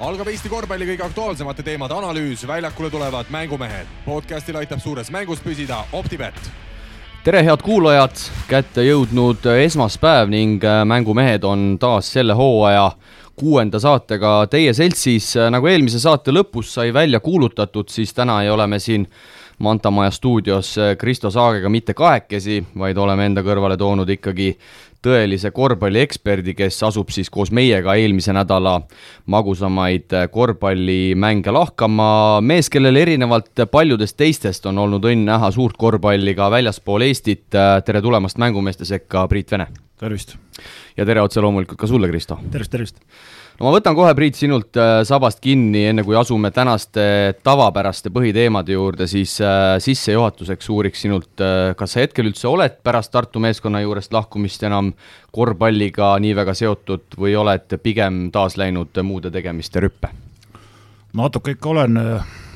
Algab Eesti korvpalli kõige aktuaalsemate teemade analüüs, väljakule tulevad mängumehed. Podcastil aitab suures mängus püsida OpTibet. Tere head kuulajad, kätte jõudnud esmaspäev ning mängumehed on taas selle hooaja 6. saatega teie seltsis. Nagu eelmise saate lõpus sai välja kuulutatud, siis täna ei ole me siin Mantamaja stuudios Kristo Saagega mitte kahekesi, vaid oleme enda kõrvale toonud ikkagi tõelise korvpallieksperdi, kes asub siis koos meiega eelmise nädala magusamaid korvpallimänge lahkama. Mees, kellel erinevalt paljudest teistest on olnud õnn näha suurt korvpalli ka väljaspool Eestit. Tere tulemast mängumeeste sekka, Priit Vene. Tervist. Ja tere otse loomulikult ka sulle, Kristo. Tervist. No ma võtan kohe, Priit, sinult sabast kinni, enne kui asume tänaste tavapäraste põhiteemade juurde, siis sissejuhatuseks uuriks sinult, kas sa hetkel üldse oled pärast Tartu meeskonna juurest lahkumist enam korvpalliga nii väga seotud või oled pigem taas läinud muude tegemiste rüppe? Natuke ikka olen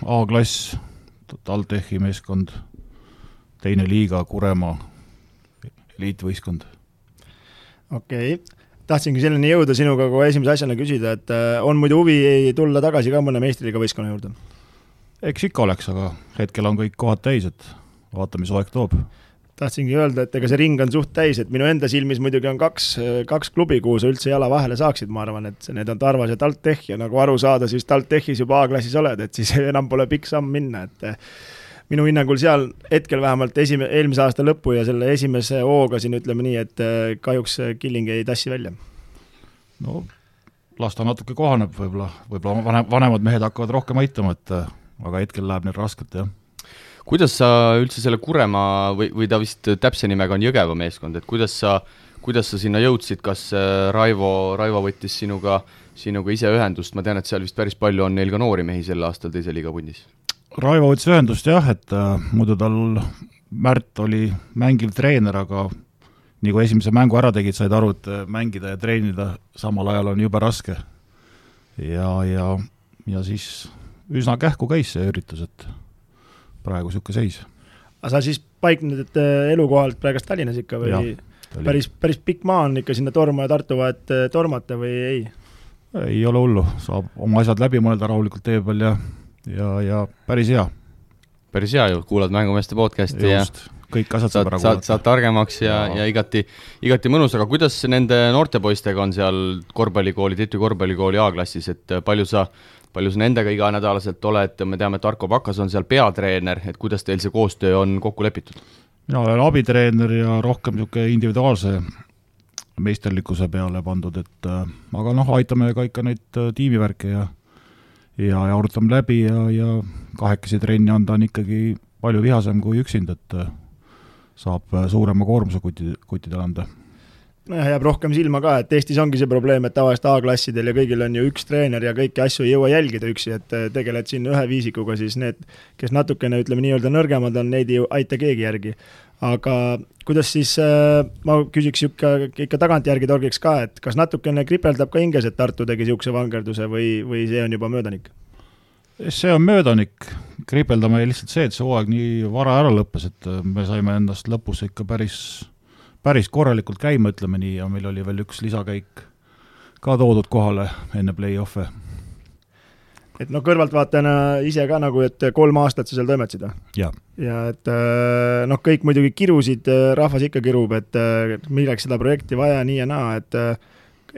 A-klass, TalTechi meeskond, 2. liiga, Kuremaa, eliitvõistkond. Okei. Tahtsingi selleni jõuda sinuga kui esimese asjana küsida, et on muidu huvi tulla tagasi ka mõne meistriliiga võistkonna juurde? Eks ikka oleks, aga hetkel on kõik kohad täis, et vaata, mis aeg toob. Tahtsingi öelda, et ega see ring on suht täis, et minu enda silmis muidugi on kaks klubi, kuhu sa üldse jala vahele saaksid, ma arvan, et need on Tarvas ja TalTech ja nagu aru saada, siis TalTechis juba A-klassis oled, et siis enam pole pikk samm minna, et minu hinnangul seal hetkel vähemalt eelmise aasta lõppu ja selle esimese hooga siin ütleme nii, et kahjuks Killing ei tassi välja. No, las ta natuke kohaneb, võib-olla vanemad mehed hakkavad rohkem aitama, aga hetkel läheb neil raskelt, jah. Kuidas sa üldse selle Kuremaa või ta vist täpse nimega on Jõgeva meeskond, et kuidas sa sinna jõudsid, kas Raivo võttis sinuga ise ühendust, ma tean, et seal vist päris palju on neil ka noori mehi sel aastal teise liiga pundis. Raivo võttis ühendust jah, et muidu tal Märt oli mängiv treener, aga nii kui esimese mängu ära tegid, said aru, et mängida ja treenida samal ajal on jube raske. Ja siis üsna kähku käis see üritus, et praegu siuke seis. Aga sa siis paikned elukohalt praegast Tallinnas ikka või? Päris pikk maa on ikka sinna Torma ja Tartu vahet tormata või ei? Ei ole hullu, saab oma asjad läbi mõelda rahulikult tee peal ja päris hea. Päris hea ju, kuulad mängumeeste podcasti just, kõik asjad saab ära kuulata. Saad targemaks ja igati mõnus, aga kuidas nende noortepoistega on seal korvpallikooli, Titu korvpallikooli A-klassis, et palju sa nendega iga nädalaselt oled, me teame, et Arko Pakas on seal peatreener, et kuidas teil see koostöö on kokku lepitud? Mina olen abitreener ja rohkem niisugune individuaalse meisterlikkuse peale pandud, aga aitame ka ikka neid tiimivärke ja arutame läbi ja kahekesi trenni anda on ikkagi palju vihasem kui üksind, et saab suurema koormuse kuttidele anda. Jääb rohkem silma ka, et Eestis ongi see probleem, et tavaliselt A-klassidel ja kõigil on ju üks treener ja kõiki asju ei jõua jälgida üksi, et tegeled siin ühe viisikuga, siis need, kes natukene ütleme nii-öelda nõrgemad on, neid ei aita keegi järgi. Aga kuidas siis, ma küsiks ikka tagantjärgi torgiks ka, et kas natukene kripeldab ka hinges, et Tartu tegi siukse vangerduse või see on juba möödanik? See on möödanik. Kripeldame lihtsalt see, et see hooaeg nii vara ära lõppes, et me saime endast lõpus ikka päris korralikult käima, ütleme nii, ja meil oli veel üks lisakäik ka toodud kohale enne play-off'e. Et kõrvaltvaatajana ise ka nagu, et 3 aastat sa seal toimetasid? Ja et kõik muidugi kirusid, rahvas ikka kirub, et milleks seda projekti vaja nii ja naa, et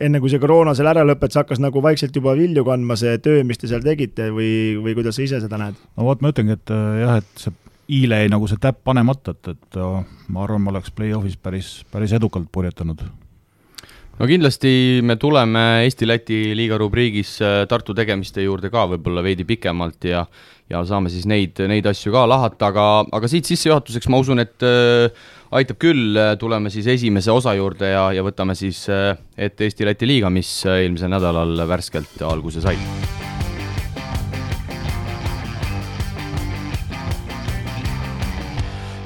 enne kui see koroona seal ära lõpet, hakkas nagu vaikselt juba vilju kandma see töö, mis te seal tegite või kuidas sa ise seda näed? No vot, ma ütlengi, et jah, et see Iile ei nagu see täpp panemata, et ma arvan, ma oleks play-offis päris edukalt purjetanud. No kindlasti me tuleme Eesti-Läti liiga rubriigis Tartu tegemiste juurde ka võib-olla veidi pikemalt ja saame siis neid asju ka lahata, aga siit sissejuhatuseks ma usun, et aitab küll, tuleme siis esimese osa juurde ja võtame siis ette Eesti-Läti liiga, mis eelmisel nädalal värskelt alguse sai.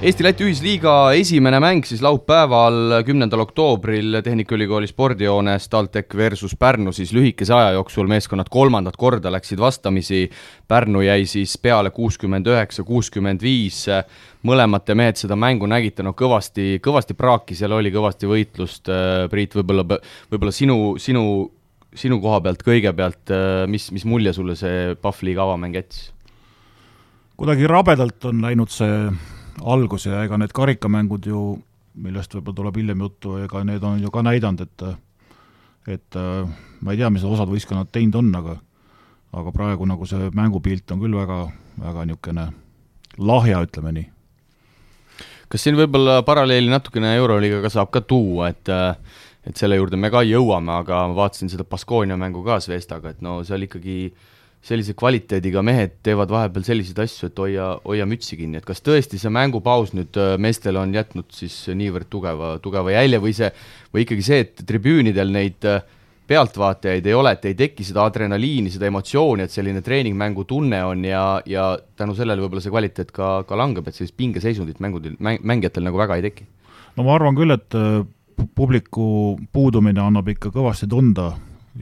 Eesti-Läti ühisliiga esimene mäng siis laupäeval 10. oktoobril Tehnikaülikooli spordijoones TalTech versus Pärnu, siis lühikese aja jooksul meeskonnad 3. korda läksid vastamisi. Pärnu jäi siis peale 69-65. Mõlemad mehed seda mängu nägite, kõvasti praaki, seal oli kõvasti võitlust. Priit, võib-olla sinu koha pealt kõigepealt, mis mulje sulle see Pahvliiga avamäng jättis? Kuidagi rabedalt on läinud see algus ja ega need karikamängud ju, millest võib-olla tuleb hiljem juttu, ega need on ju ka näidanud, et ma ei tea, mis osad võistkonnad teinud on, aga praegu nagu see mängupilt on küll väga, väga niisugune lahja, ütleme nii. Kas siin võib-olla paralleeli natukene Euroliigaga saab ka tuua, et selle juurde me ka jõuame, aga ma vaatasin seda Baskonia mängu ka Zvestaga, et no seal ikkagi sellise kvaliteediga mehed teevad vahepeal selliseid asju, et hoia mütsi kinni, et kas tõesti see mängupaus nüüd meestel on jätnud siis niivõrd tugeva jälje või ikkagi see, et tribüünidel neid pealtvaatajaid ei ole, et ei teki seda adrenaliini, seda emotsiooni, et selline treeningmängu tunne on ja tänu sellele võib-olla see kvaliteet ka langeb, et sellist pingeseisundit mängijatel nagu väga ei teki? No ma arvan küll, et publiku puudumine annab ikka kõvasti tunda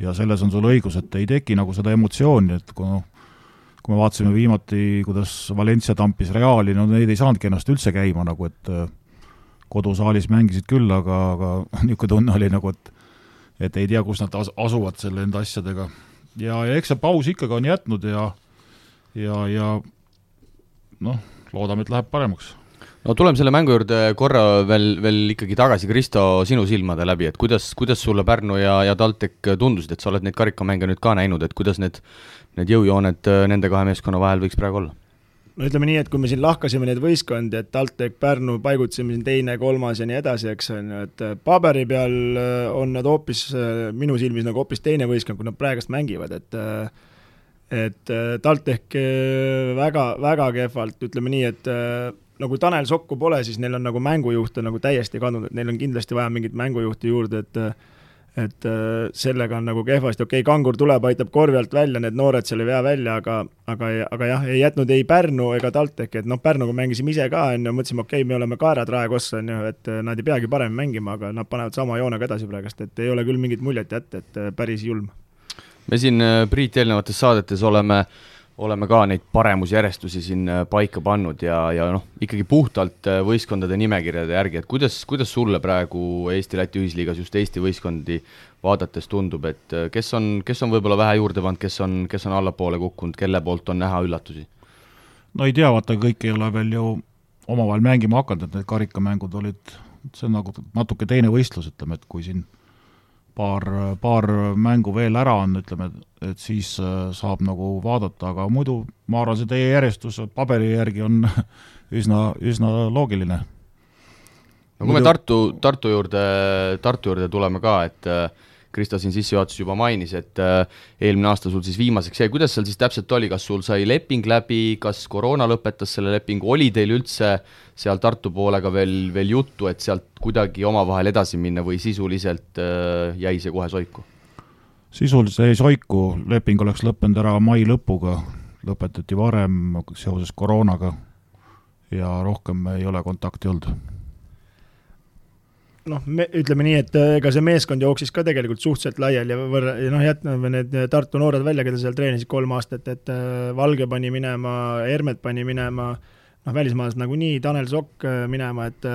ja selles on sul õigus, et ei teki nagu seda emotsiooni, et kui me vaatasime viimati, kuidas Valencia tampis Reali, no neid ei saanudki ennast üldse käima, nagu et kodusaalis mängisid küll, aga niisugune tunne oli nagu, et ei tea, kus nad asuvad selle enda asjadega. Ja eks see paus ikkagi on jätnud ja noh, loodame, et läheb paremaks. No tuleme selle mängu juurde korra veel ikkagi tagasi, Kristo, sinu silmade läbi, et kuidas sulle Pärnu ja TalTech tundusid, et sa oled neid karikamänge nüüd ka näinud, et kuidas need jõujooned nende kahe meeskonna vahel võiks praegu olla? No ütleme nii, et kui me siin lahkasime neid võistkondi, et TalTech, Pärnu paigutasime siin 2., 3. ja nii edasi, eks on ju, et paberi peal on nad hoopis, minu silmis nagu hoopis teine võistkond, kui nad praegust mängivad, et TalTech väga, väga kehvalt, ütleme nii, et nagu Tanel Sokku pole, siis neil on nagu mängujuhte nagu täiesti kadunud, et neil on kindlasti vaja mingit mängujuhti juurde, et sellega on nagu kehvasti, Kangur tuleb, aitab korvi alt välja, need noored seal ei vea välja, aga jah, ei jätnud ei Pärnu ega TalTech, et Pärnuga mängisime ise ka, mõtlesime, me oleme kaerad raekossa, et nad ei peagi parem mängima, aga nad panevad sama joonega edasi praegust, et ei ole küll mingit muljet jätta, et päris julm. Me siin, Priit, eelnevates saadetes oleme ka neid paremusjärjestusi siin paika pannud ja ikkagi puhtalt võistkondade nimekirjade järgi, et kuidas sulle praegu Eesti-Läti ühisliigas just Eesti võistkondi vaadates tundub, et kes on võib-olla vähe juurde pannud, kes on allapoole kukkunud, kelle poolt on näha üllatusi? No ei tea, vaata, kõik ei ole veel ju omavahel mängima hakanud, et need karikamängud olid, see on nagu natuke teine võistlus, ütleme, et kui siin paar mängu veel ära on, ütleme, et siis saab nagu vaadata, aga muidu ma arvan, see teie järjestus paberi järgi on üsna loogiline. No kui me Tartu juurde tuleme ka, et Kristo siin sissejuhatus juba mainis, et eelmine aasta sul siis viimaseks jäi, kuidas seal siis täpselt oli, kas sul sai leping läbi, kas koroona lõpetas selle lepingu, oli teil üldse seal Tartu poolega veel juttu, et sealt kuidagi omavahel edasi minna või sisuliselt jäi see kohe soiku? Sisuliselt jäi soiku, leping oleks lõppenud ära mai lõpuga, lõpetati varem seoses koroonaga ja rohkem ei ole kontakti olnud. Ütleme nii, et ega see meeskond jooksis ka tegelikult suhteliselt laiali ja jätname need Tartu noored välja, keda seal treenisid 3 aastat, et Valge pani minema, Hermet pani minema, välismaalased nagu nii, Tanel Sokk minema, et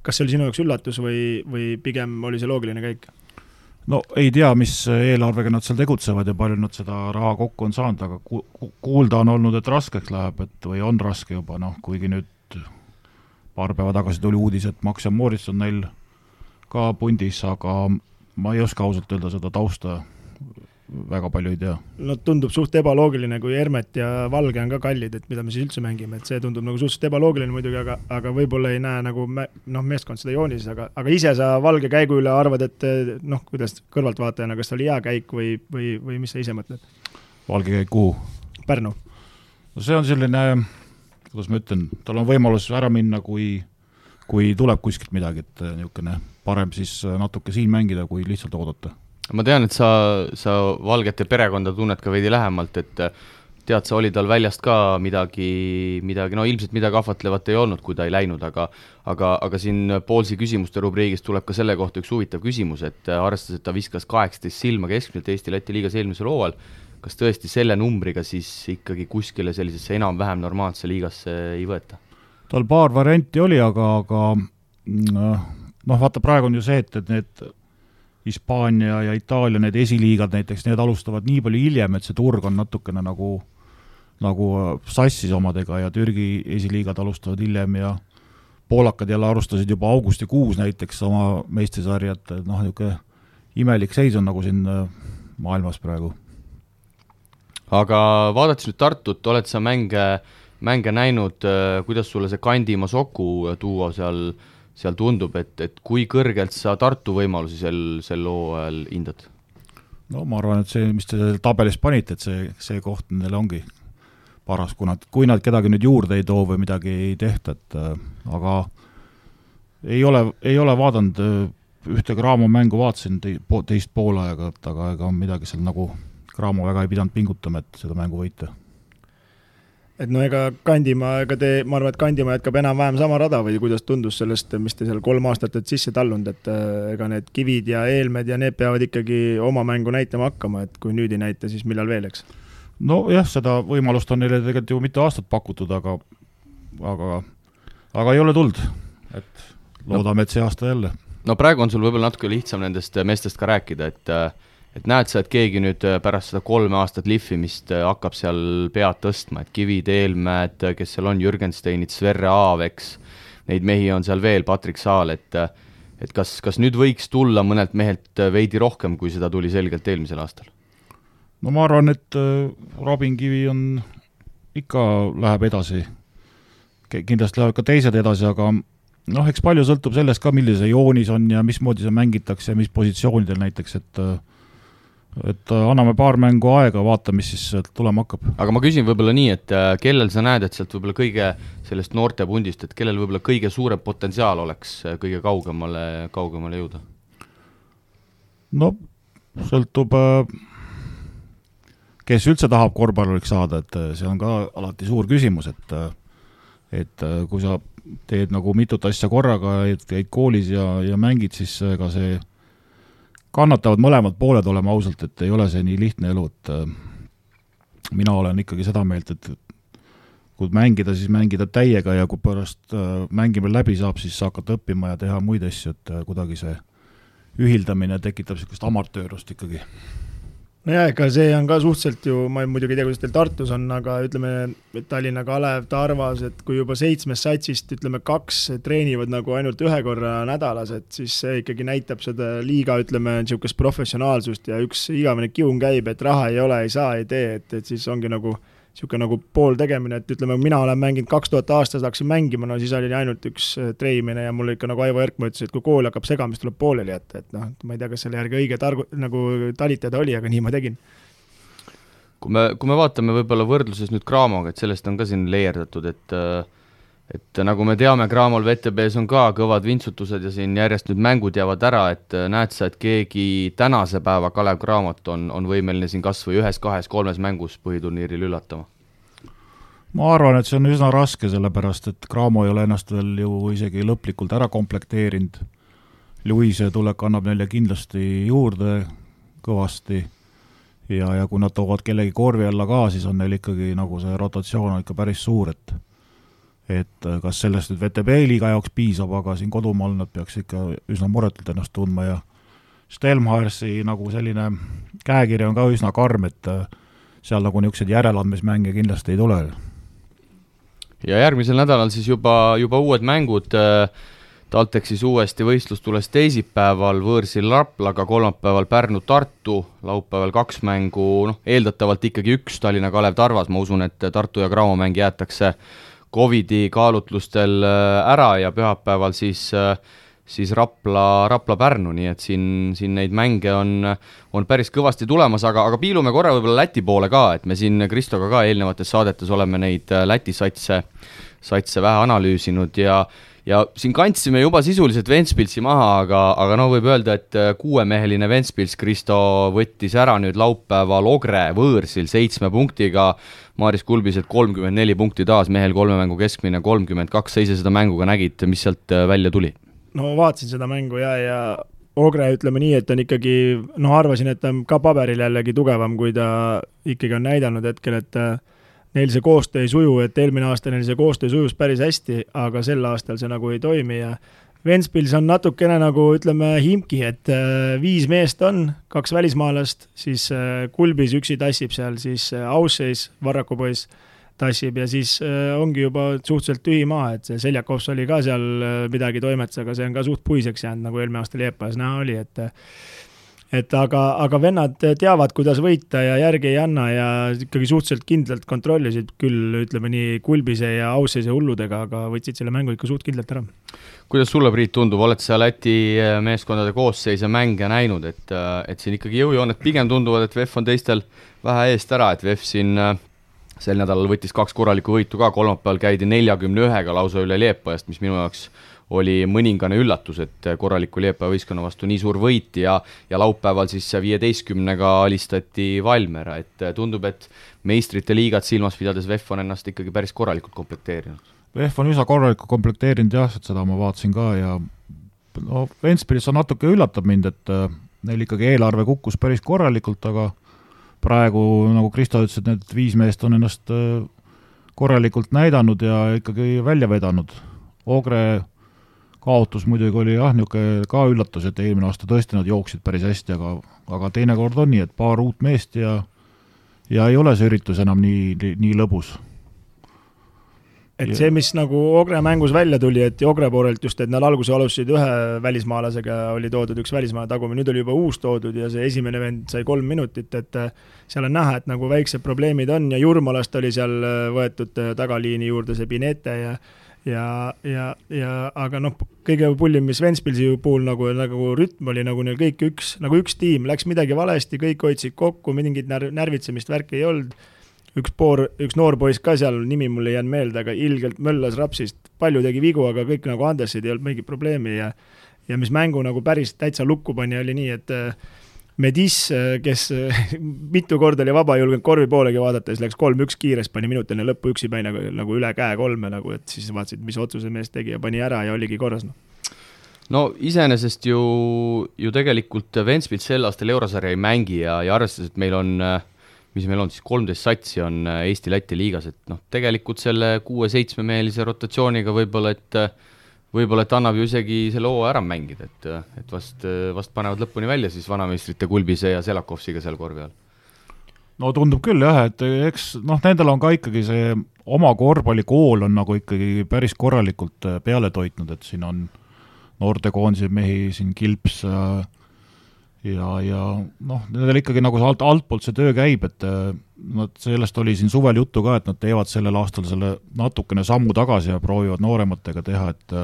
kas see oli sinu jaoks üllatus või pigem oli see loogiline käik? No ei tea, mis eelarvega nad seal tegutsevad ja palju nad seda raha kokku on saanud, aga kuulda on olnud, et raskeks läheb, või on raske juba, kuigi nüüd paar päeva tagasi tuli uudis, et Max ja Moritz on neil ka pundis, aga ma ei oska ausalt öelda seda tausta, väga palju ei tea. No tundub suht ebaloogiline, kui Hermet ja Valge on ka kallid, et mida me siis üldse mängime, et see tundub nagu suhteliselt ebaloogiline muidugi, aga võib-olla ei näe nagu meeskond seda joonises, aga ise sa Valge käigu üle arvad, et kuidas kõrvaltvaatajana, kas oli hea käik või mis sa ise mõtled? Valge käik kuhu? Pärnu. No see on selline, kuidas ma ütlen, tal on võimalus ära minna, kui tuleb kuskilt midagi, et niisugune parem siis natuke siin mängida, kui lihtsalt oodata. Ma tean, et sa Valgete perekonda tunned ka veidi lähemalt, et tead, sa oli tal väljast ka midagi, ilmselt midagi ahvatlevat ei olnud, kui ta ei läinud, aga siin Poolsi küsimuste rubriigist tuleb ka selle kohta üks huvitav küsimus, et arvestades, et ta viskas 18 silma keskmiselt Eesti-Läti liigas eelmisel hooajal, kas tõesti selle numbriga siis ikkagi kuskile sellisesse enam-vähem normaalse liigasse ei võeta? Tal paar varianti oli, aga vaata, praegu on ju see, et need Hispaania ja Itaalia, need esiliigad näiteks, need alustavad nii palju hiljem, et see turg on natukene nagu sassis omadega ja Türgi esiliigad alustavad hiljem ja poolakad jälle alustasid juba augustikuus näiteks oma meistrisarjat, niisugune imelik seis on nagu siin maailmas praegu. Aga vaadates nüüd Tartut, oled sa mänge näinud, kuidas sulle see Kandimaa Soku duo seal tundub, et kui kõrgelt sa Tartu võimalusi sel hooajal hindad? No ma arvan, et see, mis te tabelis panite, et see koht neile ongi paras, kui nad kedagi nüüd juurde ei too või midagi ei tehta, aga ei ole vaadanud ühte Graamo mängu, vaatasin teist poolaega, aga ega midagi seal nagu Graamo väga ei pidanud pingutama, et seda mängu võita. Et no ega Kandimaa, ma arvan, et Kandimaa jätkab enam-vähem sama rada või kuidas tundus sellest, mis te seal 3 aastat sisse tallunud, et ega need Kivid ja Eelmed ja need peavad ikkagi oma mängu näitama hakkama, et kui nüüd ei näita, siis millal veel, eks? No jah, seda võimalust on neile tegelikult ju mitu aastat pakutud, aga ei ole tuld, et loodame, et see aasta jälle. No praegu on sul võib-olla natuke lihtsam nendest meestest ka rääkida, et näed sa, et keegi nüüd pärast seda 3 aastat lihvimist hakkab seal pead tõstma, et Kivid, Eelmäed, kes seal on, Jürgensteinid, Sverre Aaveks, neid mehi on seal veel, Patrik Saal, et kas nüüd võiks tulla mõnelt mehelt veidi rohkem, kui seda tuli selgelt eelmisel aastal? No ma arvan, et Robin Kivi läheb edasi. Kindlasti läheb ka teised edasi, aga eks palju sõltub sellest ka, millise joonis on ja mismoodi see mängitakse ja mis positsioonidel näiteks, et anname paar mängu aega, vaata, mis siis tulema hakkab. Aga ma küsin võib-olla nii, et kellel sa näed, et sealt võib-olla kõige sellest noortepundist, et kellel võib-olla kõige suurem potentsiaal oleks kõige kaugemale jõuda? No, sõltub kes üldse tahab korvpalluriks saada, et see on ka alati suur küsimus, et kui sa teed nagu mitut asja korraga, käid koolis ja mängid, siis ega see kannatavad mõlemad pooled olema ausalt, et ei ole see nii lihtne elu, et mina olen ikkagi seda meelt, et kui mängida, siis mängida täiega ja kui pärast mängimine läbi saab, siis hakata õppima ja teha muid asju, et kuidagi see ühildamine tekitab sellist amatöörust ikkagi. No jah, ega see on ka suhteliselt ju, ma muidugi ei tea, kuidas teil Tartus on, aga ütleme Tallinna Kalev, Tarvas, et kui juba 7 satsist, 2 treenivad nagu ainult 1 korra nädalas, et siis see ikkagi näitab seda liiga, niisugust professionaalsust ja üks igavene kiun käib, et raha ei ole, ei saa, ei tee, et siis ongi nagu niisugune nagu pool tegemine, et mina olen mänginud 2000 aastas, hakkasin mängima, no siis oli ainult üks treimine ja mul ikka nagu Aivo Erkma ütles, et kui kool hakkab segama, siis tuleb pooleli jätta, et ma ei tea, kas selle järgi õige nagu talitada oli, aga nii ma tegin. Kui me vaatame võib-olla võrdluses nüüd Graamoga, et sellest on ka siin leierdatud, et nagu me teame, Graamol VTB-s on ka kõvad vintsutused ja siin järjest nüüd mängud jäävad ära, et näed sa, et keegi tänase päeva Kalev Cramot on võimeline siin kas või 1, 2, 3 mängus põhiturniiril üllatama? Ma arvan, et see on üsna raske, sellepärast, et Cramo ei ole ennast veel ju isegi lõplikult ära komplekteerinud. Luise tulek annab neile kindlasti juurde kõvasti ja kui nad toovad kellegi korvi alla ka, siis on neil ikkagi nagu see rotatsioon on ikka päris suur, et kas sellest nüüd VTB liiga jaoks piisab, aga siin kodumaal nad peaks ikka üsna muretult ennast tundma ja Stelmharsi nagu selline käekiri on ka üsna karm, et seal nagu niisugused järeleandmismänge kindlasti ei tule. Ja järgmisel nädalal siis juba uued mängud, TalTechis uuesti võistlus tules teisipäeval, võõrsil Raplaga, kolmapäeval Pärnu-Tartu, laupäeval 2 mängu, eeldatavalt ikkagi 1 Tallinna Kalev Tarvas, ma usun, et Tartu ja Cramo mäng jäetakse Covidi kaalutlustel ära ja pühapäeval siis Rapla-Pärnu, nii et siin neid mänge on päris kõvasti tulemas, aga piilume korra võib-olla Läti poole ka, et me siin Kristoga ka eelnevates saadetes oleme neid Läti satse vähe analüüsinud ja siin kandsime juba sisuliselt Ventspilsi maha, aga võib öelda, et 6-meheline Ventspils Kristo võttis ära nüüd laupäeval Ogre võõrsil 7 punktiga, Maaris Kulbised 34 punkti taas, mehel 3 mängu keskmine 32, sa ise seda mänguga nägid, mis sealt välja tuli? No vaatasin seda mängu ja Ogre ütleme nii, et on ikkagi, arvasin, et ta on ka paberil jällegi tugevam, kui ta ikkagi on näidanud hetkel, et neil see koostöö ei suju, et eelmine aasta neil see koostöö sujus päris hästi, aga sel aastal see nagu ei toimi ja Ventspils on natukene nagu ütleme Himki, et 5 meest on, 2 välismaalast, siis Kulbis üksi tassib seal, siis Ausseis, Varraku poiss tassib ja siis ongi juba suhteliselt tühi maa, et see Seljakovs oli ka seal midagi toimetas, aga see on ka suht puiseks jäänud, nagu eelmine aasta Liepajas näha oli, et aga vennad teavad, kuidas võita ja järgi ei anna ja ikkagi suhteliselt kindlalt kontrollisid küll, ütleme nii Kulbise ja Ausseise hulludega, aga võtsid selle mängu ikka suht kindlalt ära. Kuidas sulle, Priit, tundub, oled sa Läti meeskondade koosseis ja mänge näinud, et siin ikkagi jõujooned pigem tunduvad, et VEF on teistel vähe eest ära, et VEF siin sel nädalal võttis 2 korralikku võitu ka, kolmapäeval käidi 41-ga lausa üle Liepajast, mis minu jaoks oli mõningane üllatus, et korraliku Liepaja võistkonna vastu nii suur võit ja laupäeval siis 15-ga alistati Valmera, et tundub, et meistrite liigat silmas pidades VEF on ennast ikkagi päris korralikult komplekteerinud. VEF on üsna korralikult komplekteerinud jah, et seda ma vaatasin ka ja no, Ventspilis on natuke üllatab mind, et neil ikkagi eelarve kukkus päris korralikult, aga praegu, nagu Kristo ütles, et need 5 meest on ennast korralikult näidanud ja ikkagi välja vedanud. Ogre kaotus muidugi oli jah, niisugune ka üllatus, et eelmine aasta tõesti nad jooksid päris hästi, aga teinekord on nii, et paar uut meest ja ei ole see üritus enam nii lõbus. Et see, mis nagu Ogre mängus välja tuli, et Ogre poolelt just, et nad alguse alustasid ühe välismaalasega, oli toodud üks välismaa tagumine, nüüd oli juba uus toodud ja see esimene vend sai 3 minutit, et seal on näha, et nagu väiksed probleemid on ja Jurmalast oli seal võetud tagaliini juurde see Pinete ja aga noh, kõige pullim, mis Ventspilsi puhul nagu rütm oli nagu neil kõik üks tiim, läks midagi valesti, kõik hoidsid kokku, mingit närvitsemist värki ei olnud. Üks noor poiss ka seal, nimi mul ei jäänud meelde, aga ilgelt möllas rapsist, palju tegi vigu, aga kõik nagu andesid, ei olnud mingit probleemi ja mis mängu nagu päris täitsa lukku pani, oli nii, et Medis, kes mitu korda oli vaba, julgenud korvi poolegi vaadata, siis läks 3-1 kiires, pani minutine lõppu üksi päi nagu üle käe 3, nagu, et siis vaatasid, mis otsuse mees tegi ja pani ära ja oligi korras. No iseenesest ju tegelikult Ventspils sel aastal eurosarja ei mängi ja arvestades, et meil on siis 13 satsi on Eesti-Läti liigas, et noh, tegelikult selle 6-7 mehelise rotatsiooniga võib-olla, et annab ju isegi selle hoo ära mängida, et vast panevad lõpuni välja siis vanameistrite Kulbise ja Selakovsiga seal korvi all. No tundub küll jah, et eks nendel on ka ikkagi see oma korvpallikool on nagu ikkagi päris korralikult peale toitnud, et siin on noortekoondise mehi, siin Kilps ja nendel ikkagi nagu altpoolt see töö käib, et sellest oli siin suvel juttu ka, et nad teevad sellel aastal selle natukene sammu tagasi ja proovivad noorematega teha, et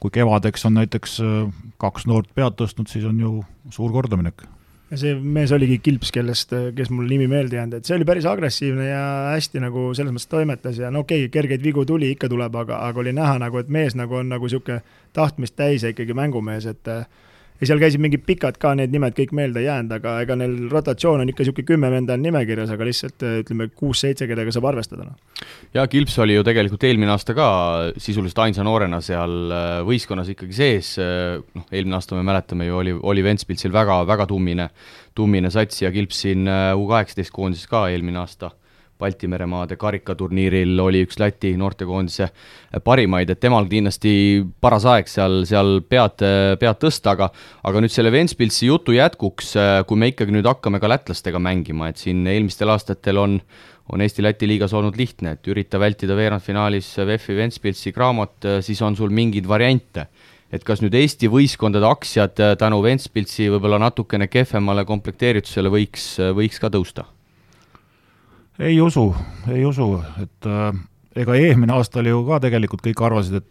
kui kevadeks on näiteks 2 noort pead tõstnud, siis on ju suur kordaminek. Ja see mees oligi Kilps, kes mul nimi meelde jäänud, et see oli päris agressiivne ja hästi nagu selles mõttes toimetas ja okei, kergeid vigu tuli, ikka tuleb, aga oli näha nagu, et mees nagu on nagu siuke tahtmist täis ja ikkagi mängumees, et ja seal käisid mingid pikad ka, need nimed kõik meelde jäänud, aga ega neil rotatsioon on ikka siuke 10 venda on nimekirjas, aga lihtsalt ütleme 6-7, kellega saab arvestada. Ja Kilps oli ju tegelikult eelmine aasta ka sisuliselt ainsa noorena seal võistkonnas ikkagi sees, eelmine aasta me mäletame ju oli Ventspilsil väga tummine sats ja Kilps siin U18 koondises ka eelmine aasta Baltimeremaade karikaturniiril oli üks Läti noortekoondise parimaid, et temal kindlasti paras aeg seal pead tõsta, aga nüüd selle Ventspilsi jutu jätkuks, kui me ikkagi nüüd hakkame ka lätlastega mängima, et siin eelmistel aastatel on Eesti-Läti liigas olnud lihtne, et ürita vältida veerandfinaalis VEF-i Ventspilsi Graamot, siis on sul mingeid variante. Et kas nüüd Eesti võistkondade aktsiad tänu Ventspilsi võib-olla natukene kehvemale komplekteeritusele võiks ka tõusta? Ei usu, et ega eelmine aasta oli ju ka tegelikult kõik arvasid,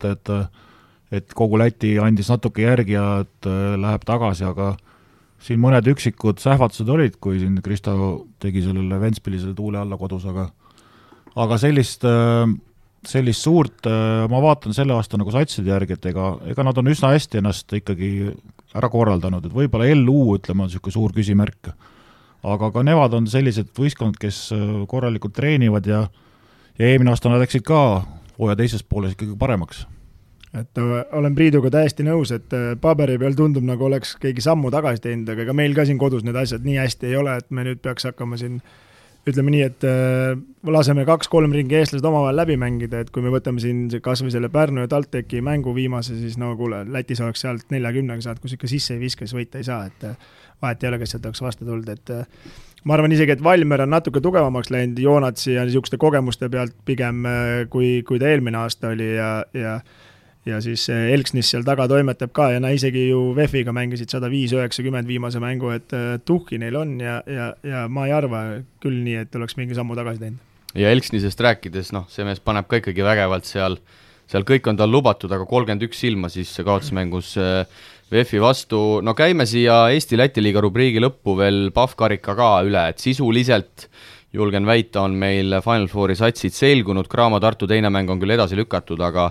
et kogu Läti andis natuke järgi ja et läheb tagasi, aga siin mõned üksikud sähvatused olid, kui siin Kristo tegi sellele Ventspilisele tuule alla kodus, aga sellist suurt, ma vaatan selle aasta nagu satside järgi, et ega nad on üsna hästi ennast ikkagi ära korraldanud, et võib-olla LU, ütleme, on niisugune suur küsimärk. Aga ka nemad on sellised võistkond, kes korralikult treenivad ja eelmine aasta nad läksid ka hooaja teises pooles ikkagi paremaks. Et olen Priiduga täiesti nõus, et paberi peal tundub nagu oleks keegi sammu tagasi teinud, aga meil ka siin kodus need asjad nii hästi ei ole, et me nüüd peaks hakkama siin ütleme nii, et laseme 2-3 ringi eestlased omavahel läbi mängida, et kui me võtame siin kas või selle Pärnu ja TalTechi mängu viimase, siis no kuule, Lätis oleks sealt 40 saad, kus ikka sisse ei viska, siis võita ei saa, et vahet ei ole, kes sealt oleks vastu tulnud, et ma arvan isegi, et Valmer on natuke tugevamaks läinud Joonatsi ja niisuguste kogemuste pealt pigem, kui ta eelmine aasta oli ja siis Elksnis seal taga toimetab ka ja isegi ju VEF-iga mängisid 105-90 viimase mängu, et tuhki neil on ja ma ei arva küll nii, et oleks mingi sammu tagasi teinud. Ja Elksnisest rääkides, see mees paneb ka ikkagi vägevalt seal kõik on tal lubatud, aga 31 silma siis kaotusmängus VEF-i vastu. No käime siia Eesti-Läti liiga rubriigi lõppu veel Pahv-karika ka üle, et sisuliselt julgen väita, on meil Final Fouri satsid selgunud, Graamo Tartu teine mäng on küll edasi lükatud, aga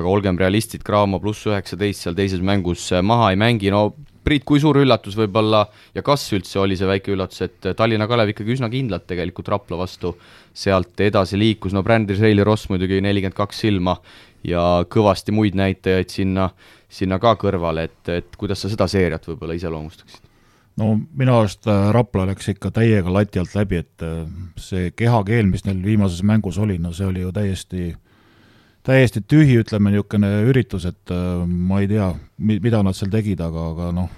olgem realistid, Graamo +19 seal teises mängus maha ei mängi. No Priit, kui suur üllatus võib-olla ja kas üldse oli see väike üllatus, et Tallinna Kalev ikkagi üsna kindlalt tegelikult Rapla vastu sealt edasi liikus, no Brändis Reili Ross muidugi 42 silma ja kõvasti muid näitajaid sinna ka kõrvale, et kuidas sa seda seeriat võib-olla iseloomustaksid? No minu arust Rapla läks ikka täiega lati alt läbi, et see kehakeel, mis neil viimases mängus oli, no see oli ju täiesti tühi, ütleme niisugune üritus, et ma ei tea, mida nad seal tegid, aga noh,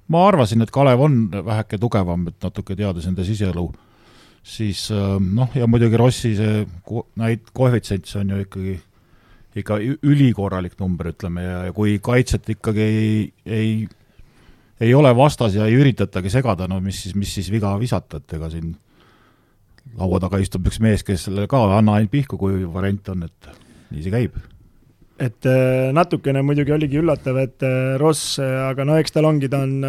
ma arvasin, et Kalev on väheke tugevam, et natuke teades enda siseelu, siis ja muidugi Rossi see koefitsient, see on ju ikka ülikorralik number, ütleme, ja kui kaitset ikkagi ei ole vastas ja ei üritatagi segada, no mis siis viga visata, et ega siin laua taga istub üks mees, kes selle ka anna ainult pihku, kui variant on, et nii see käib. Et natukene muidugi oligi üllatav, et Ross, aga eks tal ongi, ta on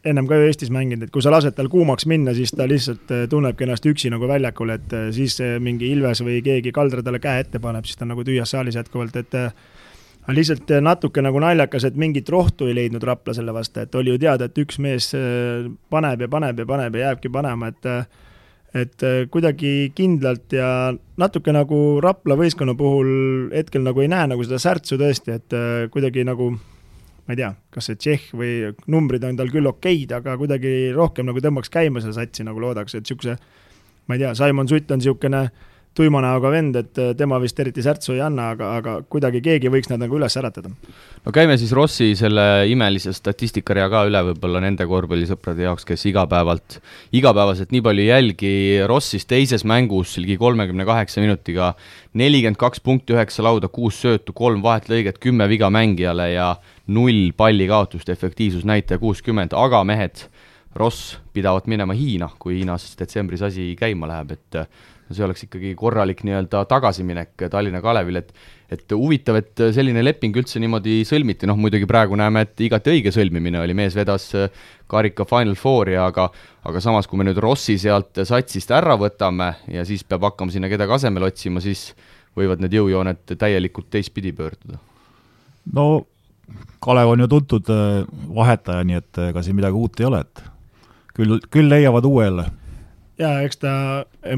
ennem ka ju Eestis mänginud, et kui sa lased tal kuumaks minna, siis ta lihtsalt tunnebki ennast üksi nagu väljakul, et siis mingi Ilves või keegi Kaldra talle käe ette paneb, siis ta nagu tühjas saalis jätkuvalt, et lihtsalt natuke nagu naljakas, et mingit rohtu ei leidnud Rapla selle vastu, et oli ju teada, et üks mees paneb ja jääbki panema, et kuidagi kindlalt ja natuke nagu Rapla võistkonna puhul hetkel nagu ei näe nagu seda särtsu tõesti, et kuidagi nagu, ma ei tea, kas see Tšehh või numbrid on tal küll okeid, aga kuidagi rohkem nagu tõmbaks käima selle satsi nagu loodaks, et siukse, ma ei tea, Simon Sutt on siukene tuima näoga vend, et tema vist eriti särtsu ei anna, aga kuidagi keegi võiks nad nagu üles äratada. No käime siis Rossi selle imelise statistikaria ka üle võib-olla nende korvpallisõprade jaoks, kes igapäevaselt nii palju jälgi. Rossis teises mängus ligi 38 minutiga 42 punkti, 9 lauda, 6 söötu, 3 vahetlõiget, 10 viga mängijale ja 0 palli kaotust, efektiivsusnäitaja 60, aga mehed, Ross pidavat minema Hiina, kui Hiinas detsembris asi käima läheb, et see oleks ikkagi korralik nii-öelda tagasiminek Tallinna Kalevil, et huvitav, et selline leping üldse niimoodi sõlmiti, muidugi praegu näeme, et igati õige sõlmimine oli, mees vedas karika Final Fouri, aga samas, kui me nüüd Rossi sealt satsist ära võtame ja siis peab hakkama sinna kedagi asemel otsima, siis võivad need jõujooned täielikult teistpidi pöörduda. No Kalev on ju tuntud vahetaja, nii et ega siin midagi uut ei ole, et küll leiavad uue jälle. Ja eks ta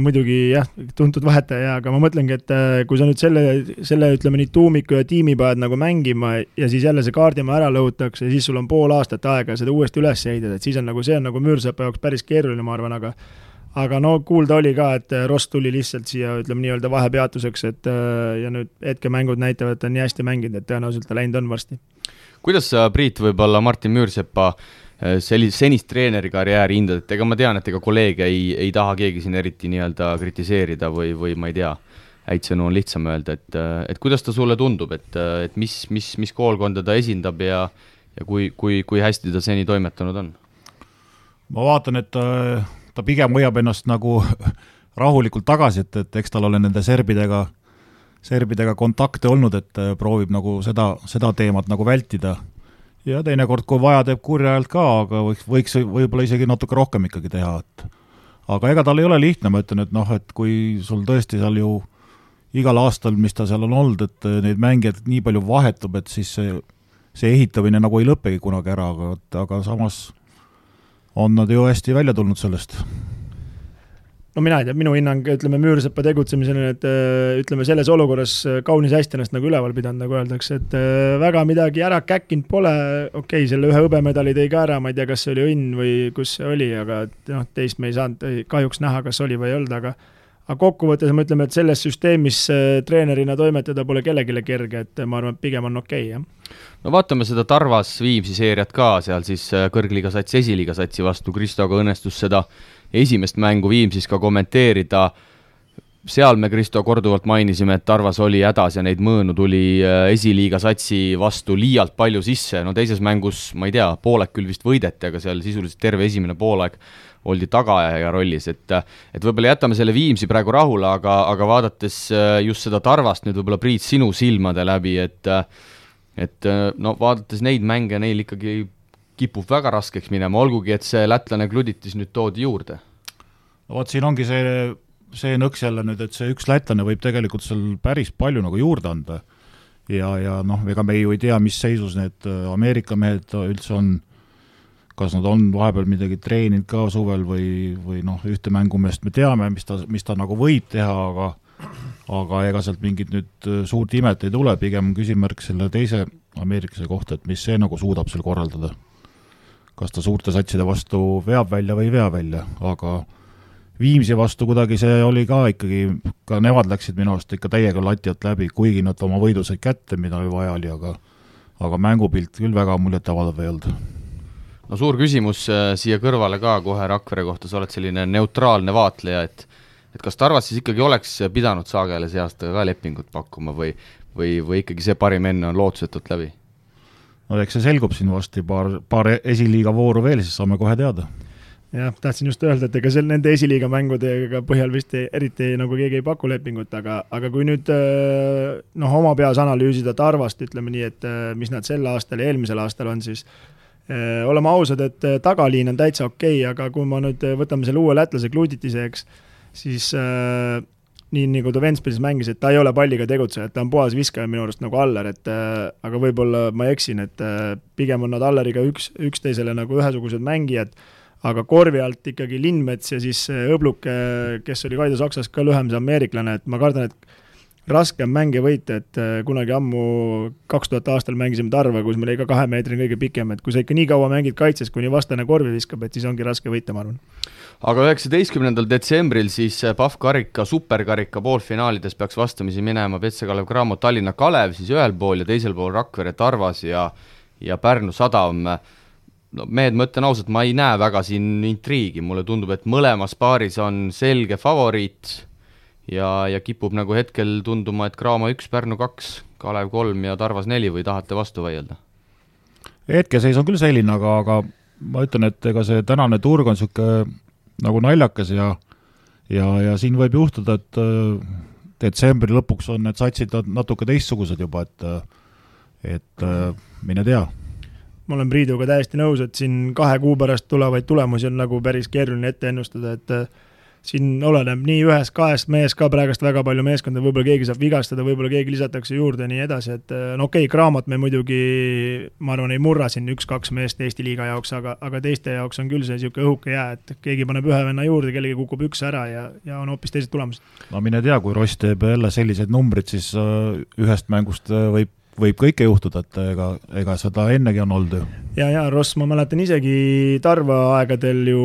muidugi tuntud vahetaja, aga ma mõtlengi, et kui sa nüüd selle ütleme nii tuumiku ja tiimi paned nagu mängima ja siis jälle see kaardimaa ära lõhutakse ja siis sul on pool aastat aega seda uuesti üles ehitada, et siis on nagu see on nagu Müürsepa jaoks päris keeruline, ma arvan, aga kuulda oli ka, et Ross tuli lihtsalt siia, ütleme nii-öelda vahepeatuseks, et ja nüüd hetkemängud näitavad, et ta on nii hästi mänginud, et tõenäoliselt ta läinud on varsti. Kuidas sa, Priit, võib-olla Martin Müürsepa senist treeneri karjääri hindad, et ega ma tean, et ega kolleege ei taha keegi siin eriti nii-öelda kritiseerida või ma ei tea, häid sõnu on lihtsam öelda, et kuidas ta sulle tundub, et mis koolkonda ta esindab ja kui hästi ta seni toimetanud on? Ma vaatan, et ta pigem hoiab ennast nagu rahulikult tagasi, et eks tal ole nende serbidega kontakte olnud, et proovib nagu seda teemat nagu vältida. Ja teinekord, kui vaja, teeb kurja ajalt ka, aga võiks võib-olla isegi natuke rohkem ikkagi teha. Aga ega tal ei ole lihtne, ma ütlen, et kui sul tõesti seal ju igal aastal, mis ta seal on olnud, et neid mängijad nii palju vahetub, et siis see ehitamine nagu ei lõppegi kunagi ära, aga samas on nad ju hästi välja tulnud sellest. no mina ei tea, minu hinnang, ütleme, Müürsepa tegutsemisele, et ütleme, selles olukorras kaunis hästi ennast nagu üleval pidanud, nagu öeldakse, et väga midagi ära käkkinud pole, okei, selle ühe hõbemedali tõi ka ära, ma ei tea, kas see oli õnn või kus see oli, aga noh, teist me ei saanud kahjuks näha, kas oli või ei olnud, aga kokkuvõttes me ütleme, et selles süsteemis treenerina toimetada pole kellegile kerge, et ma arvan, et pigem on okei, jah. No vaatame seda Tarvas Viimsi seeriat ka, seal siis kõrgliiga satsi, esiliiga satsi vastu, Kristoga õnnestus seda esimest mängu Viimsis ka kommenteerida. Seal me Kristo korduvalt mainisime, et Tarvas oli hädas ja neid mõõnu tuli esiliiga satsi vastu liialt palju sisse. No teises mängus, ma ei tea, poolek küll vist võideti, aga seal sisuliselt terve esimene poolek oldi tagaajaja rollis, et võib-olla jätame selle Viimsi praegu rahule, aga vaadates just seda Tarvast nüüd võib-olla Priit sinu silmade läbi, et no vaadates neid mänge, neil ikkagi kipub väga raskeks minema, olgugi, et see lätlane Gluditis nüüd toodi juurde. No vaat siin ongi see nõks jälle nüüd, et see üks lätlane võib tegelikult seal päris palju nagu juurde anda ja noh, ega me ju ei tea, mis seisus need Ameerika mehed üldse on, kas nad on vahepeal midagi treeninud ka suvel või noh, ühte mängumeest me teame, mis ta nagu võib teha, aga ega sealt mingit nüüd suurt imet ei tule, pigem küsimärk selle teise ameeriklase kohta, et mis see nagu suudab seal korraldada. Kas ta suurte satside vastu veab välja või ei vea välja, aga Viimsi vastu kuidagi see oli ka ikkagi, ka nemad läksid minu arust ikka täiega lati alt läbi, kuigi nad oma võidu said kätte, mida vaja oli, aga mängupilt küll väga muljet avaldav ei olnud. No suur küsimus siia kõrvale ka kohe Rakvere kohta, sa oled selline neutraalne vaatleja, et kas Tarvas siis ikkagi oleks pidanud Saagele see aasta ka lepingut pakkuma või ikkagi see parim enne on lootusetult läbi? No eks see selgub siin vasti paar esiliiga vooru veel, siis saame kohe teada. Jah, tahtsin just öelda, et ega nende esiliiga mängudega põhjal vist eriti nagu keegi ei paku lepingut, aga kui nüüd oma peas analüüsida Tarvast, ütleme nii, et mis nad sel aastal ja eelmisel aastal on, siis oleme ausad, et tagaliin on täitsa okei, aga kui ma nüüd võtame selle uue lätlase Gluditise, eks, siis nii nagu ta Ventspilsis mängis, et ta ei ole palliga tegutseja, et ta on puhas viskaja minu arust nagu Aller, aga võib-olla ma eksin, et pigem on nad Alleriga üksteisele nagu ühesugused mängijad, aga korvi alt ikkagi Lindmets ja siis Õbluke, kes oli Kaido Saksas ka lühem see ameeriklane, et ma kardan, et raske on mänge võita, et kunagi ammu 2000 aastal mängisime Tarva, kus meil oli ka 2 meetri kõige pikem, et kui sa ikka nii kaua mängid kaitses, kuni vastane korvi viskab, et siis ongi raske võita, ma arvan. Aga 19. detsembril siis PAF-karika, superkarika poolfinaalides peaks vastamisi minema Petse Kalev Cramo Tallinna Kalev, siis ühel pool ja teisel pool Rakvere Tarvas ja Pärnu Sadam. No, mehed, ma ütlen ausalt, ma ei näe väga siin intriigi, mulle tundub, et mõlemas paaris on selge favoriit ja kipub nagu hetkel tunduma, et Cramo 1, Pärnu 2, Kalev 3 ja Tarvas 4 või tahate vastu vaielda? Hetkeseis on küll selline, aga ma ütlen, et ega see tänane turg on siuke nagu naljakas ja siin võib juhtuda, et detsembri lõpuks on need satsid natuke teistsugused juba, et mine tea. Ma olen Priiduga täiesti nõus, et siin 2 kuu pärast tulevaid tulemusi on nagu päris keeruline ette ennustada, et siin oleneb nii 1-2 mees ka praegust väga palju meeskonda, võib-olla keegi saab vigastada, võib-olla keegi lisatakse juurde ja nii edasi, et no okei, Cramot me muidugi, ma arvan, ei murra siin 1-2 meest Eesti liiga jaoks, aga teiste jaoks on küll see siuke õhuke jää, et keegi paneb ühe venna juurde, kellegi kukub 1 ära ja on hoopis teised tulemused. No mine tea, kui Ross teeb jälle sellised numbrid, siis ühest mängust võib kõike juhtuda, et ega seda ennegi on olnud ju. Ja Ross, ma mäletan isegi Tarva aegadel ju,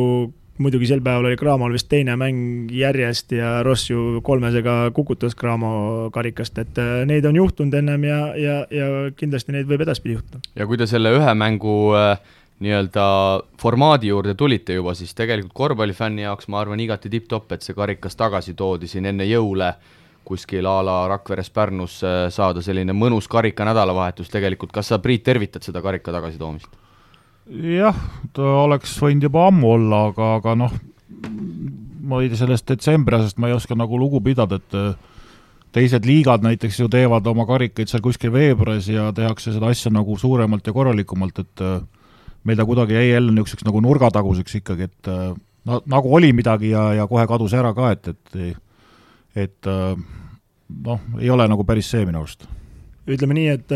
muidugi sel päeval oli Cramol vist teine mäng järjest ja Ross ju 3-sega kukutas Cramo karikast, et neid on juhtunud ennem ja kindlasti neid võib edaspidi juhtuda. Ja kui te selle ühe mängu nii-öelda formaadi juurde tulite juba, siis tegelikult korvpallifänni jaoks ma arvan igati tipp-topp, et see karikas tagasi toodi siin enne jõule kuskil ala Rakveres Pärnus saada selline mõnus karika nädalavahetus tegelikult. Kas sa, Priit, tervitad seda karika tagasi toomist? Jah, ta oleks võinud juba ammu olla, aga noh, ma ei tea sellest detsembri asjast, ma ei oska nagu lugu pidada, et teised liigad näiteks ju teevad oma karikaid seal kuskil veebruaris ja tehakse seda asja nagu suuremalt ja korralikumalt, et meil ta kuidagi jäi jälle niisuguseks nagu nurgataguseks ikkagi, et nagu oli midagi ja kohe kadus ära ka, et noh, ei ole nagu päris see minu arust. ütleme nii, et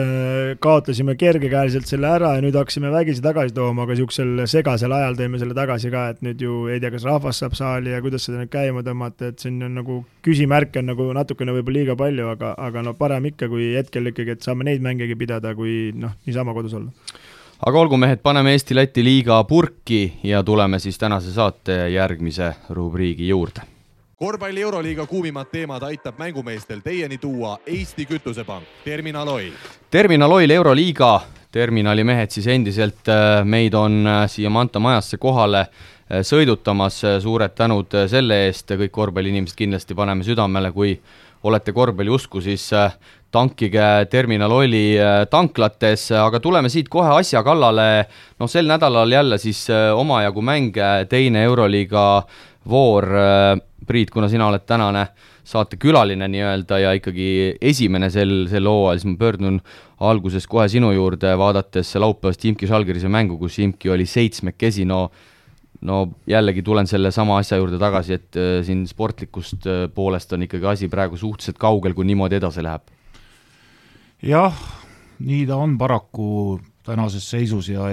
kaotasime kergekäeliselt selle ära ja nüüd hakkasime vägisi tagasi tooma, aga niisugusel segasel ajal tõime selle tagasi ka, et nüüd ju ei tea, kas rahvas saab saali ja kuidas seda nüüd käima tõmmata, et siin on nagu küsimärke on nagu natukene võib-olla liiga palju, aga no parem ikka, kui hetkel ikkagi, et saame neid mängegi pidada, kui niisama kodus olla. Aga olgu mehed, paneme Eesti-Läti liiga purki ja tuleme siis tänase saate järgmise rubriigi juurde. Korvpalli Euroliiga kuumimad teemad aitab mängumeestel teieni tuua Eesti Kütusepank, Terminal Oil. Terminal Oil Euroliiga, terminali mehed siis endiselt meid on siia Manta majasse kohale sõidutamas. Suured tänud selle eest, kõik korvpalliinimesed kindlasti paneme südamele, kui olete korvpalli usku, siis tankige Terminal Oili tanklates, aga tuleme siit kohe asja kallale. Sel nädalal jälle siis omajagu mänge, teine Euroliiga voor. Priit, kuna sina oled tänane saate külaline nii-öelda ja ikkagi esimene sel hooajal, siis ma pöördun alguses kohe sinu juurde, vaadates laupäevast Imki Žalgirise mängu, kus Imki oli 7-kesi. No jällegi tulen selle sama asja juurde tagasi, et siin sportlikust poolest on ikkagi asi praegu suhteliselt kaugel, kui niimoodi edasi läheb. Jah, nii ta on paraku tänases seisus ja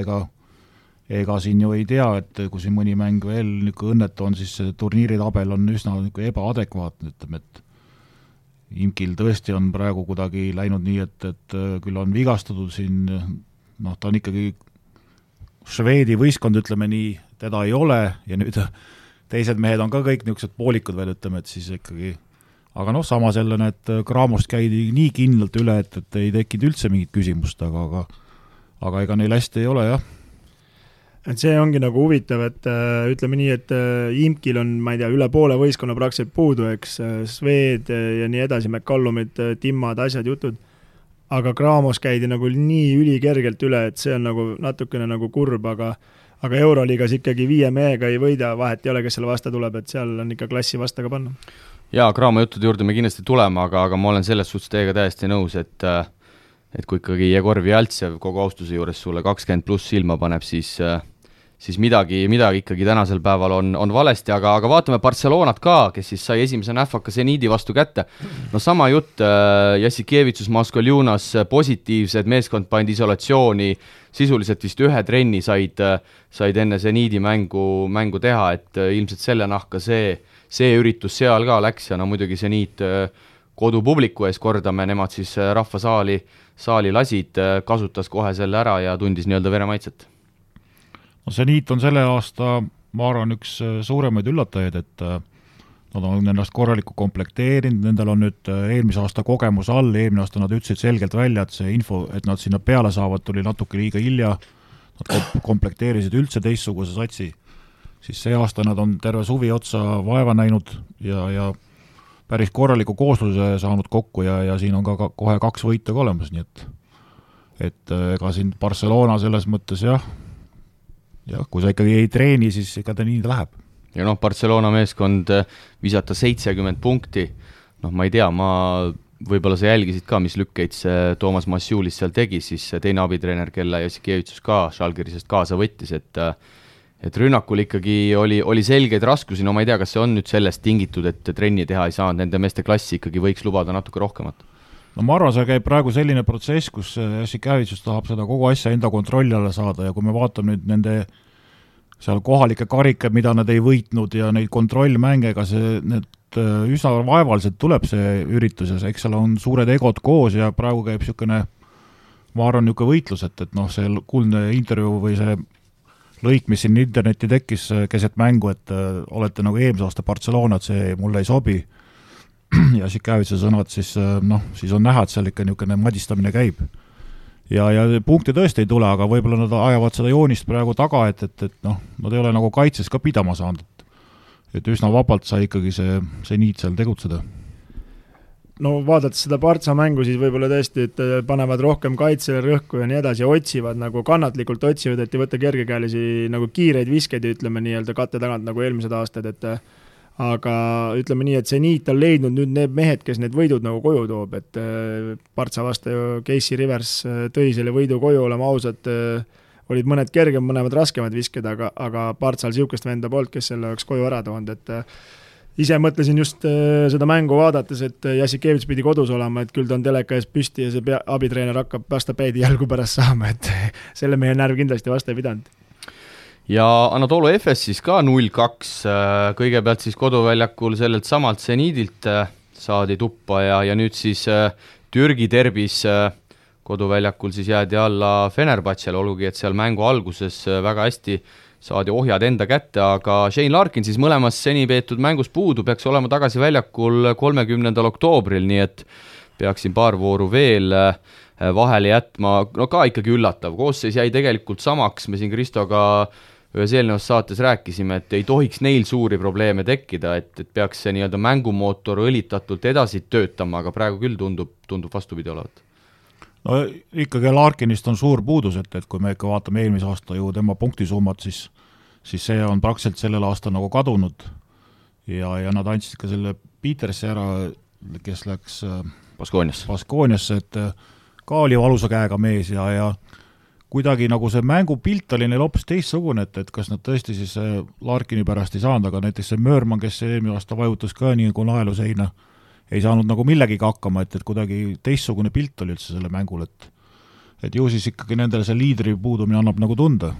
ega siin ju ei tea, et kui siin mõni mäng veel õnnetu on, siis turniiritabel on üsna ebaadekvaatne, ütleme, et Imkil tõesti on praegu kuidagi läinud nii, et küll on vigastatud siin, ta on ikkagi Šveedi võistkond, ütleme nii, teda ei ole ja nüüd teised mehed on ka kõik niisugused poolikud veel, ütleme, et siis ikkagi, aga samas jälle need Kraamost käidi nii kindlalt üle, et ei tekkinud üldse mingit küsimust, aga ega neil hästi ei ole, jah. Et see ongi nagu huvitav, et ütleme nii, et Imkil on, ma ei tea, üle poole võistkonna praktiliselt puudu, eks, Sved ja nii edasi, McCallumid, Timmad, asjad, jutud, aga Kraamos käidi nagu nii ülikergelt üle, et see on nagu natukene nagu kurb, aga Euroliigas ikkagi 5 mehega ei võida, vahet ei ole, kes selle vasta tuleb, et seal on ikka klassi vasta ka panna. Jaa, Kraamo juttude juurde me kindlasti tuleme, aga ma olen selles suhtes teiega täiesti nõus, et kui ikkagi Jegor Vjaltsev kogu austuse juures sulle 20+ silma paneb, siis midagi ikkagi tänasel päeval on valesti, aga vaatame Barcelonat ka, kes siis sai esimese nähvaka Zeniidi vastu kätte. Sama jutt, Jassikevitsus, Maskoljunas, positiivsed, meeskond pandi isolatsiooni, sisuliselt vist 1 trenni said enne Zeniidi mängu teha, et ilmselt selle nahka see üritus seal ka läks ja muidugi Zeniit kodupubliku ees kordame, nemad siis rahvasaali lasid, kasutas kohe selle ära ja tundis nii-öelda veremaitset. Zeniit on selle aasta, ma arvan, üks suuremaid üllatajaid, et nad on ennast korralikult komplekteerinud, nendel on nüüd eelmise aasta kogemus all, eelmine aasta nad ütlesid selgelt välja, et see info, et nad sinna peale saavad, tuli natuke liiga hilja, nad komplekteerisid üldse teistsuguse satsi, siis see aasta nad on terve suvi otsa vaeva näinud ja päris korraliku koosluse saanud kokku ja siin on ka kohe 2 võitu ka olemas, nii et ega siin Barcelona selles mõttes jah, kui sa ikkagi ei treeni, siis ega ta nii läheb. Ja Barcelona meeskond visata 70 punkti, ma ei tea, võib-olla sa jälgisid ka, mis lükkeid see Toomas Massiulis seal tegi, siis teine abitreener, kelle Jassikevitsus ka Žalgirisest kaasa võttis, et rünnakul ikkagi oli selgeid raskusi, ma ei tea, kas see on nüüd sellest tingitud, et trenni teha ei saanud, nende meeste klassi ikkagi võiks lubada natuke rohkemat. Ma arvan, see käib praegu selline protsess, kus Jassikevitsus tahab seda kogu asja enda kontrolli alla saada ja kui me vaatame nüüd nende seal kohalike karikad, mida nad ei võitnud ja neid kontrollmänge, ega need üsna vaevaliselt tuleb see ürituses, eks seal on suured egod koos ja praegu käib niisugune, ma arvan, niisugune võitlus, et see kuldne intervjuu või see lõik, mis siin interneti tekkis keset mängu, et olete nagu eelmise aasta Barcelona, et see mulle ei sobi ja Jassikevituse sõnad, siis on näha, et seal ikka niisugune madistamine käib. Ja punkti tõesti ei tule, aga võib-olla nad ajavad seda joonist praegu taga, et nad ei ole nagu kaitses ka pidama saanud. Et üsna vabalt sai ikkagi see niit seal tegutseda. No vaadates seda Partsa mängu, siis võib-olla tõesti, et panevad rohkem kaitsele rõhku ja nii edasi, otsivad nagu kannatlikult otsivad, et ei võtta kergekäelisi nagu kiireid viskeid, ütleme nii-öelda katte tagant nagu eelmised aastad, aga ütleme nii, et see niit on leidnud nüüd need mehed, kes need võidud nagu koju toob, et Partsa vastu ju Casey Rivers tõi selle võidu koju, olema ausad, olid mõned kergem, mõned raskemad visked, aga Partsal siukest venda poolt, kes selle oleks koju ära toonud, et ise mõtlesin just seda mängu vaadates, et Jassikevits pidi kodus olema, et küll ta on teleka ees püsti ja see abitreener hakkab vastapäidi jalgu pärast saama, et selle mehe närv kindlasti vastu ei pidanud. Ja Anatolu Efes siis ka 0-2, kõigepealt siis koduväljakul sellelt samalt Zenidilt saadi tuppa ja nüüd siis Türgi derbis koduväljakul siis jäädi alla Fenerbahcele, olgugi et seal mängu alguses väga hästi saadi ohjad enda kätte, aga Shane Larkin siis mõlemas seni peetud mängus puudu, peaks olema tagasi väljakul 30. oktoobril, nii et peaksin paar vooru veel vahele jätma, no ka ikkagi üllatav, koosseis jäi tegelikult samaks, me siin Kristoga ühes eelnevas saates rääkisime, et ei tohiks neil suuri probleeme tekkida, et peaks see nii-öelda mängumootor õlitatult edasi töötama, aga praegu küll tundub vastupidi olevat. No ikkagi Larkinist on suur puudus, et kui me ikka vaatame eelmise aasta ju tema punktisummat, siis see on praktiliselt sellel aastal nagu kadunud ja nad andsid ka selle Petersi ära, kes läks Baskooniasse, et ka oli valusa käega mees ja kuidagi nagu see mängupilt oli neil hoopis teistsugune, et kas nad tõesti siis Larkini pärast ei saanud, aga näiteks see Möörman, kes eelmine aasta vajutas ka nii nagu naelu seina, ei saanud nagu millegiga hakkama, et kuidagi teistsugune pilt oli üldse selle mängul, et ju siis ikkagi nendele see liidri puudumine annab nagu tunda.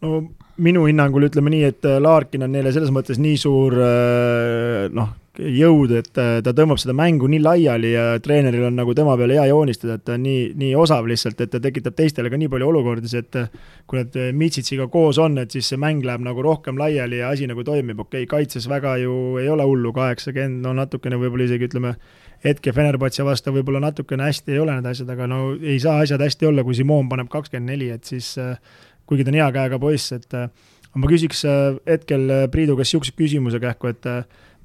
No minu hinnangul ütleme nii, et Larkin on neile selles mõttes nii suur jõud, et ta tõmbab seda mängu nii laiali ja treeneril on nagu tema peale hea joonistada, et ta on nii osav lihtsalt, et ta tekitab teistele ka nii palju olukordis, et kui need Mitsitsiga koos on, et siis see mäng läheb nagu rohkem laiali ja asi nagu toimib, kaitses väga ju ei ole hullu 80, no natukene võib-olla isegi ütleme hetke Fenerbahce vastu võib-olla natukene hästi ei ole need asjad, aga no ei saa asjad hästi olla, kui Simon paneb 24, et siis kuigi ta on hea käega poiss, et ma küsiks hetkel Priidu käest siukse küsimuse kähku, et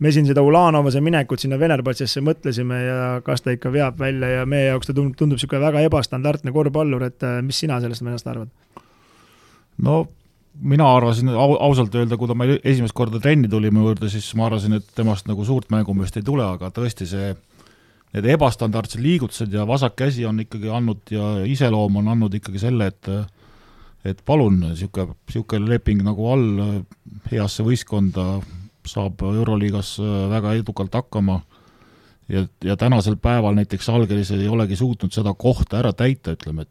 me siin seda Ulanovase minekut sinna Fenerbahcesse mõtlesime ja kas ta ikka veab välja ja meie jaoks ta tundub siuke väga ebastandardne korvpallur, et mis sina sellest mennast arvad? No mina arvasin ausalt öelda, kui ta meil esimest korda trenni tuli mu juurde, siis ma arvasin, et temast nagu suurt mängumist ei tule, aga tõesti need ebastandardsed liigutused ja vasak käsi on ikkagi andnud ja iseloom on andnud ikkagi selle, et palun, siuke leping nagu all heasse võistkonda saab Euroliigas väga edukalt hakkama ja tänasel päeval näiteks Algeris ei olegi suutnud seda kohta ära täita, ütleme,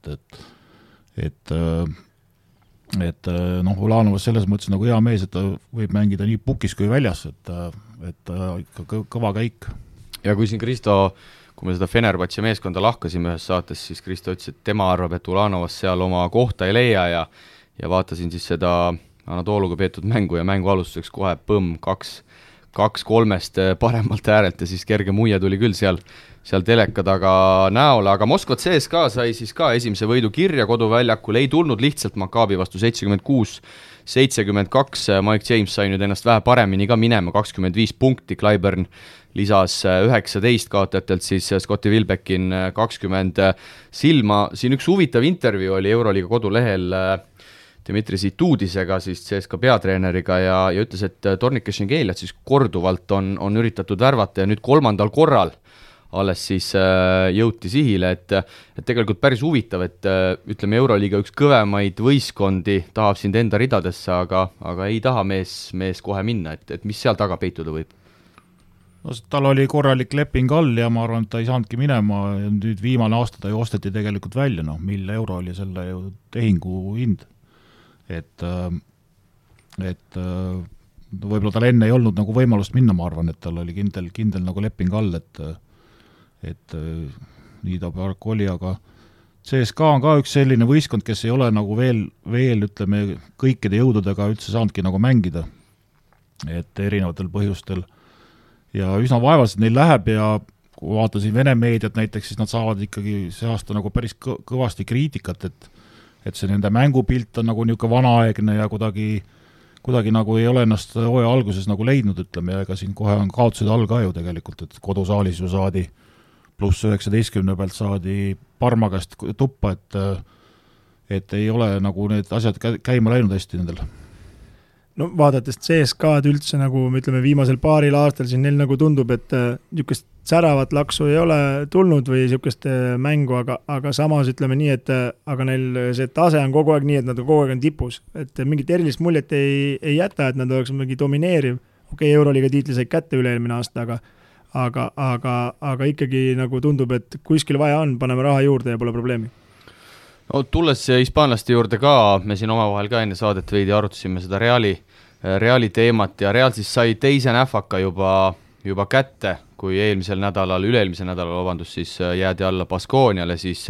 et Ulanovas selles mõttes nagu hea mees, et ta võib mängida nii pukis kui väljas, et ikka kõva käik. Ja kui siin Kristo, kui me seda Fenerbahce meeskonda lahkasime ühes saates, siis Kristo ütles, et tema arvab, et Ulanovas seal oma kohta ei leia ja vaatasin siis seda Anatoluga peetud mängu ja mängu alustuseks kohe põmm 2-3 paremalt äärelt ja siis kerge muie tuli küll seal teleka taga näole, aga Moskva CSKA sai siis ka esimese võidu kirja koduväljakul, ei tulnud lihtsalt Maccabi vastu 76-72, Mike James sai nüüd ennast vähe paremini ka minema, 25 punkti, Clyburn lisas 19 kaotajatelt, siis Scotti Wilbeckin 20 silma. Siin üks huvitav intervjuu oli Euroliiga kodulehel Dmitri Zitudisega, siis CSKA peatreeneriga ja ütles, et Tornike Šengeliat siis korduvalt on üritatud värvata ja nüüd 3. korral alles siis jõuti sihile, et tegelikult päris huvitav, et ütleme Euroliiga üks kõvemaid võistkondi tahab sind enda ridadesse, aga ei taha mees kohe minna, et mis seal taga peituda võib? No, tal oli korralik leping all ja ma arvan, et ta ei saanudki minema ja nüüd viimane aasta ta ju osteti tegelikult välja, mille euro oli selle ju tehingu hind. Et võib-olla tal enne ei olnud nagu võimalust minna, ma arvan, et tal oli kindel nagu leping all, et nii ta paraku oli, aga CSKA on ka üks selline võistkond, kes ei ole nagu veel ütleme, kõikide jõududega üldse saanudki nagu mängida, et erinevatel põhjustel ja üsna vaevaliselt neil läheb ja kui vaatasin Vene meediat näiteks, siis nad saavad ikkagi see aasta nagu päris kõvasti kriitikat, et see nende mängupilt on nagu niisugune vanaaegne ja kuidagi nagu ei ole ennast hooaja alguses nagu leidnud, ütleme, ja ega siin kohe on kaotused all ka ju tegelikult, et kodusaalis ju saadi pluss 19 pealt saadi Parma käest tuppa, et ei ole nagu need asjad käima läinud hästi nendel. No vaadates CSKA'd üldse nagu me ütleme viimasel paaril aastal siin neil nagu tundub, et niisugust säravat laksu ei ole tulnud või niisugust mängu, aga samas ütleme nii, et aga neil see tase on kogu aeg nii, et nad kogu aeg on tipus, et mingit erilist muljet ei jäta, et nad oleks mingi domineeriv, okei, Euroliiga tiitli said kätte üle-eelmine aasta, aga ikkagi nagu tundub, et kuskil vaja on, paneme raha juurde ja pole probleemi. No, tulles hispaanlaste juurde ka, me siin omavahel ka enne saadet veidi arutasime seda Reali teemat ja Real siis sai teise näfaka juba kätte, kui üle-eelmisel nädalal, siis jäädi alla Baskoniale, siis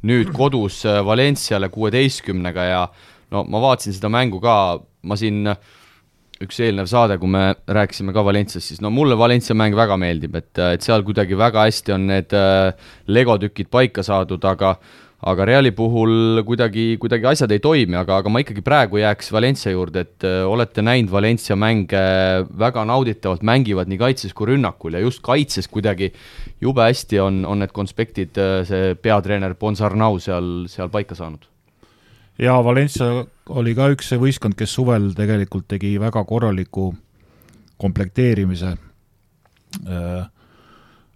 nüüd kodus Valenciale 16-ga ja no ma vaatasin seda mängu ka, ma siin üks eelnev saade, kui me rääkisime ka Valencias, siis no mulle Valencia mäng väga meeldib, et seal kuidagi väga hästi on need legotükid paika saadud, aga Reali puhul kuidagi asjad ei toimi, aga ma ikkagi praegu jääks Valencia juurde, et olete näinud Valencia mänge väga nauditavalt, mängivad nii kaitses kui rünnakul ja just kaitses kuidagi jube hästi on need konspektid see peatreener Ponsarnau seal paika saanud. Ja Valencia oli ka üks võistkond, kes suvel tegelikult tegi väga korraliku komplekteerimise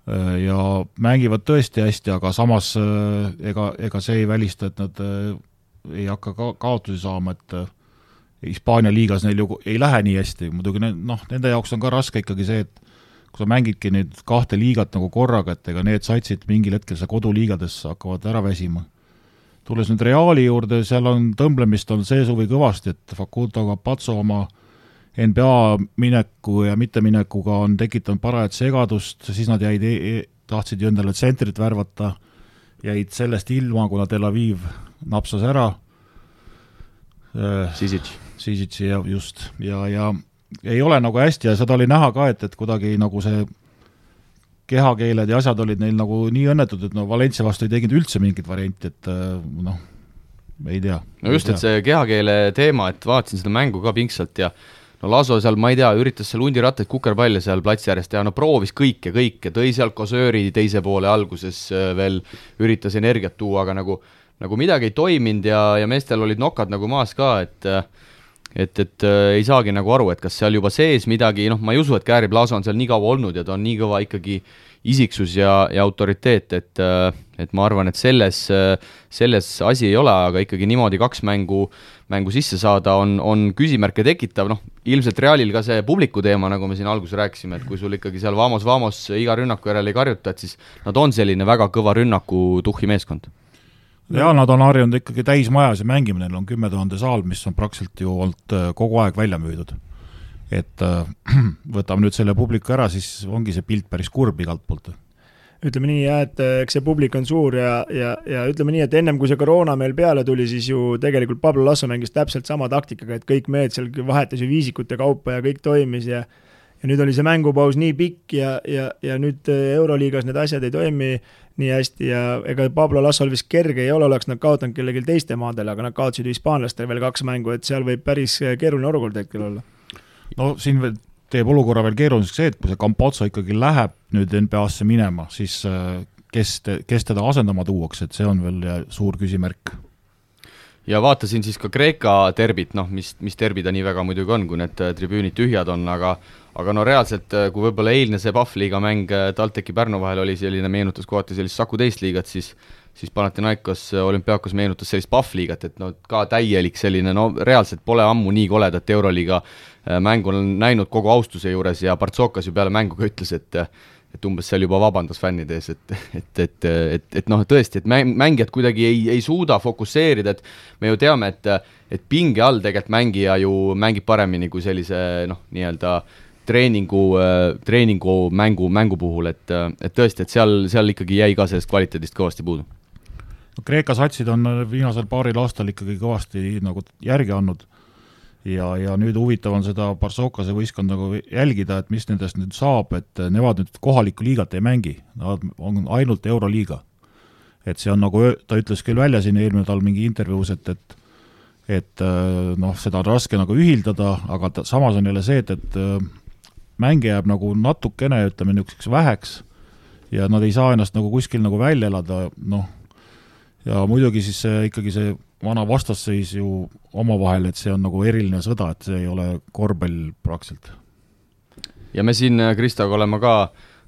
ja mängivad tõesti hästi, aga samas ega see ei välista, et nad ei hakka kaotusi saama, et Hispaania liigas neil ju ei lähe nii hästi, muidugi nende jaoks on ka raske ikkagi see, et kui sa mängidki nüüd 2 liigat nagu korraga, et ega need satsid mingil hetkel sa koduliigades hakkavad ära väsima. Tulles nüüd Reali juurde, seal on tõmblemist on see suvi kõvasti, et Facundo Campazzo oma NBA mineku ja mitteminekuga on tekitanud parajat segadust, siis nad tahtsid ju endale tsentrit värvata, jäid sellest ilma, kuna Tel Aviv napsas ära Sisici ja just ja ei ole nagu hästi ja seda oli näha ka, et kuidagi nagu see kehakeeled ja asjad olid neil nagu nii õnnetud, et Valencia vastu ei teginud üldse mingit varianti, et ei tea. No just, et see kehakeele teema, et vaatasin seda mängu ka pingsalt ja no Laso seal, ma ei tea, üritas seal hundirattaid kukerpalle seal platsi äärest ja proovis kõike, tõi seal Kosööri teise poole alguses veel üritas energiat tuua, aga nagu midagi ei toiminud ja meestel olid nokad nagu maas ka, et ei saagi nagu aru, et kas seal juba sees midagi, ma ei usu, et Gary Blaso on seal nii kaua olnud ja ta on nii kõva ikkagi isiksus ja autoriteet, et ma arvan, et selles asi ei ole, aga ikkagi niimoodi 2 mängu sisse saada on küsimärke tekitav, ilmselt Realil ka see publiku teema, nagu me siin alguses rääkisime, et kui sul ikkagi seal vamos iga rünnaku järel ei karjuta, et siis nad on selline väga kõva rünnaku tuhhi meeskond. Ja nad on harjunud ikkagi täismajas ja mängimine, neil on 10 000 saal, mis on praktiliselt ju olnud kogu aeg välja müüdud. Et võtame nüüd selle publiku ära, siis ongi see pilt päris kurb igalt poolt. Ütleme nii, et eks see publik on suur ja ütleme nii, et ennem kui see koroona meil peale tuli, siis ju tegelikult Pablo Lasso mängis täpselt sama taktikaga, et kõik mehed seal vahetas ju viisikute kaupa ja kõik toimis ja nüüd oli see mängupaus nii pikk ja nüüd Euroliigas need asjad ei toimi nii hästi ja ega Pablo Lassol vist kerge ei ole, oleks nad kaotanud kellelgi teiste maadele, aga nad kaotsid hispaanlastel veel 2 mängu, et seal võib päris keeruline olukord hetkel olla. No siin teeb olukorra veel keeruliseks see, et kui see Campazzo ikkagi läheb nüüd NBA-sse minema, siis kes teda asendama tuuakse, et see on veel suur küsimärk. Ja vaatasin siis ka Kreeka terbit, mis terbi ta nii väga muidugi on, kui need tribüünid tühjad on, aga no reaalselt, kui võib-olla eilne see Pahvliiga mäng TalTechi Pärnu vahel oli selline, meenutas kohati sellist Saku teist liigat, siis Panathinaikos Olümpiakos meenutas sellist Pahvliigat, et ka täielik selline, reaalselt pole ammu nii koledat Euroliiga mängu on näinud kogu austuse juures ja Partsokas ju peale mängu ka ütles, et umbes seal juba vabandas fännide ees, et tõesti, et mängijad kuidagi ei suuda fokusseerida, et me ju teame, et pinge all tegelikult mängija ju mängib paremini kui sellise nii-öelda treeningu mängu puhul, et tõesti, et seal ikkagi jäi ka sellest kvaliteedist kõvasti puudu. Kreeka satsid on viimasel paaril aastal ikkagi kõvasti nagu järgi andnud ja nüüd huvitav on seda Barsokase võistkond nagu jälgida, et mis nendest nüüd saab, et nemad nüüd kohalikku liigat ei mängi, nad on ainult Euroliiga. Et see on nagu, ta ütles küll välja siin eelmine tal mingi intervjuus, et seda on raske nagu ühildada, aga samas on jälle see, et mänge jääb nagu natukene, ütleme niisuguseks väheks ja nad ei saa ennast nagu kuskil nagu välja elada, ja muidugi siis ikkagi see vana vastasseis ju omavahel, et see on nagu eriline sõda, et see ei ole korvpall praktiliselt. Ja me siin Kristoga oleme ka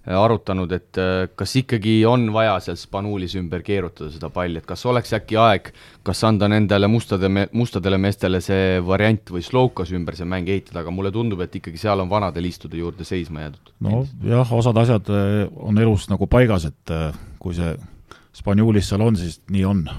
arutanud, et kas ikkagi on vaja seal Spanulis ümber keerutada seda palli, et kas oleks äkki aeg, kas anda nendele mustadele meestele see variant või Slovkas ümber see mäng ehitada, aga mulle tundub, et ikkagi seal on vanade liistude juurde seisma jäädud. No jah, osad asjad on elus nagu paigas, et kui see Spanulis seal on, siis nii on.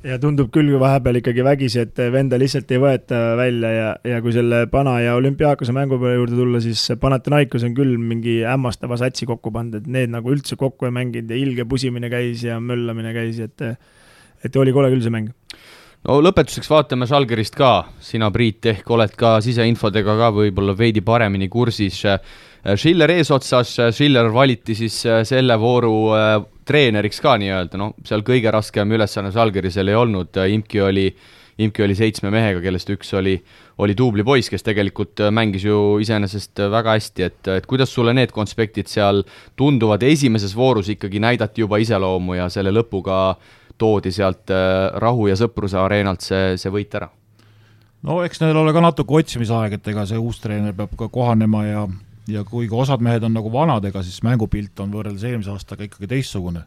Ja tundub küll vahepeal ikkagi vägisi, et venda lihtsalt ei võeta välja ja kui selle Pana ja Olümpiaakose mängu peale juurde tulla, siis Panathinaikos on küll mingi hämmastava satsi kokku pandud, et need nagu üldse kokku ei mänginud ja ilge pusimine käis ja möllamine käis, et oli kole küll see mäng. No lõpetuseks vaatame Žalgirist ka, sina Priit ehk oled ka siseinfodega ka võib-olla veidi paremini kursis. Schiller eesotsas, Schiller valiti siis selle vooru treeneriks ka nii-öelda, no seal kõige raskem ülesanne Žalgirisel ei olnud, Imki oli 7 mehega, kellest üks oli duubli poiss, kes tegelikult mängis ju iseenesest väga hästi, et kuidas sulle need konspektid seal tunduvad, esimeses voorus ikkagi näidati juba iseloomu ja selle lõpuga toodi sealt Rahu ja Sõpruse areenalt see võit ära? No eks neil ole ka natuke otsimisaeg, et ega see uus treener peab ka kohanema ja kuigi osad mehed on nagu vanadega, siis mängupilt on võrreldes eelmise aastaga ikkagi teistsugune.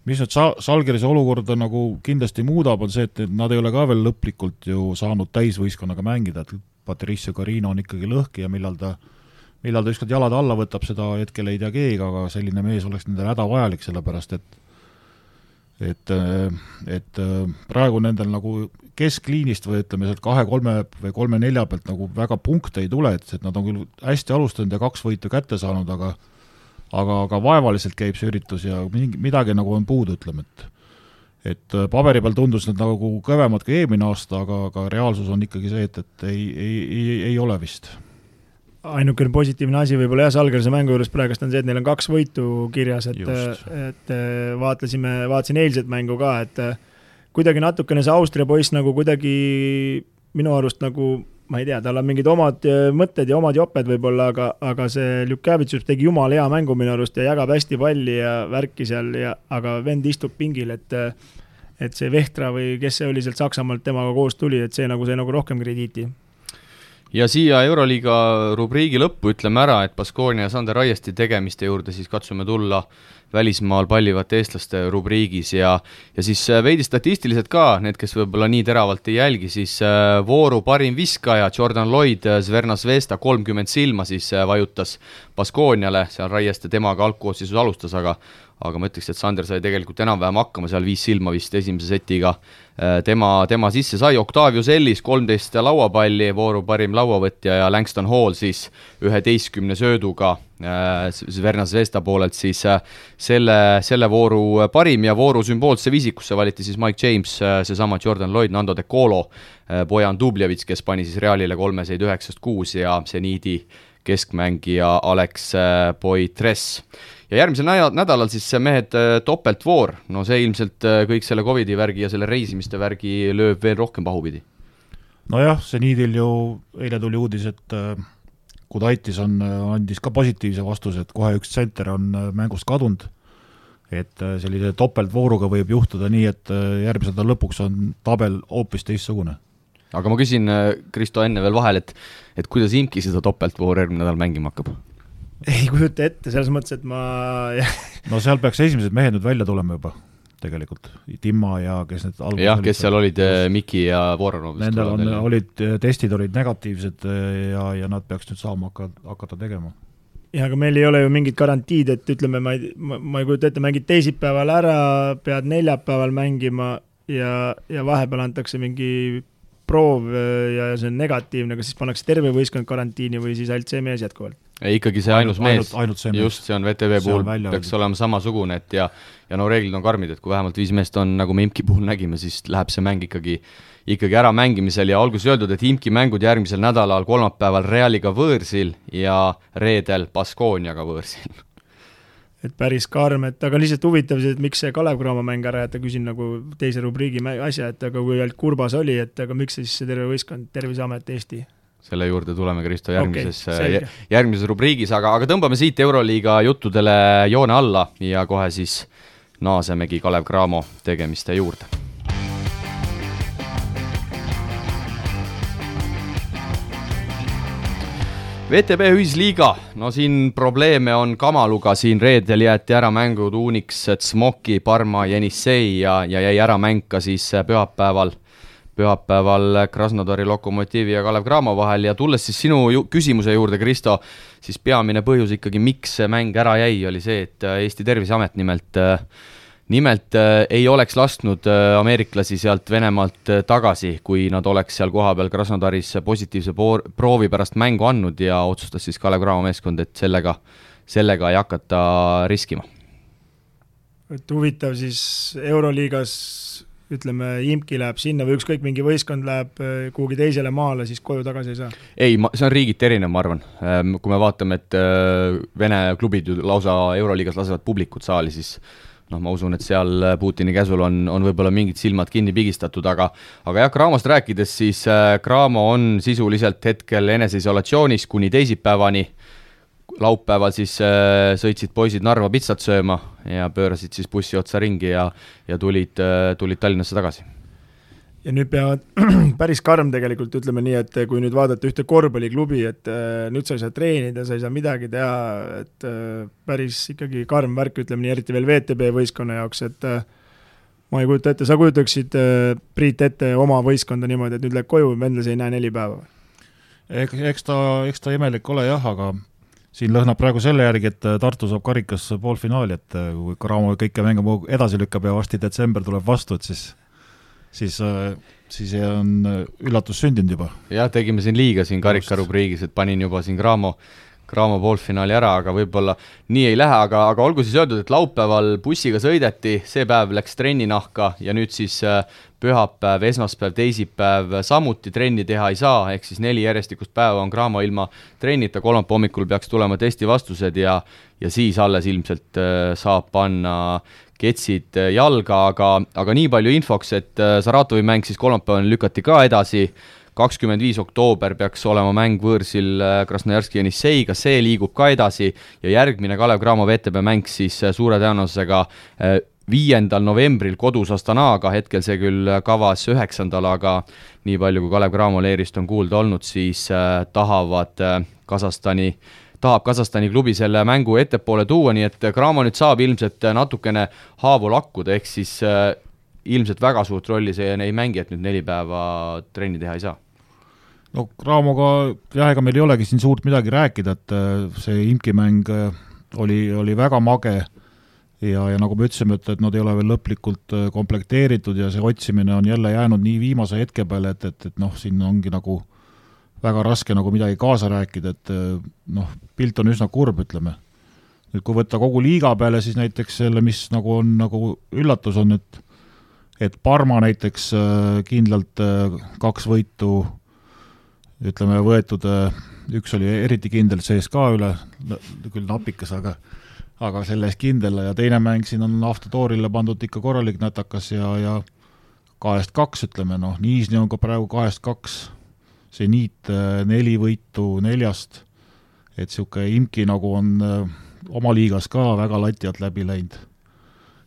Mis nüüd Žalgirise olukorda nagu kindlasti muudab, on see, et nad ei ole ka veel lõplikult ju saanud täisvõistkonnaga mängida, et Patricio Carino on ikkagi lõhki ja millal ta ükskord jalad alla võtab, seda hetkel ei tea keegi, aga selline mees oleks nendel hädavajalik, sellepärast et praegu nendel nagu keskliinist või ütleme sealt 2-3 või 3-4 pealt nagu väga punkte ei tule, et nad on küll hästi alustanud ja 2 võitu kätte saanud, aga vaevaliselt käib see üritus ja midagi nagu on puudu, ütleme, et paberi peal tundus need nagu kõvemad kui eelmine aasta, aga reaalsus on ikkagi see, et ei ole vist. Ainukene positiivne asi võib-olla Žalgirise mängu juures praegust on see, et neil on 2 võitu kirjas, et vaatasin eilset mängu ka, et kuidagi natukene see Austria poiss nagu kuidagi minu arust nagu, ma ei tea, tal on mingid omad mõtted ja omad joped võib-olla, aga see Ljukavitsus tegi jumal hea mängu minu arust ja jagab hästi palli ja värki seal, aga vend istub pingil, et see Vehtra või kes see oli sealt Saksamaalt temaga koos tuli, et see nagu rohkem krediiti. Ja siia Euroliiga rubriigi lõppu ütleme ära, et Baskonia ja Sander Raiesti tegemiste juurde siis katsume tulla välismaal pallivate eestlaste rubriigis ja siis veidi statistiliselt ka, need, kes võib-olla nii teravalt ei jälgi, siis vooru parim viskaja Jordan Lloyd Zvezda Zvezda 30 silma siis vajutas Baskoniale, seal Raieste temaga algkoosseisus alustas, aga ma ütleks, et Sander sai tegelikult enam-vähem hakkama, seal 5 silma vist esimese setiga tema sisse sai, Octavius Ellis 13 lauapalli, vooru parim lauavõtja ja Langston Hall siis 11 sööduga Zvezda Zvezda poolelt siis selle vooru parim ja vooru sümboolse viisikusse valiti siis Mike James, seesama Jordan Lloyd, Nando De Colo, Bojan Dubljevits, kes pani siis Realile 3-9-6 ja Zeniidi keskmängija Alex Poitres. Ja järgmisel nädalal siis mehed topeltvoor, no see ilmselt kõik selle COVID-i värgi ja selle reisimiste värgi lööb veel rohkem pahupidi. Nojah, Zeniidil ju eile tuli uudis, et Kudaitis andis ka positiivse vastuse, et kohe üks tsenter on mängust kadunud, et sellise topeltvooruga võib juhtuda nii, et järgmise nädala lõpuks on tabel hoopis teistsugune. Aga ma küsin, Kristo, enne veel vahel, et kuidas Imki seda topeltvooru järgmine nädal mängima hakkab? Ei kujuta ette, selles mõttes, et No seal peaks esimesed mehed nüüd välja tulema juba, tegelikult. Timma ja kes need alguses jah, kes seal olid Miki ja Voronov. Nendel testid olid negatiivsed ja nad peaks nüüd saama hakata tegema. Ja aga meil ei ole ju mingit garantiid, et ütleme, ma ei kujuta ette, mängid teisipäeval ära, pead neljapäeval mängima ja vahepeal antakse mingi proov ja see on negatiivne, kas siis pannakse terve võistkond karantiini või siis ainult see mees jätkuvalt? Ikkagi see ainus mees, ainult see mees. Just see on VTV puhul, peaks olema samasugune, et ja no reeglid on karmid, et kui vähemalt 5 meest on, nagu me Imki puhul nägime, siis läheb see mäng ikkagi ära mängimisel ja alguses öeldud, et Imki mängud järgmisel nädalal kolmapäeval Realiga võõrsil ja reedel Baskoniaga võõrsil. Et päris karm, aga lihtsalt huvitav, et miks see Kalev Cramo mäng ära jätta, küsin nagu teise rubriigi asja, et aga kui ainult Kurbas oli, et aga miks siis see terve võistkond, Terviseamet Eesti? Selle juurde tuleme, Kristo, järgmises rubriigis, aga tõmbame siit Euroliiga juttudele joone alla ja kohe siis naasemegi Kalev Cramo tegemiste juurde. VTB ühisliiga, no siin probleeme on kamaluga, siin reedel jäeti ära mängud Unix, Smoki, Parma, Jenissei ja jäi ära mäng ka siis pühapäeval Krasnodari Lokomotiivi ja Kalev Cramo vahel ja tulles siis sinu küsimuse juurde, Kristo, siis peamine põhjus ikkagi, miks see mäng ära jäi, oli see, et Eesti Terviseamet nimelt ei oleks lasknud ameeriklasi sealt Venemaalt tagasi, kui nad oleks seal kohapeal Krasnodaris positiivse proovi pärast mängu andnud ja otsustas siis Kalev Cramo meeskond, et sellega ei hakata riskima. Et huvitav siis Euroliigas, ütleme, Imki läheb sinna või ükskõik mingi võistkond läheb kuhugi teisele maale, siis koju tagasi ei saa? Ei, see on riigiti erinev, ma arvan. Kui me vaatame, et Vene klubid lausa Euroliigas lasevad publikut saali, siis ma usun, et seal Putini käsul on võib-olla mingid silmad kinni pigistatud, aga jah, Cramost rääkides, siis Cramo on sisuliselt hetkel eneseisolatsioonis kuni teisipäevani. Laupäeval siis sõitsid poisid Narva pitsat sööma ja pöörasid siis bussi otsa ringi ja tulid Tallinnasse tagasi. Ja nüüd peavad päris karm tegelikult, ütleme nii, et kui nüüd vaadata ühte korvpalliklubi, et nüüd sa ei saa treenida, sa ei saa midagi teha, et päris ikkagi karm värk, ütleme nii, eriti veel VTB võistkonna jaoks, et ma ei kujuta ette, sa kujutaksid Priit ette oma võistkonda niimoodi, et nüüd läheb koju, vendlas ei näe 4 päeva? Eks ta imelik ole jah, aga siin lõhnab praegu selle järgi, et Tartu saab karikas poolfinaali, et kui Cramo kõike mängu edasi lükkab ja varsti detsember tuleb vastu, et siis on üllatus sündinud juba. Jah, tegime siin liiga siin karikarubriigis, et panin juba siin Cramo poolfinaali ära, aga võib-olla nii ei lähe, aga olgu siis öeldud, et laupäeval bussiga sõideti, see päev läks trenninahka ja nüüd siis pühapäev, esmaspäev, teisipäev samuti trenni teha ei saa, ehk siis 4 järjestikust päeva on Cramo ilma trennita, kolmapäeva hommikul peaks tulema testi vastused ja siis alles ilmselt saab panna ketsid jalga, aga nii palju infoks, et Saratovi mäng siis kolmapäeval lükati ka edasi, 25. oktoober peaks olema mäng võõrsil Krasnojarski Jenisseiga, see liigub ka edasi ja järgmine Kalev Cramo VTB mäng siis suure tõenäosusega 5. novembril kodus Astanaaga, hetkel see küll kavas 9. aga nii palju kui Kalev Cramo leerist on kuulda olnud, siis tahab Kasahstani klubi selle mängu ettepoole tuua, nii et Cramo nüüd saab ilmselt natukene haavu lakkuda, ehk siis ilmselt väga suurt rolli see ei mängi, et nüüd 4 päeva trenni teha ei saa. No Cramoga, jah, ega meil ei olegi siin suurt midagi rääkida, et see Imki mäng oli väga mage ja nagu me ütlesime, et nad ei ole veel lõplikult komplekteeritud ja see otsimine on jälle jäänud nii viimase hetke peale, et siin ongi nagu väga raske nagu midagi kaasa rääkida, et pilt on üsna kurb, ütleme. Nüüd kui võtta kogu liiga peale, siis näiteks selle, mis nagu on nagu üllatus on, et Parma näiteks kindlalt 2 võitu, ütleme, võetud, üks oli eriti kindel CSKA üle, küll napikas, aga selles kindel ja teine mäng siin on Avtotoorile pandud ikka korralik nätakas ja 2-2, ütleme, Niisni on ka praegu 2-2, see Niit 4 võitu 4, et siuke Imki nagu on oma liigas ka väga lati alt läbi läinud.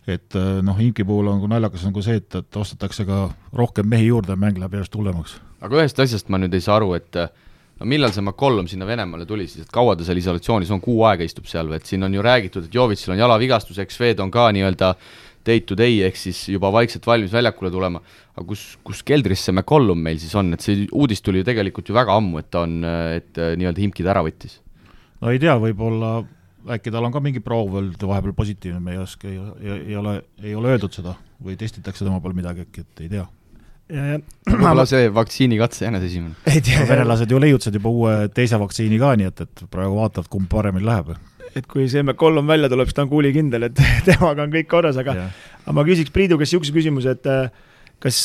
Et Imki puhul on naljakas nagu see, et ostetakse ka rohkem mehi juurde, mäng läheb järjest hullemaks. Aga ühest asjast ma nüüd ei saa aru, et millal see McCollum sinna Venemaale tuli siis, et kaua ta seal isolatsioonis on, 6 aega istub seal, et siin on ju räägitud, et Jovitsil on jalavigastus, X-Fed on ka nii-öelda day to day, ehk siis juba vaikselt valmis väljakule tulema, aga kus keldris see McCollum meil siis on, et see uudis tuli ju tegelikult ju väga ammu, et nii-öelda Imkid ära võttis. No ei tea, võib-olla äkki tal on ka mingi proov vahepeal positiivne, me ei oska, ei ole öeldud seda või testitakse tema peal midagi, et ei tea. Võib-olla see vaktsiinikatse jänes esimene. Venelased ju leiutsid juba uue teise vaktsiini ka, nii et praegu vaatavad, kumb paremini läheb. Et kui see McCollum välja tuleb, siis ta on kuulikindel, et temaga on kõik korras, aga ma küsiks Priidu, kes niisuguse küsimuse, et kas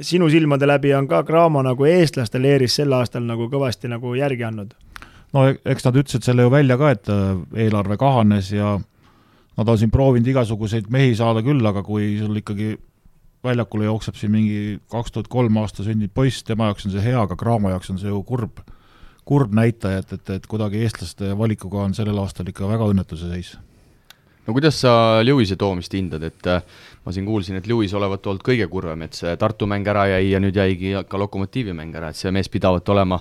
sinu silmade läbi on ka Cramo nagu eestlaste leeris sel aastal nagu kõvasti nagu järgi andnud? No eks nad ütlesid selle ju välja ka, et eelarve kahanes ja nad on siin proovinud igasuguseid mehi saada küll, aga kui sul ikkagi väljakule jookseb siin mingi 2003 aasta sünnid poiss, tema jaoks on see hea, aga Cramo jaoks on see ju kurb näitaja, et kuidagi eestlaste valikuga on sellel aastal ikka väga õnnetuse seis. No kuidas sa Lewis'e toomist hindad, et ma siin kuulsin, et Lewis olevat olnud kõige kurvem, et see Tartu mäng ära jäi ja nüüd jäigi ka Lokomotiivi mäng ära, et see mees pidavat olema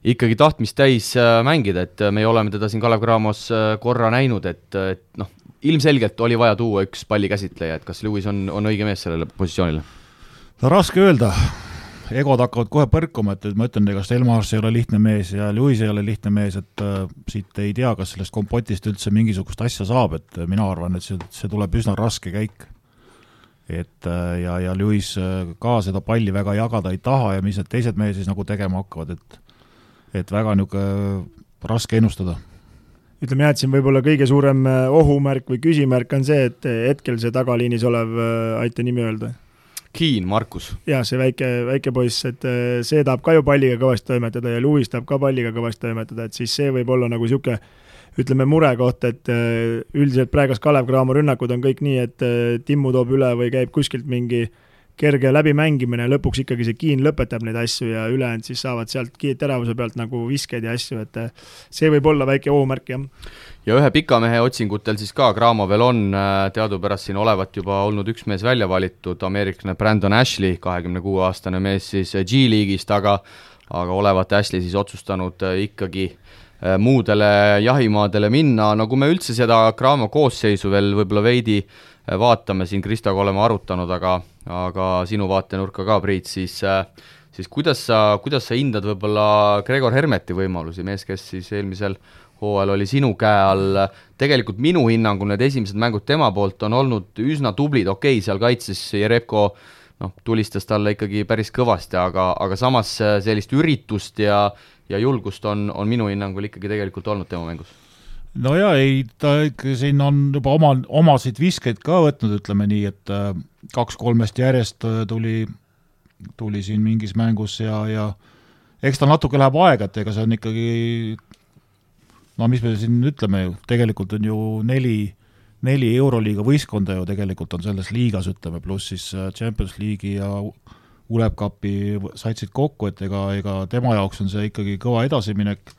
ikkagi tahtmist täis mängida, et me oleme teda siin Kalev Cramos korra näinud, et noh, ilmselgelt oli vaja tuua üks pallikäsitleja, et kas Lewis on õige mees sellele positsioonile? No raske öelda, egod hakkavad kohe põrkuma, et ma ütlen, kas Elmars ei ole lihtne mees ja Lewis ei ole lihtne mees, et siit ei tea, kas sellest kompotist üldse mingisugust asja saab, et mina arvan, et see tuleb üsna raske käik. Et ja Lewis ka seda palli väga jagada ei taha ja mis need teised mees siis nagu tegema hakkavad, et väga niisugune raske ennustada. Ütleme jah, et siin võib-olla kõige suurem ohumärk või küsimärk on see, et hetkel see tagaliinis olev, aita nimi öelda. Keen, Markus. Jah, see väike poiss, et see tahab ka ju palliga kõvasti toimetada ja Lewis tahab ka palliga kõvasti toimetada, et siis see võib olla nagu siuke, ütleme mure koht, et üldiselt praegas Kalev Cramo rünnakud on kõik nii, et Timmu toob üle või käib kuskilt mingi kerge läbimängimine ja lõpuks ikkagi see Keen lõpetab neid asju ja ülejäänud siis saavad sealt teravuse pealt nagu viskeid ja asju, et see võib olla väike ohumärk, jah. Ja ühe pikamehe otsingutel siis ka Cramo veel on teadupärast siin olevat juba olnud üks mees välja valitud, ameeriklane Brandon Ashley, 26-aastane mees siis G-liigist, aga olevat Ashley siis otsustanud ikkagi muudele jahimaadele minna, no kui me üldse seda Cramo koosseisu veel võib-olla veidi vaatame, siin Kristoga oleme arutanud, aga sinu vaatenurka ka, Priit, siis kuidas sa hindad võib-olla Gregor Hermeti võimalusi, mees, kes siis eelmisel hooajal oli sinu käe all, tegelikult minu hinnangul need esimesed mängud tema poolt on olnud üsna tublid, okei, seal kaitses Jerebko tulistas talle ikkagi päris kõvasti, aga samas sellist üritust ja julgust on minu hinnangul ikkagi tegelikult olnud tema mängus. No ja ei, ta ikka siin on juba omasid viskeid ka võtnud, ütleme nii, et 2-3 järjest tuli siin mingis mängus ja eks ta natuke läheb aega, et ega see on ikkagi, no mis me siin ütleme ju, tegelikult on ju 4 Euroliiga võistkonda ju tegelikult on selles liigas, ütleme, pluss siis Champions League'i ja Uleb Cupi saitsid kokku, et ega tema jaoks on see ikkagi kõva edasiminek.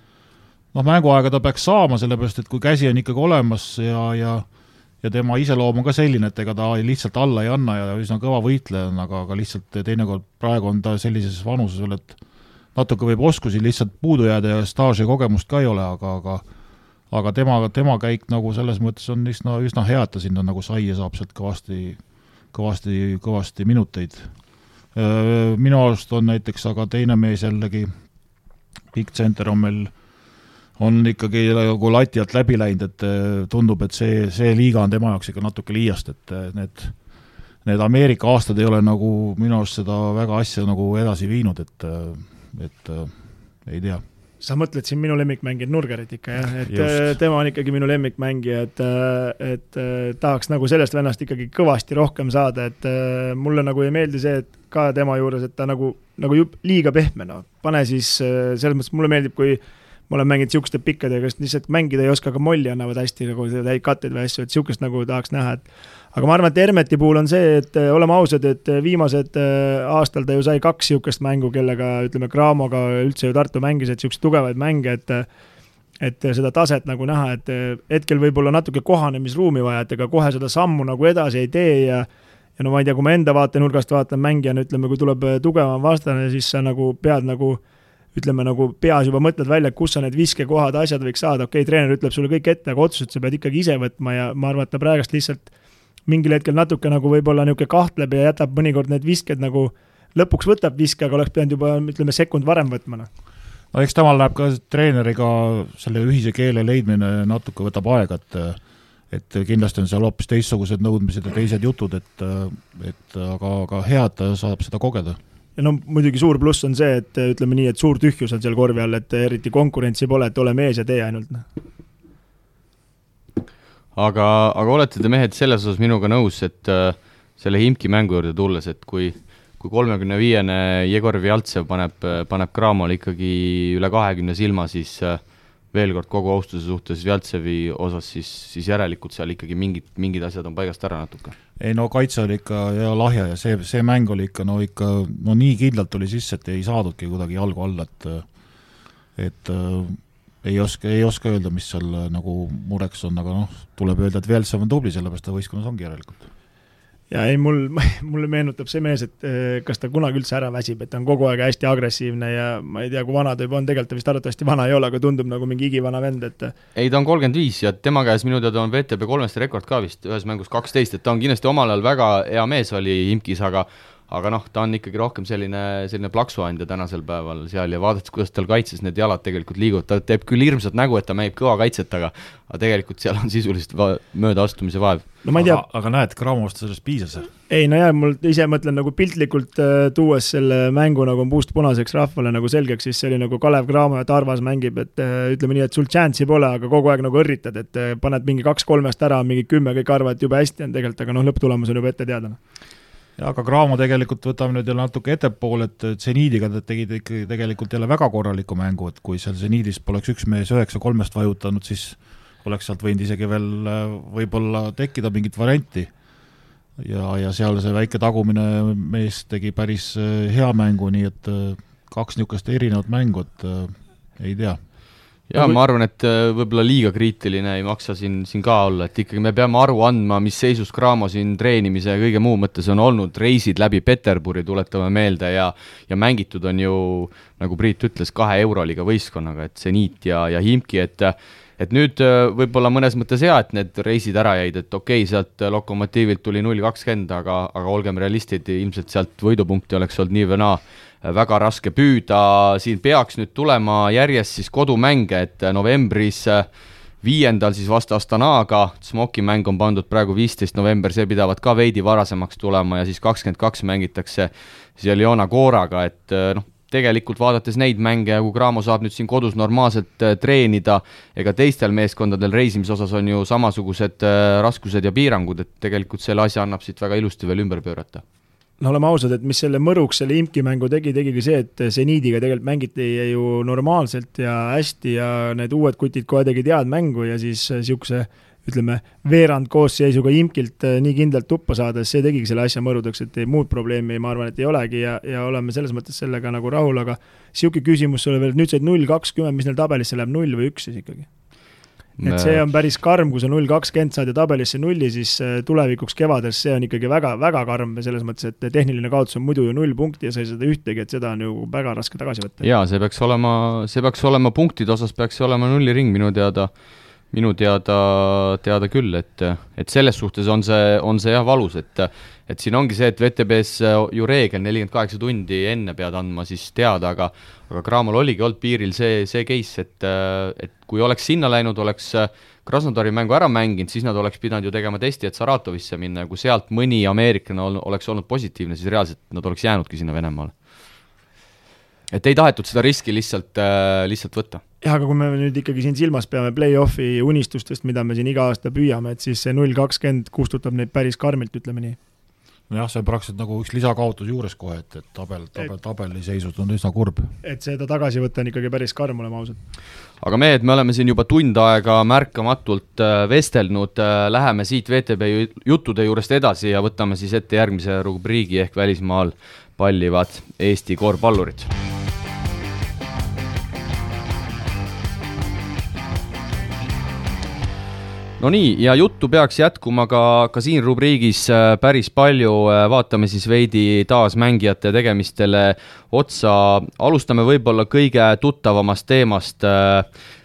Mänguaega ta peaks saama, sellepärast, et kui käsi on ikkagi olemas ja tema iseloom on ka selline, et ega ta lihtsalt alla ei anna ja üsna kõva võitleja on, aga lihtsalt teinekord praegu on ta sellises vanuses veel, et natuke võib oskusi lihtsalt puudu jääda ja staaži kogemust ka ei ole, aga tema käik nagu selles mõttes on üsna hea, et ta sinna nagu sai ja saab sealt kõvasti minuteid. Minu arust on näiteks aga teine mees jällegi, Big Center on meil on ikkagi nagu lati alt läbi läinud, et tundub, et see liiga on tema jaoks ikka natuke liiast, et need Ameerika aastad ei ole nagu minu arust seda väga asja nagu edasi viinud, et ei tea. Sa mõtled siin minu lemmikmängijad Nurgerit ikka, jah? Et just. Tema on ikkagi minu lemmikmängija, et tahaks nagu sellest vennast ikkagi kõvasti rohkem saada, et mulle nagu ei meeldi see, et ka tema juures, et ta nagu liiga pehme, no. Pane siis, selles mõttes mulle meeldib, kui ma olen mänginud siuksed pikkadega, kes lihtsalt mängida ei oska, aga molli annavad hästi nagu katteid või asju, et siukest nagu tahaks näha, aga ma arvan, et Hermeti puhul on see, et oleme ausad, et viimased aastal ta ju sai 2 siukest mängu, kellega, ütleme, Cramoga üldse ju Tartu mängis, et siukest tugevaid mänge, et seda taset nagu näha, et hetkel võib-olla natuke kohanemisruumi vaja, et ega kohe seda sammu nagu edasi ei tee ja no ma ei tea, kui ma enda vaatenurgast vaatan mängijana, ütleme, kui tuleb tugevam vastane, siis sa nagu pead nagu ütleme, nagu peas juba mõtled välja, kus sa need viskekohad, asjad võiks saada, okei, treener ütleb sulle kõik ette, aga otsused sa pead ikkagi ise võtma ja ma arvan, et ta praegast lihtsalt mingil hetkel natuke nagu võib-olla niuke kahtleb ja jätab mõnikord need visked nagu lõpuks võtab viske, aga oleks pidanud juba, ütleme, sekund varem võtma. No eks temal läheb ka treeneriga selle ühise keele leidmine natuke võtab aega, et kindlasti on seal hoopis teistsugused nõudmised ja teised jutud, aga hea, et ta saab seda kogeda. Ja no muidugi suur pluss on see, et ütleme nii, et suur tühjus on seal korvi all, et eriti konkurentsi pole, et ole mees ja tee ainult. Aga olete te mehed selles osas minuga nõus, et selle Himki mängu juurde tulles, et kui 35-ne Jegor Vjaltsev paneb Cramole ikkagi üle 20 silma, siis veel kord kogu austuse suhtes Vjaltsevi osas, siis järelikult seal ikkagi mingid asjad on paigast ära natuke. Ei no kaitse oli ikka ja lahja ja see mäng oli ikka nii kindlalt tuli sisse, et ei saadudki kuidagi jalgu alla, et ei oska öelda, mis seal nagu mureks on, aga tuleb öelda, et Vjaltsev on tubli, sellepärast ta võistkonnas ongi järelikult. ja ei, mulle meenutab see mees, et kas ta kunagi üldse ära väsib, et ta on kogu aeg hästi agressiivne ja ma ei tea, kui vana ta juba on, tegelikult ta vist arvatavasti vana ei ole, aga tundub nagu mingi igivana vend, et ei, ta on 35 ja tema käes minu teada on VTB 3 rekord ka vist ühes mängus 12, et ta on kindlasti omal ajal väga hea mees oli Imkis, aga noh, ta on ikkagi rohkem selline plaksuandja tänasel päeval seal ja vaadates, kuidas tal kaitses need jalad tegelikult liiguvad, ta teeb küll hirmsat nägu, et ta mängib kõva kaitset, aga tegelikult seal on sisuliselt mööda astumise vaev. No ma ei tea. Aga näed, Gramost sellest piisas? Ei, no jah, mul ise mõtlen nagu piltlikult tuues selle mängu nagu puust punaseks rahvale nagu selgeks, siis see oli nagu Kalev Cramo ja Tarvas mängib, et ütleme nii, et sul chance'i pole, aga kogu aeg nagu õrritad, et paned mingi 2-3 ära, mingi 10, kõik arvad, et juba hästi on tegelikult, aga lõpptulemus on juba ette teada. Ja aga Cramo tegelikult võtame nüüd jälle natuke ettepool, et Zeniidiga tegid ikkagi tegelikult jälle väga korraliku mängu, et kui seal Zeniidis poleks üks mees 9-3 vajutanud, siis oleks sealt võinud isegi veel võib-olla tekkida mingit varianti. Ja seal see väike tagumine mees tegi päris hea mängu, nii et 2 niisugust erinevat mängu, et ei tea. Ja ma arvan, et võib-olla liiga kriitiline ei maksa siin ka olla, et ikkagi me peame aru andma, mis seisus Cramo siin treenimise ja kõige muu mõttes on olnud, reisid läbi Peterburi tuletame meelde ja mängitud on ju, nagu Priit ütles, 2 Euroliga võistkonnaga, et Zenit ja Himki, et nüüd võib-olla mõnes mõttes hea, et need reisid ära jäid, et okei, sealt Lokomotiivilt tuli 0-20, aga olgem realistid, ilmselt sealt võidupunkti oleks olnud nii või naa väga raske püüda, siin peaks nüüd tulema järjest siis kodumänge, et novembris 5. siis vastu Astanaga, Smoki mäng on pandud praegu 15. november, see pidavat ka veidi varasemaks tulema ja siis 22 mängitakse seal Joona Kooraga, et tegelikult vaadates neid mänge, kui Cramo saab nüüd siin kodus normaalselt treenida, ega teistel meeskondadel reisimise osas on ju samasugused raskused ja piirangud, et tegelikult selle asja annab siit väga ilusti veel ümber pöörata. No oleme ausad, et mis selle mõruks selle Imki mängu tegigi see, et Zeniidiga tegelikult mängiti ju normaalselt ja hästi ja need uued kutid kohe tegid head mängu ja siis niisuguse, ütleme, veerand koosseisuga Imkilt nii kindlalt tuppa saades, see tegigi selle asja mõrudeks, et muud probleemi ma arvan, et ei olegi ja oleme selles mõttes sellega nagu rahul, aga niisugune küsimus sulle veel, nüüd said 0-20, mis neil tabelisse läheb 0 või 1 siis ikkagi? Et see on päris karm, kui sa 0-20 saad ja tabelisse 0, siis tulevikuks kevades see on ikkagi väga, väga karm selles mõttes, et tehniline kaotus on muidu ju 0 punkti ja sa ei seda ühtegi, et seda on ju väga raske tagasi võtta. Jaa, see peaks olema punktide osas, peaks olema 0 ring minu teada küll, et selles suhtes on see jah valus, et siin ongi see, et VTB-s ju reegel 48 tundi enne pead andma siis teada, aga Cramol oligi olnud piiril see case, et kui oleks sinna läinud, oleks Krasnodari mängu ära mänginud, siis nad oleks pidanud ju tegema testi, et Saratovisse minna ja kui sealt mõni ameeriklane oleks olnud positiivne, siis reaalselt nad oleks jäänudki sinna Venemaale. Et ei tahetud seda riski lihtsalt võtta. Jah, aga kui me nüüd ikkagi siin silmas peame play-offi unistustest, mida me siin iga aasta püüame, et siis see 0-20 kustutab neid päris karmilt, ütleme nii. Jah, see on praktiliselt nagu üks lisakaotus juures kohe, et tabeli seisud on üsna kurb. Et seda tagasi võtta on ikkagi päris karm, olema ausad. Aga me oleme siin juba tund aega märkamatult vestelnud, läheme siit VTB juttude juurest edasi ja võtame siis ette järgmise rubriigi ehk välismaal pallivad Eesti korvpallurid. No nii, ja juttu peaks jätkuma ka siin rubriigis päris palju, vaatame siis veidi taas mängijate tegemistele otsa, alustame võib-olla kõige tuttavamast teemast,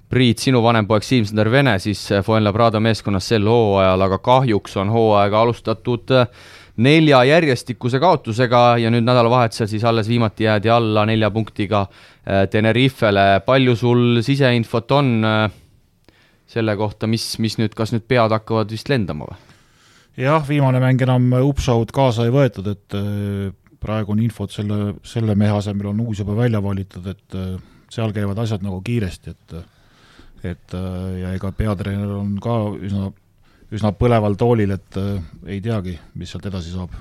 Priit, sinu vanempoeg Siim-Sander Vene siis Fuenlabrada meeskonnas sel hooajal, aga kahjuks on hooaega alustatud 4 järjestikuse kaotusega ja nüüd nädalavahetusel siis alles viimati jäädi alla 4 punktiga Tenerifele, palju sul siseinfot on selle kohta, mis nüüd, kas nüüd pead hakkavad vist lendama või? Jah, viimane mäng enam upshow'd kaasa ei võetud, et praegu on infot selle mehe asemel on uus juba välja valitud, et seal käivad asjad nagu kiiresti, et ja ega peatreener on ka üsna põleval toolil, et ei teagi, mis sealt edasi saab.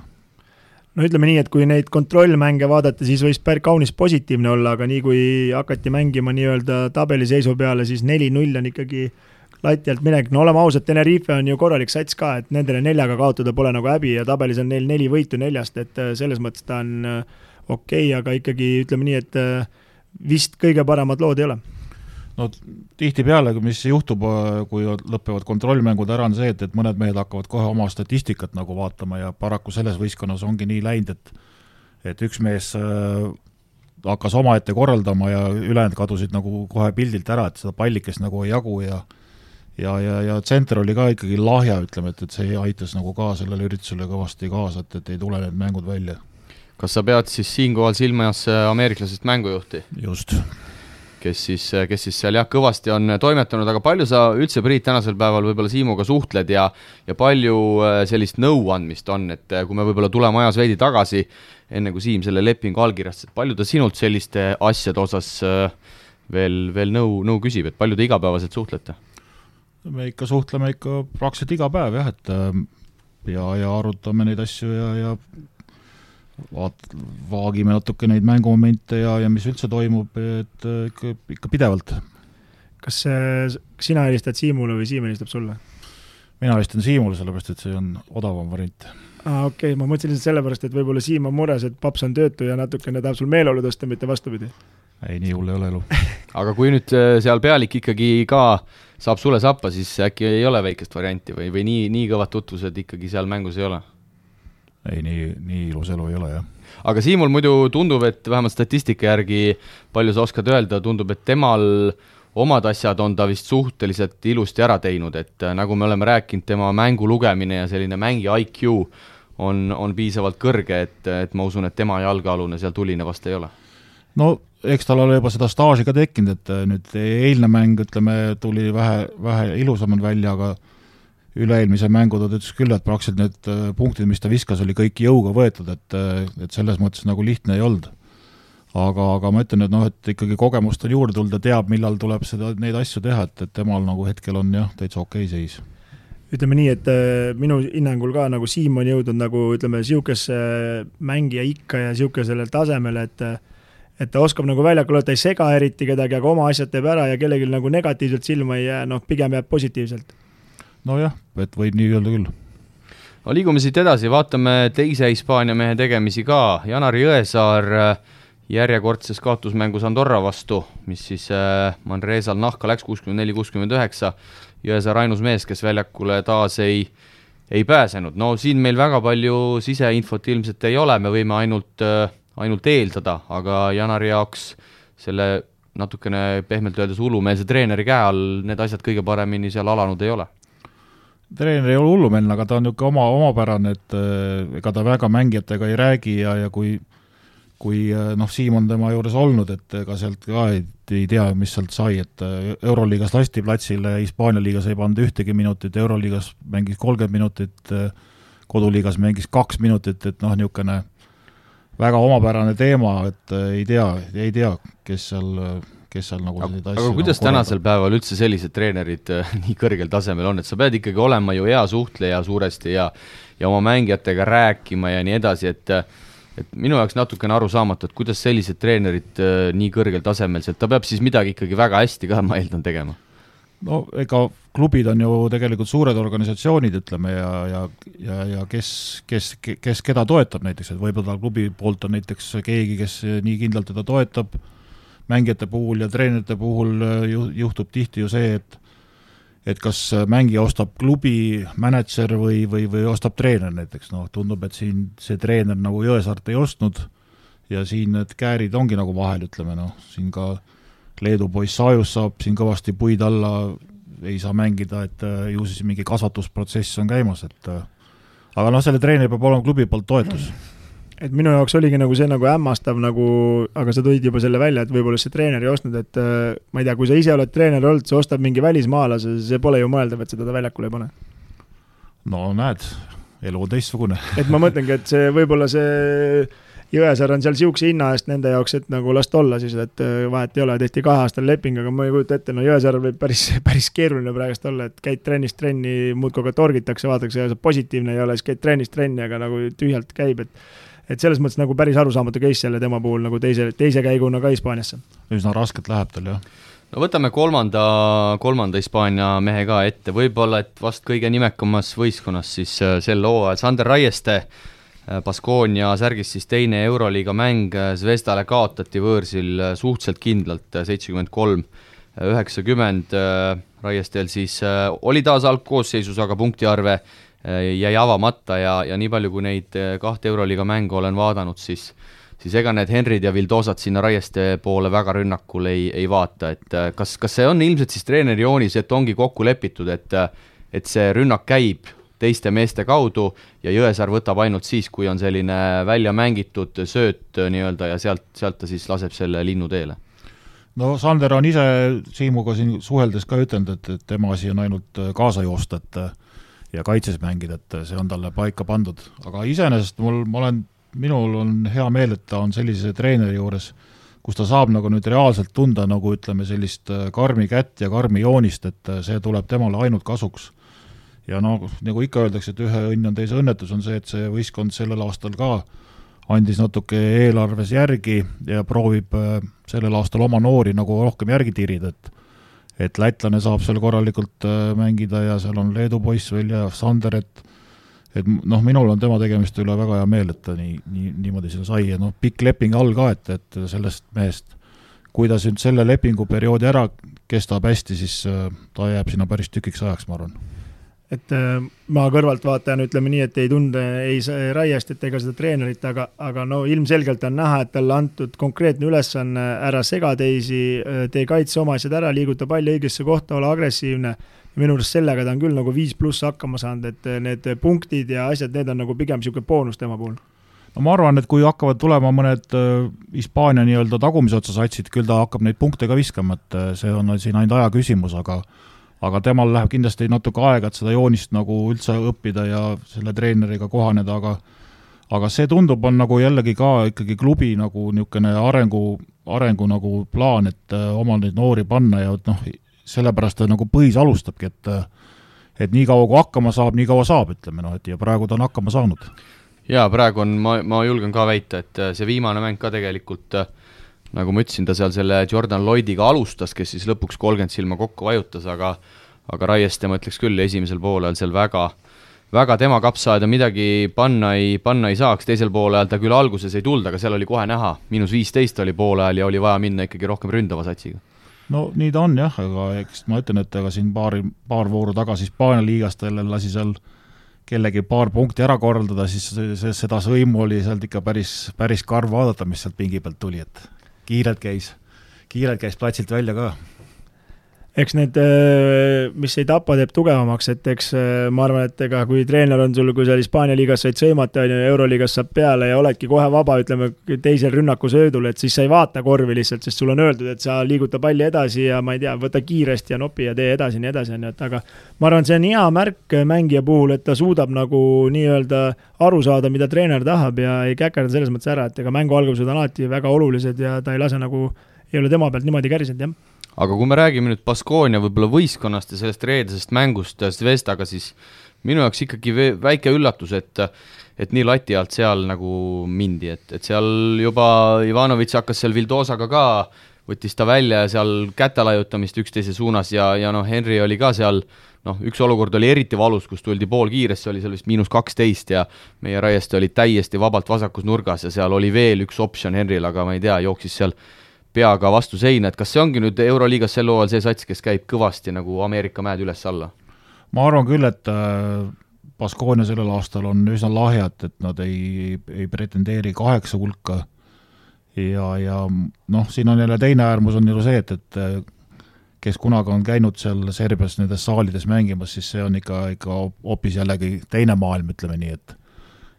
No ütleme nii, et kui neid kontrollmänge vaadata, siis võis kaunis positiivne olla, aga nii kui hakati mängima nii-öelda tabeliseisu peale, siis 4-0 on ikkagi lati alt minek. No oleme ausad, Tenerife on ju korralik sats ka, et nendele 4 kaotada pole nagu häbi ja tabelis on neil 4 võitu 4, et selles mõttes ta on okei, aga ikkagi ütleme nii, et vist kõige paremad lood ei ole. no tihtipeale, mis juhtub, kui lõpevad kontrollmängud ära, on see, et mõned mehed hakkavad kohe oma statistikat nagu vaatama ja paraku selles võistkonnas ongi nii läinud, et üks mees hakkas omaette korraldama ja ülejäänud kadusid nagu kohe pildilt ära, et seda pallikest nagu ei jagu ja tsenter oli ka ikkagi lahja, ütleme, et see aitas nagu ka sellele üritusele kõvasti kaasa, et ei tule need mängud välja. Kas sa pead siis siinkohal silmas ameeriklasest mängujuhti? Just. Kes siis seal kõvasti on toimetanud, aga palju sa üldse, Priit, tänasel päeval võib-olla Siimuga suhtled ja palju sellist nõuandmist on, et kui me võib-olla tuleme ajas veidi tagasi, enne kui Siim selle lepingu allkirjastas, palju ta sinult selliste asjade osas veel nõu küsib, et palju te igapäevaselt suhtlete? Me ikka suhtleme praktiliselt iga päev, jah, et ja arutame neid asju ja vaagime natuke neid mängumomente ja mis üldse toimub, et ikka pidevalt. Kas sina helistad Siimule või Siim helistab sulle? Mina helistan Siimule, sellepärast, et see on odavam variant. Okei, ma mõtlesin lihtsalt sellepärast, et võib-olla Siim on mures, et paps on töötu ja natukene tahab sul meeleolu tõsta, mitte vastupidi. Ei, nii hull ei ole elu. Aga kui nüüd seal pealik ikkagi ka saab sulle sappa, siis äkki ei ole väikest varianti või nii kõvad tutvused ikkagi seal mängus ei ole? Ei, nii ilus elu ei ole, jah. Aga Siimul muidu tundub, et vähemalt statistika järgi, palju sa oskad öelda, tundub, et temal omad asjad on ta vist suhteliselt ilusti ära teinud, et nagu me oleme rääkinud, tema mängu lugemine ja selline mängi IQ on piisavalt kõrge, et ma usun, et tema jalgealune seal tuline vast ei ole. No eks tal ole juba seda staaži ka tekkinud, et nüüd eilne mäng, ütleme, tuli vähe ilusamad välja, aga üle-eelmise mängu ta ütles küll, et praktiliselt need punktid, mis ta viskas, oli kõik jõuga võetud, et selles mõttes nagu lihtne ei olnud. Aga ma ütlen, et ikkagi kogemust on juurde tulda, teab, millal tuleb neid asju teha, et temal nagu hetkel on jah, täitsa okei seis. Ütleme nii, et minu hinnangul ka nagu Siim on jõudnud nagu, ütleme, siukesse mängija ikka ja siukesele tasemele, et ta oskab nagu väljakul, ta ei sega eriti kedagi, aga oma asjad teeb ära ja kellegi nagu negatiivselt silma ei jää, pigem jääb positiivselt. Nojah, et võib nii öelda küll. No, liigume siit edasi, vaatame teise Hispaania mehe tegemisi ka. Janar Jõesaar järjekordses kaotusmängus Andorra vastu, mis siis Manresal nahka läks 64-69. Jõesaar ainus mees, kes väljakule taas ei pääsenud. No siin meil väga palju siseinfot ilmselt ei ole, me võime ainult eeldada, aga Janari jaoks selle natukene pehmelt öeldes hullumeelse treeneri käe all need asjad kõige paremini seal alanud ei ole. Treener ei ole hullumeelne, aga ta on niisugune omapärane, et ega ta väga mängijatega ei räägi ja kui Siim on tema juures olnud, et ega sealt ka ei tea, mis sealt sai, et Euroliigas lasti platsile, Hispaania liigas ei pannud ühtegi minutit, Euroliigas mängis 30 minutit, koduliigas mängis 2 minutit, et niisugune väga omapärane teema, et ei tea, kes seal nagu aga kuidas nagu tänasel päeval üldse sellised treenerid nii kõrgel tasemel on, et sa pead ikkagi olema ju hea suhtleja suuresti ja oma mängijatega rääkima ja nii edasi, et minu jaoks natukene aru saamatu, et kuidas sellised treenerid nii kõrgel tasemel, et ta peab siis midagi ikkagi väga hästi ka, ma eeldan tegema. No ega klubid on ju tegelikult suured organisatsioonid, ütleme, ja kes keda toetab näiteks, et võib-olla klubi poolt on näiteks keegi, kes nii kindlalt teda toetab, mängijate puhul ja treenerite puhul juhtub tihti ju see, et kas mängija ostab klubi mänedžer või ostab treener näiteks. Tundub, et siin see treener nagu Jõesaart ei ostnud ja siin need käärid ongi nagu vahel, ütleme, siin ka Leedu poiss Sajus saab siin kõvasti puid alla, ei saa mängida, et ju siis mingi kasvatusprotsess on käimas, aga selle treeneri peab olema klubi poolt toetus. Et minu jaoks oligi nagu see nagu hämmastav, aga sa tõid juba selle välja, et võib-olla see treener ei ostnud, et ma ei tea, kui sa ise oled treener olnud, sa ostab mingi välismaalase, see pole ju mõeldav, et seda ta väljakule ei pane. No näed, elu on teistsugune. Et ma mõtlengi, et see võib-olla see Jõesaar on seal siukse hinna eest nende jaoks, et nagu last olla siis, et vahet ei ole, tehti 2 aastal leping, aga ma ei kujuta ette, Jõesaar võib päris keeruline praegust olla, et käid trennist trenni, muudkogu ka torgitakse, vaadatakse, ja positiivne ei ole, siis käid trennist trenni, aga nagu tühjalt käib, et selles mõttes nagu päris arusaamatu case jälle tema puhul nagu teise käiguna ka Hispaaniasse. Üsna rasket läheb tal, jah. No võtame kolmanda Hispaania mehe ka ette, võib-olla, et vast kõige nimekamas võistkonnas siis sel hooajal Sander Raieste, Baskonia särgis siis teine Euroliiga mäng, Zvezdale kaotati võõrsil suhteliselt kindlalt 73 90 Raiestel siis oli taas algkoosseisus, aga punktiarve jäi avamata ja nii palju, kui neid 2 Euroliiga mängu olen vaadanud, siis ega need Henrid ja Vildosad sinna Raieste poole väga rünnakul ei vaata, et kas see on ilmselt siis treeneri joonis, et ongi kokku lepitud, et see rünnak käib teiste meeste kaudu ja Jõesaar võtab ainult siis, kui on selline välja mängitud sööt nii-öelda ja sealt ta siis laseb selle linnu teele? No Sander on ise Siimuga siin suheldes ka ütelnud, et tema asi on ainult kaasa joosta ja kaitses mängida, et see on talle paika pandud. Aga iseenesest minul on hea meel, et ta on sellise treeneri juures, kus ta saab nagu nüüd reaalselt tunda nagu ütleme sellist karmi kätt ja karmi joonist, et see tuleb temale ainult kasuks. Ja nagu ikka öeldakse, et ühe õnn on teise õnnetus, on see, et see võistkond sellel aastal ka andis natuke eelarves järgi ja proovib sellel aastal oma noori nagu rohkem järgi tirida, et lätlane saab seal korralikult mängida ja seal on Leedu poiss veel ja Sander, et minul on tema tegemist üle väga hea meel, et ta niimoodi seda sai ja pikk leping all ka, et sellest mehest, kui ta selle lepinguperioodi ära kestab hästi, siis ta jääb sinna päris tükiks ajaks, ma arvan. Et ma kõrvalt vaatajan ütleme nii, et ei tunde ei Raiest, et ega seda treenerit, aga ilmselgelt on näha, et talle antud konkreetne ülesanne ära sega teisi, tee kaitse oma asjad ära, liiguta palli õigesse kohta, ole agressiivne. Minu arust sellega ta on küll nagu 5+ hakkama saanud, et need punktid ja asjad, need on nagu pigem siuke boonus tema puhul. No ma arvan, et kui hakkavad tulema mõned Hispaania nii-öelda tagumise otsa satsid, küll ta hakkab neid punkte ka viskama, et see on siin ainult aja küsimus, aga temal läheb kindlasti natuke aega, et seda joonist nagu üldse õppida ja selle treeneriga kohaneda, aga see tundub on nagu jällegi ka ikkagi klubi nagu niisugune arengu nagu plaan, et oma neid noori panna ja sellepärast ta nagu põhis alustabki, et nii kaua kui hakkama saab, nii kaua saab, ütleme, et ja praegu ta on hakkama saanud. Jaa, praegu on, ma julgen ka väita, et see viimane mäng ka tegelikult nagu ma ütlesin, ta seal selle Jordan Lloydiga alustas, kes siis lõpuks 30 silma kokku vajutas, aga Raieste ma ütleks küll esimesel poolel seal väga tema kapsaaeda midagi panna ei saaks, teisel poolel ta küll alguses ei tulda, aga seal oli kohe näha, -15 oli poolel ja oli vaja minna ikkagi rohkem ründava satsiga. No nii ta on jah, aga eks ma ütlen, et aga siin paar vooru tagasi Hispaania liigast lasi seal kellegi paar punkti ära korraldada, siis seda sõimu oli sealt ikka päris karv vaadata, mis sealt pingi pealt tuli, et kiirelt käis platsilt välja ka. Eks need, mis ei tapa, teeb tugevamaks, et eks ma arvan, et ega kui treener on sul, kui seal Hispaania liigas said sõimata, Euroliigas saab peale ja oledki kohe vaba, ütleme, teisel rünnaku söödul, et siis sa ei vaata korvi lihtsalt, sest sul on öeldud, et sa liiguta palli edasi ja ma ei tea, võta kiiresti ja nopi ja tee edasi, nii edasi, aga ma arvan, see on hea märk mängija puhul, et ta suudab nagu nii-öelda aru saada, mida treener tahab ja ei käkerda selles mõttes ära, et ega mängu algused on alati väga olulised ja ta ei lase nagu, ei ole tema pealt niimoodi kärisenud, jah. Aga kui me räägime nüüd Baskonia võib-olla võistkonnast ja sellest reedesest mängust Zvestaga, siis minu jaoks ikkagi väike üllatus, et nii lati alt seal nagu mindi, et seal juba Ivanovic hakkas seal Vildosaga ka, võttis ta välja ja seal käte lajutamist üksteise suunas ja Henry oli ka seal, üks olukord oli eriti valus, kus tuldi pool kiiresti, oli seal vist -12 ja meie Raieste oli täiesti vabalt vasakus nurgas ja seal oli veel üks optsioon Henryl, aga ma ei tea, jooksis seal peaga vastu seina, et kas see ongi nüüd Euroliigas sel hooajal see sats, kes käib kõvasti nagu Ameerika mäed üles-alla? Ma arvan küll, et Baskonia sellel aastal on üsna lahjad, et nad ei pretendeeri 8 hulka ja siin on jälle teine äärmus on ju see, et kes kunagi on käinud seal Serbias nendes saalides mängimas, siis see on ikka hoopis jällegi teine maailm, ütleme nii,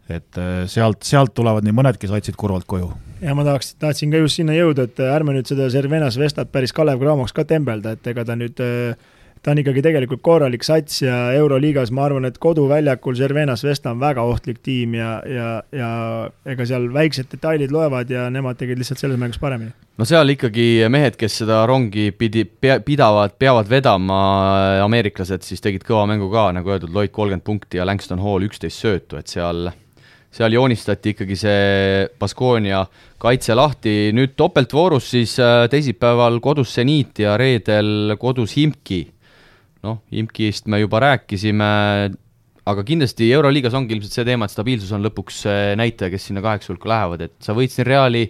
et sealt tulevad nii mõnedki satsid kurvalt koju. Ja ma tahtsin ka just sinna jõuda, et ärme nüüd seda Cervena Zvestat päris Kalev Cramoks ka tembelda, et ega ta on ikkagi tegelikult korralik sats ja Euroliigas ma arvan, et koduväljakul Cervena Zvesta on väga ohtlik tiim ja ega seal väiksed detailid loevad ja nemad tegid lihtsalt selles mängus paremini. No seal ikkagi mehed, kes seda rongi peavad vedama, ameeriklased siis tegid kõva mängu ka, nagu öeldud, Lloyd 30 punkti ja Langston Hall 11 söötu, et seal joonistati ikkagi see Baskonia kaitse lahti. Nüüd topeltvoorus siis teisipäeval kodus Seniit ja reedel kodus Himki. Himkist me juba rääkisime, aga kindlasti Euroliigas ongi ilmselt see teema, et stabiilsus on lõpuks näitaja, kes sinna 8 hulka lähevad, et sa võid siin Reali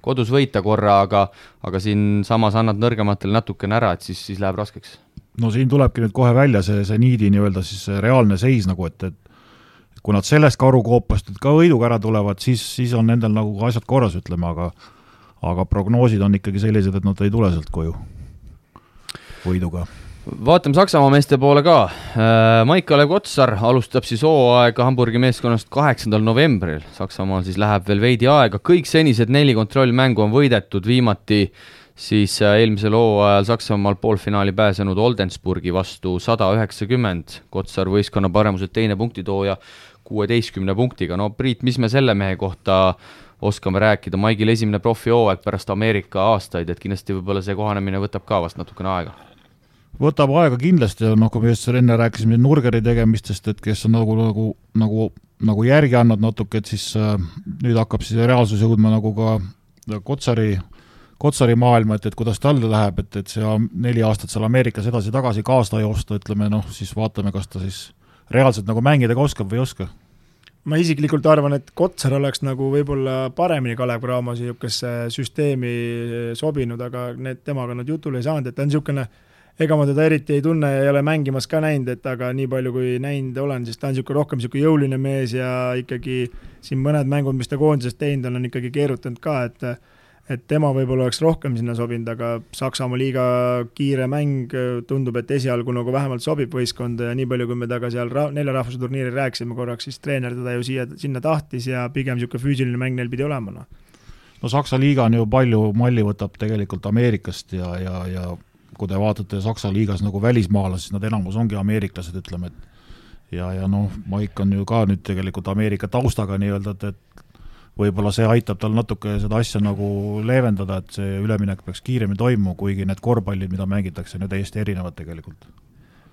kodus võita korra, aga siin samas annad nõrgematele natukene ära, et siis läheb raskeks. No siin tulebki nüüd kohe välja see niidi nii-öelda siis reaalne seis nagu, et kui nad sellest karukoopast ka võiduga ära tulevad, siis on nendel nagu asjad korras, ütleme, aga prognoosid on ikkagi sellised, et nad ei tule sealt koju võiduga. Vaatame Saksamaa meeste poole ka. Maik-Kalev Kotsar alustab siis hooaega Hamburgi meeskonnast 8. novembril. Saksamaal siis läheb veel veidi aega. Kõik senised 4 kontrollmängu on võidetud, viimati siis eelmisel hooajal Saksamaal poolfinaali pääsenud Oldensburgi vastu 190. Kotsar võistkonna paremuselt teine punktitooja 16 punktiga. No Priit, mis me selle mehe kohta oskame rääkida? Maigil esimene profihooaeg pärast Ameerika aastaid, et kindlasti võib-olla see kohanemine võtab ka vast natukene aega. Võtab aega kindlasti, kui me just enne rääkisime Nurgeri tegemistest, et kes on nagu järgi andnud natuke, et siis nüüd hakkab siis reaalsus jõudma nagu ka Kotsari maailma, et kuidas talle läheb, et see 4 aastat seal Ameerikas edasi-tagasi kaasa joosta, ütleme, siis vaatame, kas ta siis reaalselt nagu mängida oskab või ei oska. Ma isiklikult arvan, et Kotsar oleks nagu võib-olla paremini Kalev Cramo niisugesse süsteemi sobinud, aga temaga nad jutule ei saanud, et ta on niisugune, ega ma teda eriti ei tunne ja ei ole mängimas ka näinud, et aga nii palju kui näinud olen, siis ta on rohkem jõuline mees ja ikkagi siin mõned mängud, mis ta koondisest teinud on ikkagi keerutanud ka, et tema võib-olla oleks rohkem sinna sobinud, aga Saksamaa liiga kiire mäng tundub, et esialgu nagu vähemalt sobib võistkonda ja nii palju, kui me taga seal 4 rahvuse turniiri rääkisime korraks, siis treener teda ju sinna tahtis ja pigem niisugune füüsiline mäng neil pidi olema. No Saksa liiga on ju palju malli võtab tegelikult Ameerikast ja kui te vaatate Saksa liigas nagu välismaalas, siis nad enamus ongi ameeriklased, ütleme, et ja Maik on ju ka nüüd tegelikult Ameerika taustaga nii-öelda, et võib-olla see aitab tal natuke seda asja nagu leevendada, et see üleminek peaks kiiremini toimuma, kuigi need korvpallid, mida mängitakse, on ju täiesti erinevad tegelikult.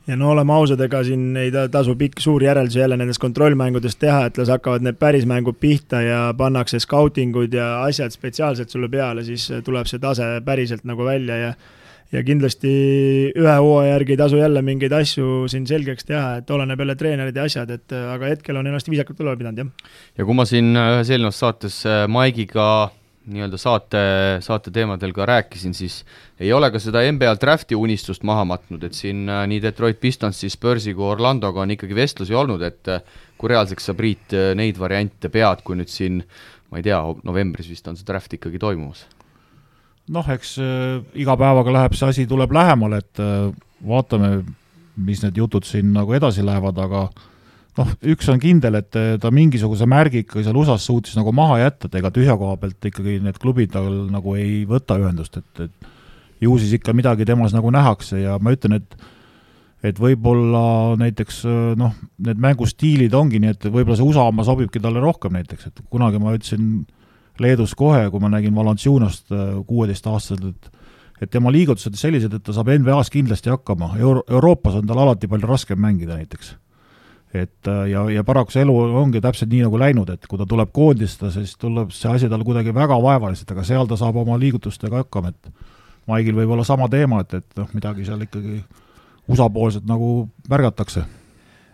Ja oleme ausad, ega siin ei tasu pikk suur järeldus jälle nendest kontrollmängudest teha, et las hakkavad need päris mängud pihta ja pannakse scoutingud ja asjad spetsiaalselt sulle peale, siis tuleb see tase päriselt nagu välja ja kindlasti ühe hooaja järgi ei tasu jälle mingeid asju siin selgeks teha, et oleneb jälle treenerid ja asjad, aga hetkel on ennast viisakalt üleval pidanud, jah. Ja kui ma siin ühes eelnevas saates Maigiga nii-öelda saate teemadel ka rääkisin, siis ei ole ka seda NBA drafti unistust maha matnud, et siin nii Detroit Pistons, siis Spursi kui Orlandoga on ikkagi vestlusi olnud, et kui reaalseks sa, Priit, neid variante pead, kui nüüd siin, ma ei tea, novembris vist on see draft ikkagi toimumas? Eks iga päevaga läheb see asi, tuleb lähemale, et vaatame, mis need jutud siin nagu edasi lähevad, aga üks on kindel, et ta mingisuguse märgi ikkagi seal USAs suutis nagu maha jätta, et ega tühja koha pealt ikkagi need klubid tal nagu ei võta ühendust, et ju siis ikka midagi temas nagu nähakse ja ma ütlen, et võib-olla näiteks need mängustiilid ongi nii, et võib-olla see USA oma sobibki talle rohkem näiteks, et kunagi ma ütlesin Leedus kohe, kui ma nägin Valanciunost 16-aastaselt, et tema liigutused sellised, et ta saab NBA-s kindlasti hakkama. Euroopas on tal alati palju raskem mängida näiteks. Ja paraku see elu ongi täpselt nii nagu läinud, et kui ta tuleb koondista, siis tuleb see asi tal kuidagi väga vaevaliselt, aga seal ta saab oma liigutustega hakkama, et Maigil võib olla sama teema, et midagi seal ikkagi USA-poolselt nagu märgatakse.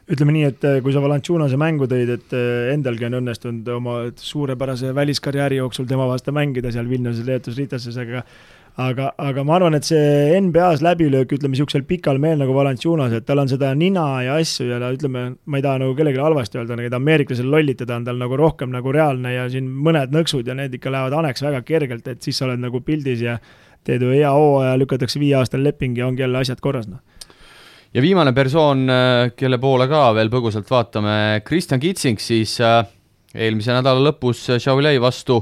Ütleme nii, et kui sa Valanciunose mängu tõid, et endalgi on õnnestunud oma suurepärase väliskarjääri jooksul tema vastu mängida seal Vilniuses, Leetus, Ritases, aga ma arvan, et see NBA-s läbilöök, ütleme, niisugusel pikal meel nagu Valanciunos, et tal on seda nina ja asju ja ütleme, ma ei taha nagu kellelegi halvasti öelda, et ameeriklasel lollitada on tal nagu rohkem nagu reaalne ja siin mõned nõksud ja need ikka lähevad aneks väga kergelt, et siis sa oled nagu pildis ja teed ju hea hooaja, lükatakse 5 aastal leping ja ongi jälle asjad korras, Ja viimane persoon, kelle poole ka veel põgusalt vaatame, Kristjan Kitsing, siis eelmise nädala lõpus Šiauliai vastu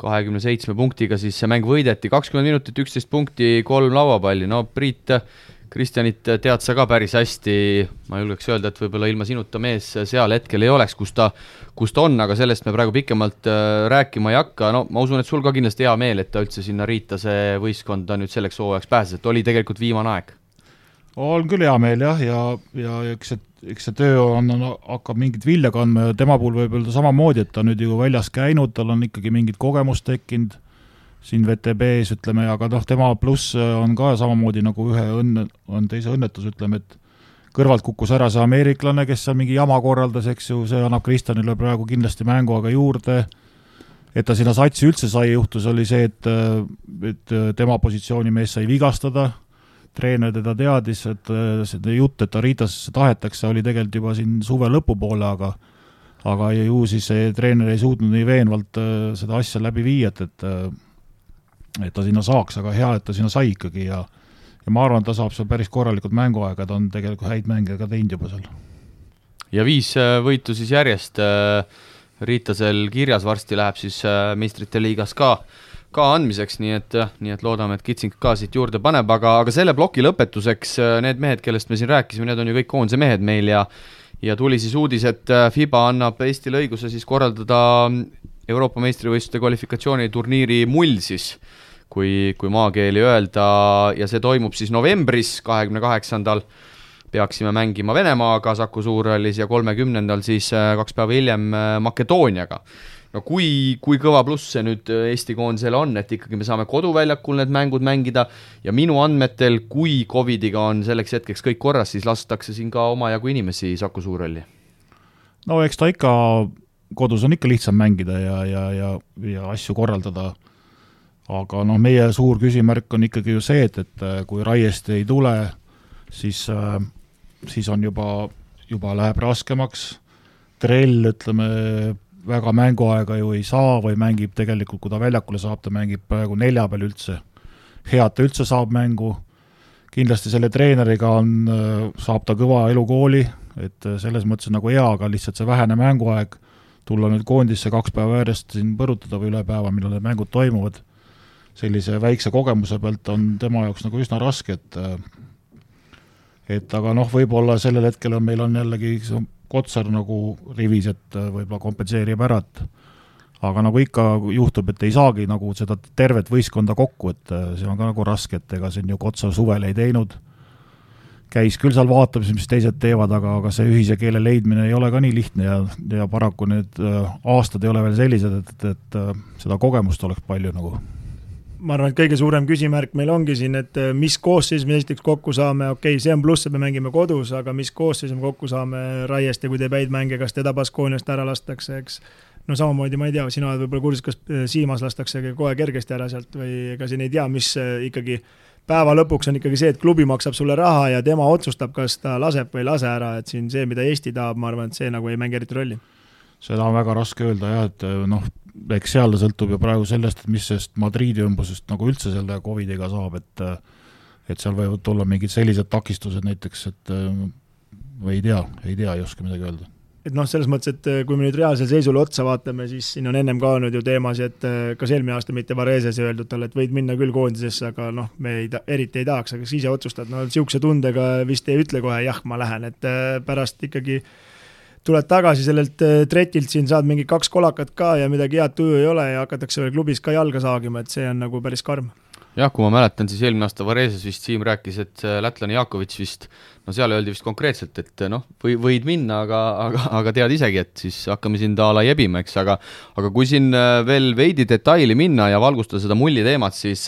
27 punktiga, siis see mäng võideti 20 minutit, 11 punkti, 3 lauapalli. Priit, Kristjanit tead sa ka päris hästi, ma julgeks öelda, et võib-olla ilma sinuta mees seal hetkel ei oleks, kus ta on, aga sellest me praegu pikemalt rääkima ei hakka. Ma usun, et sul ka kindlasti hea meel, et ta üldse sinna Riita see võistkond nüüd selleks hooajaks pääses, et oli tegelikult viimane aeg. On küll hea meel jah, ja eks see töö hakkab mingit vilja kandma ja tema puhul võib öelda samamoodi, et ta nüüd ju väljas käinud, tal on ikkagi mingit kogemust tekkinud siin VTB-s, ütleme, aga tema pluss on ka samamoodi nagu on teise õnnetus, ütleme, et kõrvalt kukkus ära see ameeriklane, kes seal mingi jama korraldas, eks ju, see annab Kristjanile praegu kindlasti mängu aga juurde et ta sinna satsi üldse sai, juhtus oli see, et tema positsiooni mees sai vigastada, treener teda teadis, et see jutt, et Aritasesse tahetakse, oli tegelikult juba siin suve lõpupoole, aga ju siis see treener ei suutnud nii veenvalt seda asja läbi viia, et ta sinna saaks, aga hea, et ta sinna sai ikkagi ja ma arvan, et ta saab seal päris korralikult mänguaega, ta on tegelikult häid mänge ka teinud juba seal. Ja 5 võitu siis järjest Riitasel kirjas, varsti läheb siis meistrite liigas ka andmiseks, nii et loodame, et Kitsing ka siit juurde paneb, aga selle ploki lõpetuseks need mehed, kellest me siin rääkisime, need on ju kõik koondise mehed meil ja tuli siis uudis, et FIBA annab Eestile õiguse siis korraldada Euroopa meistrivõistluste kvalifikatsiooniturniiri mull siis, kui maakeeli öelda, ja see toimub siis novembris 28. peaksime mängima Venemaaga Saku Suurhallis ja 30. siis 2 päeva hiljem Makedooniaga. No kui kõva pluss see nüüd Eesti koondisele on, et ikkagi me saame koduväljakul need mängud mängida ja minu andmetel, kui Covidiga on selleks hetkeks kõik korras, siis lastakse siin ka omajagu inimesi Saku Suurhalli. No eks ta ikka, kodus on ikka lihtsam mängida ja asju korraldada, aga meie suur küsimärk on ikkagi ju see, et kui Raiest ei tule, siis on juba läheb raskemaks, Trell, ütleme, väga mänguaega ju ei saa või mängib tegelikult, kui ta väljakule saab, ta mängib praegu 4 peal üldse. Head ta üldse saab mängu. Kindlasti selle treeneriga saab ta kõva elukooli, et selles mõttes nagu hea, aga lihtsalt see vähene mänguaeg, tulla nüüd koondisse 2 päeva järjest siin põrutada või üle päeva, millal need mängud toimuvad, sellise väikse kogemuse pealt on tema jaoks nagu üsna raske, et aga võib-olla sellel hetkel meil on jällegi Kotsar nagu rivis, et võib-olla kompenseerib ära, aga nagu ikka juhtub, et ei saagi nagu seda tervet võistkonda kokku, et see on ka nagu raske, et ega siin ju Kotsar suvel ei teinud, käis küll seal vaatamas, mis teised teevad, aga see ühise keele leidmine ei ole ka nii lihtne ja paraku need aastad ei ole veel sellised, et seda kogemust oleks palju nagu. Ma arvan, et kõige suurem küsimärk meil ongi siin, et mis koosseis me esiteks kokku saame, see on pluss, et me mängime kodus, aga mis koosseis me kokku saame Raiest ja kui teeb häid mänge, kas teda Baskooniast ära lastakse, eks. No samamoodi, ma ei tea, sina oled võib-olla kursis, kas Siimas lastakse kohe kergesti ära sealt või ega siin ei tea, mis ikkagi päeva lõpuks on ikkagi see, et klubi maksab sulle raha ja tema otsustab, kas ta laseb või ei lase ära, et siin see, mida Eesti tahab, ma arvan, et see nagu ei mängi eriti rolli. Seda on väga raske öelda jah, et eks seal sõltub ju praegu sellest, et mis sest Madriidi ümbusest nagu üldse selle Covidiga saab, et seal võivad tulla mingid sellised takistused näiteks, et või ei oska midagi öelda. Et selles mõttes, et kui me nüüd reaalsel seisule otsa vaatame, siis siin on ennem ka olnud ju teemasi, et kas eelmine aasta mitte Vareses öeldud talle, et võid minna küll koondisesse, aga me eriti ei tahaks, aga siis ise otsustad, siukse tundega vist ei ütle kohe, jah, ma lähen, et pärast ikkagi tuled tagasi sellelt tretilt, siin saad mingi 2 kolakat ka ja midagi head tuju ei ole ja hakatakse veel klubis ka jalga saagima, et see on nagu päris karm. Jah, kui ma mäletan, siis eelmine aasta Vareses vist Siim rääkis, et lätlane Jakovits vist, seal öeldi vist konkreetselt, et võid minna, aga tead isegi, et siis hakkame siin taala jebima, eks, aga kui siin veel veidi detaili minna ja valgustada seda mulli teemat, siis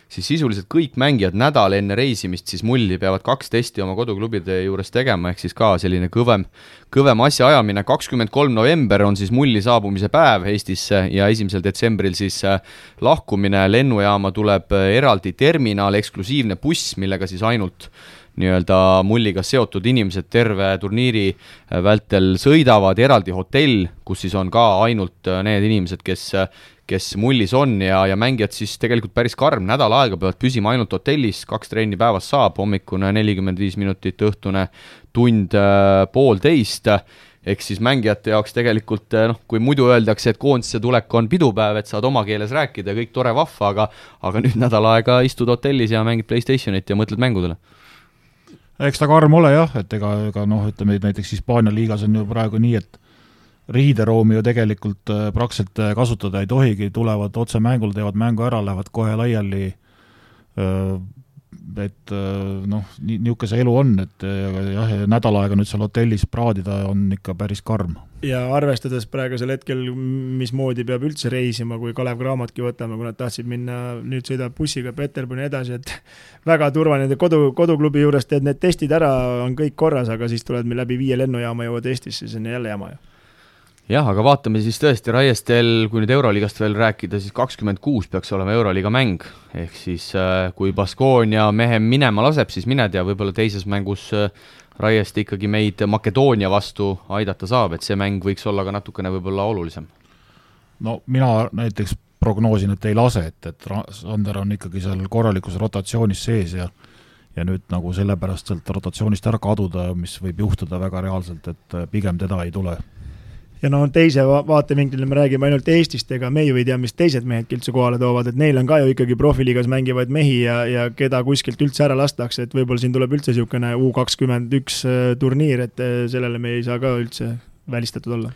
sisuliselt kõik mängijad nädal enne reisimist siis mulli peavad 2 testi oma koduklubide juures tegema, ehk siis ka selline kõvem asja ajamine. 23. november on siis mulli saabumise päev Eestisse ja 1. detsembril siis lahkumine. Lennujaama tuleb eraldi terminal, eksklusiivne buss, millega siis ainult nii-öelda mulliga seotud inimesed terve turniiri vältel sõidavad, eraldi hotell, kus siis on ka ainult need inimesed, kes mullis on ja mängijad siis tegelikult päris karm nädal aega peavad püsima ainult hotellis, 2 trenni päevas saab, hommikune 45 minutit, õhtune tund 1,5, ehk siis mängijate jaoks tegelikult, kui muidu öeldakse, et koondisse tulek on pidupäev, et saad oma keeles rääkida, kõik tore vahva, aga nüüd nädal aega istud hotellis ja mängid PlayStationit ja mõtled mängudele. Eks ta karm ole jah, et ega ütleme, näiteks Hispaania liigas on ju praegu nii, et riideroomi ju tegelikult praktiliselt kasutada ei tohigi, tulevad otse mängul, teevad mängu ära, lähevad kohe laiali, et niisugune see elu on, et jah, nädal aega nüüd seal hotellis praadida on ikka päris karm. Ja arvestades praegusel hetkel, mismoodi peab üldse reisima, kui Kalev Craamatki võtame, kui nad tahtsid minna, nüüd sõidab bussiga Peterburi edasi, et väga turvaline koduklubi juures teed need testid ära, on kõik korras, aga siis tuled meil läbi 5 lennujaama jõuad Eestisse, siis on jälle jama ju. jah, aga vaatame siis tõesti Raiestel, kui nüüd Euroliigast veel rääkida, siis 26 peaks olema Euroliiga mäng, ehk siis kui Baskonia mehe minema laseb, siis mine tea, võib-olla teises mängus Raiest ikkagi meid Makedoonia vastu aidata saab, et see mäng võiks olla ka natukene võib-olla olulisem. No mina näiteks prognoosin, et ei lase, et Sander on ikkagi seal korralikus rotatsioonis sees ja nüüd nagu sellepärast sealt rotatsioonist ära kaduda, mis võib juhtuda väga reaalselt, et pigem teda ei tule. Ja no teise vaatevinklile me räägime ainult Eestist, ega me ju ei tea, mis teised mehed üldse kohale toovad, et neil on ka ju ikkagi profiliigas mängivaid mehi ja keda kuskilt üldse ära lastakse, et võib-olla siin tuleb üldse niisugune U21 turniir, et sellele me ei saa ka üldse välistatud olla.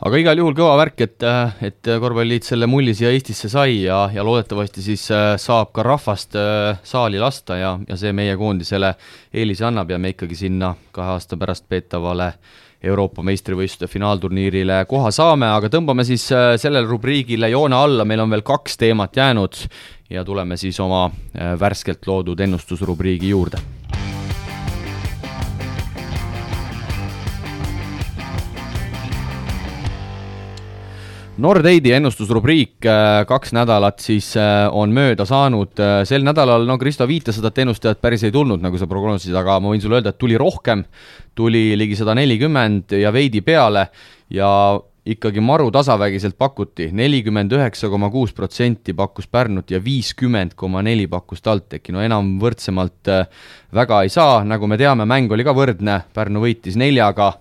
Aga igal juhul kõva värk, et korvpalliliit selle mulli siia Eestisse sai ja loodetavasti siis saab ka rahvast saali lasta ja see meie koondisele eelise annab ja me ikkagi sinna 2 aasta pärast peetavale Euroopa meistrivõistluste finaalturniirile koha saame, aga tõmbame siis sellele rubriigile joone alla, meil on veel 2 teemat jäänud ja tuleme siis oma värskelt loodud ennustusrubriigi juurde. Nordeidi ennustusrubriik 2 nädalat siis on mööda saanud. Sel nädalal, Kristo viitas seda, et ennustajad päris ei tulnud, nagu sa prognoosisid, aga ma võin sulle öelda, et tuli rohkem, tuli ligi 140 ja veidi peale ja ikkagi maru tasavägiselt pakuti. 49,6% pakkus Pärnut ja 50,4% pakkus TalTechi. No enam võrdsemalt väga ei saa, nagu me teame, mäng oli ka võrdne, Pärnu võitis 4-ga.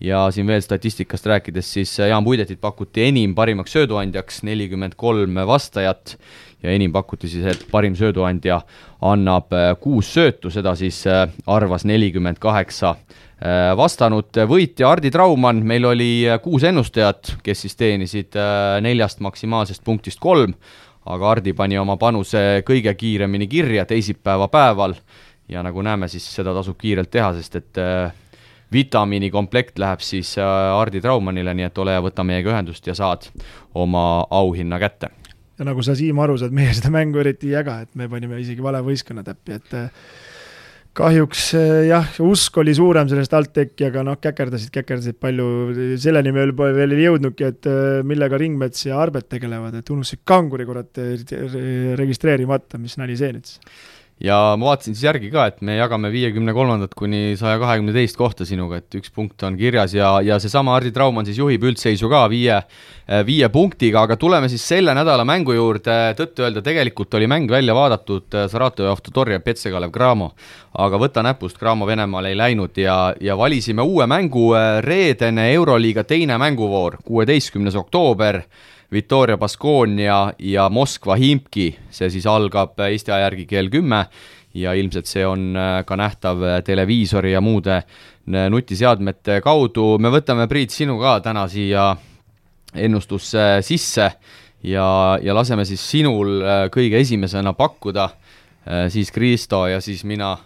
Ja siin veel statistikast rääkides, siis Jaan Puidetit pakuti enim parimaks sööduandjaks, 43 vastajat ja enim pakuti siis, et parim sööduandja annab 6 söötu, seda siis arvas 48 vastanud. Võitja Hardi Traumann, meil oli 6 ennustajat, kes siis teenisid 4 maksimaalsest punktist 3, aga Hardi pani oma panuse kõige kiiremini kirja teisipäeva päeval ja nagu näeme, siis seda tasub kiirelt teha, sest et vitamiini komplekt läheb siis Hardi Traumannile, nii et ole ja võta meiega ühendust ja saad oma auhinna kätte. Ja nagu sa, Siim, aru saad, meie seda mängu eriti ei jaga, et me panime isegi vale võistkonna täppi, et kahjuks jah, usk oli suurem sellest TalTechi, aga käkerdasid palju, selleni me veel ei jõudnudki, et millega Ringmets ja Arbet tegelevad, et unustasid kanguri registreerimata, mis nali see nüüd. Ja ma vaatasin siis järgi ka, et me jagame 53. kuni 122. kohta sinuga, et 1 punkt on kirjas ja seesama Hardi Traumann siis juhib üldseisu ka 5 punktiga, aga tuleme siis selle nädala mängu juurde. Tõtt öelda, tegelikult oli mäng välja vaadatud Saratov Avtotor ja Petsegalev Gramo, aga võta näpust, Gramo Venemaal ei läinud ja valisime uue mängu, reedene Euroliiga teine mänguvoor, 16. oktoober, Victoria Baskonia ja Moskva Himki, see siis algab Eesti aja järgi kell 10 ja ilmselt see on ka nähtav televiisori ja muude nutiseadmete kaudu. Me võtame, Priit, sinu ka täna siia ennustusse sisse ja laseme siis sinul kõige esimesena pakkuda, siis Kristo ja siis mina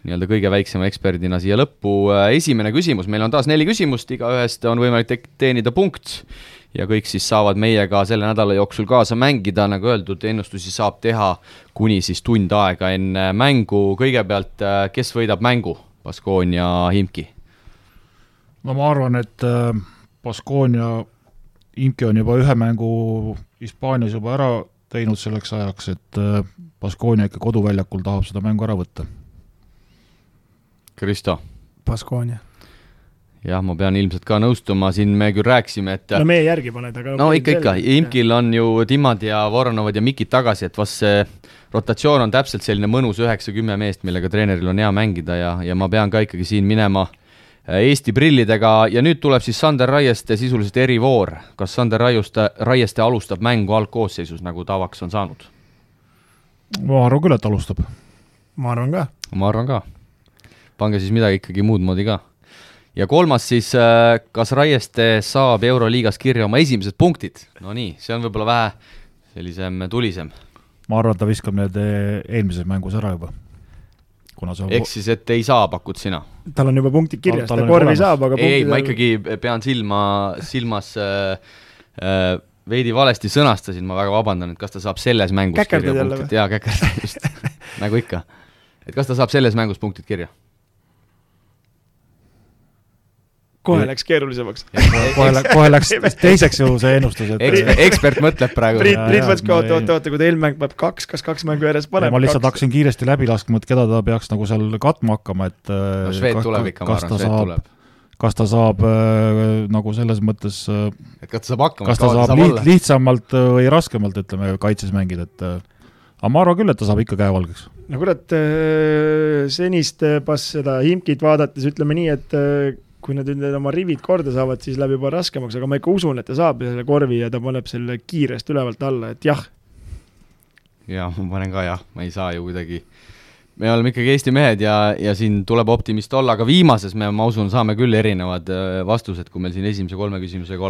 nii-öelda kõige väiksema eksperdina siia lõppu. Esimene küsimus, meil on taas 4 küsimust, iga ühest on võimalik teenida punkt ja kõik siis saavad meiega selle nädala jooksul kaasa mängida, nagu öeldud, ennustusi saab teha kuni siis tund aega enne mängu. Kõigepealt, kes võidab mängu, Baskonia Himki? No ma arvan, et Baskonia Himki on juba 1 mängu Hispaanias juba ära teinud selleks ajaks, et Baskonia ikka koduväljakul tahab seda mängu ära võtta. Kristo? Baskonia. Jah, ma pean ilmselt ka nõustuma, siin me küll rääksime, et no meie järgi paned, aga no ikka, Imkil on ju Timad ja Voronovad ja Mikid tagasi, et vast see rotatsioon on täpselt selline mõnus 9-10 meest, millega treeneril on hea mängida ja ma pean ka ikkagi siin minema Eesti brillidega ja nüüd tuleb siis Sander Raieste sisuliselt erivoor. Kas Sander Raieste alustab mängu algkoosseisus, nagu tavaks on saanud? Ma arvan küll, et alustab. Ma arvan ka. Pange siis midagi ikkagi muud moodi ka. Ja kolmas siis, kas Raieste saab Euroliigas kirja oma esimesed punktid? No nii, see on võib-olla vähe sellisem tulisem. Ma arvan, ta viskab need eelmises mängus ära juba. Ehk siis, et ei saa, pakud sina? Tal on juba punktid kirjas, ta korvi saab, aga punktid... Ei, ma ikkagi pean silmas veidi valesti sõnastasin, ma väga vabandan, et kas ta saab selles mängus kirja punktid? Jaa, käkerdad just, nagu ikka. Et kas ta saab selles mängus punktid kirja? kohe läks keerulisemaks. kohe läks teiseks ju see ennustus. Ekspert mõtleb praegu. Priit võtski, oota, kui ta eelmäng peab kas kaks mängu järjest paneb. Ma lihtsalt hakkasin kiiresti läbi laskma, et keda ta peaks nagu seal katma hakkama, et Šveet tuleb ikka, ma arvan, Šveet tuleb. Kas ta saab nagu selles mõttes, et kas ta saab hakkama, kas ta saab lihtsamalt või raskemalt, ütleme, kaitses mängida, et aga ma arvan küll, et ta saab ikka käevalgeks. No kurat, senist seda Himkit vaadates ütleme nii, et kui nad oma rivid korda saavad, siis läheb juba raskemaks, aga ma ikka usun, et ta saab selle korvi ja ta paneb selle kiirest ülevalt alla, et jah. Jah, ma panen ka jah, ma ei saa ju kuidagi. Me oleme ikkagi Eesti mehed ja siin tuleb optimist olla, aga viimases ma usun, saame küll erinevad vastused, kui meil siin esimese 3 küsimusega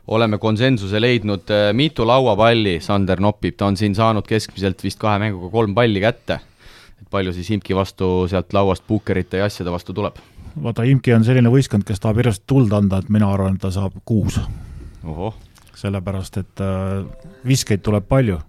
oleme konsensuse leidnud. Mitu lauapalli Sander nopib, ta on siin saanud keskmiselt vist 2 mänguga 3 palli kätte. Et palju siis Imki vastu sealt lauast puukerite ja asjade vastu tuleb? Vaata, Imki on selline võistkond, kes tahab järjest tuld anda, et mina arvan, et ta saab 6. Oho. Sellepärast, et viskeid tuleb palju.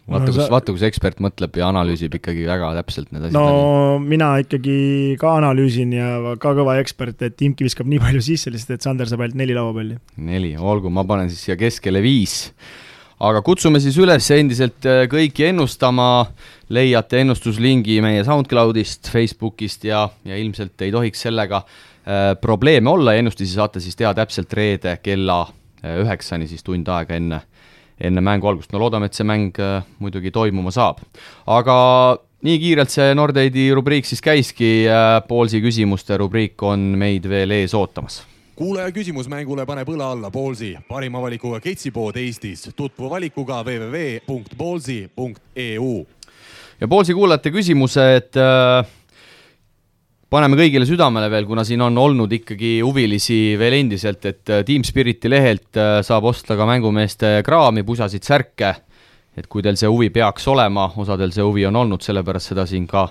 Vaata, kus ekspert mõtleb ja analüüsib ikkagi väga täpselt need asjad. No mina ikkagi ka analüüsin ja ka kõva ekspert, et Imki viskab nii palju sisse, lihtsalt, et Sander saab ainult 4 lauapalli. 4, olgu, ma panen siis siia keskele 5. Aga kutsume siis üles endiselt kõiki ennustama, leiate ennustuslingi meie SoundCloudist, Facebookist ja ilmselt ei tohiks sellega probleeme olla. Ennustusi saate siis teha täpselt reede kella 9 siis tund aega enne mängu algust. No loodame, et see mäng muidugi toimuma saab. Aga nii kiirelt see Nordeidi rubriik siis käiski, Poolsi küsimuste rubriik on meid veel ees ootamas. Kuulaja küsimusmängule paneb õla alla Poolsi, parima valikuga ketsipood Eestis, tutvu valikuga www.poolsi.eu. Ja Poolsi kuulajate küsimused paneme kõigile südamele veel, kuna siin on olnud ikkagi huvilisi veel endiselt, et Team Spiriti lehelt saab osta ka mängumeeste kraami, pusasid, särke, et kui teil see huvi peaks olema, osadel see huvi on olnud, sellepärast seda siin ka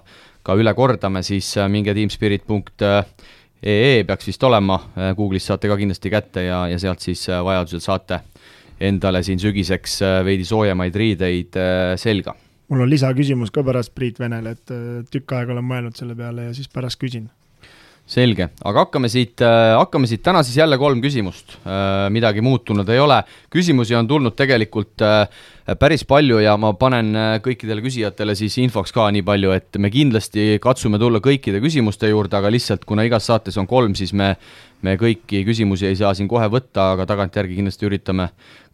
üle kordame, siis minge teamspirit.ee peaks vist olema, Google'is saate ka kindlasti kätte ja sealt siis vajadusel saate endale siin sügiseks veidi soojemaid riideid selga. Mul on lisaküsimus ka pärast Priit Venele, et tükk aega olen mõelnud selle peale ja siis pärast küsin. Selge, aga hakkame siit täna siis jälle 3 küsimust, midagi muutunud ei ole. Küsimusi on tulnud tegelikult päris palju ja ma panen kõikidele küsijatele siis infoks ka nii palju, et me kindlasti katsume tulla kõikide küsimuste juurde, aga lihtsalt kuna igas saates on 3, siis me kõiki küsimusi ei saa siin kohe võtta, aga tagantjärgi kindlasti üritame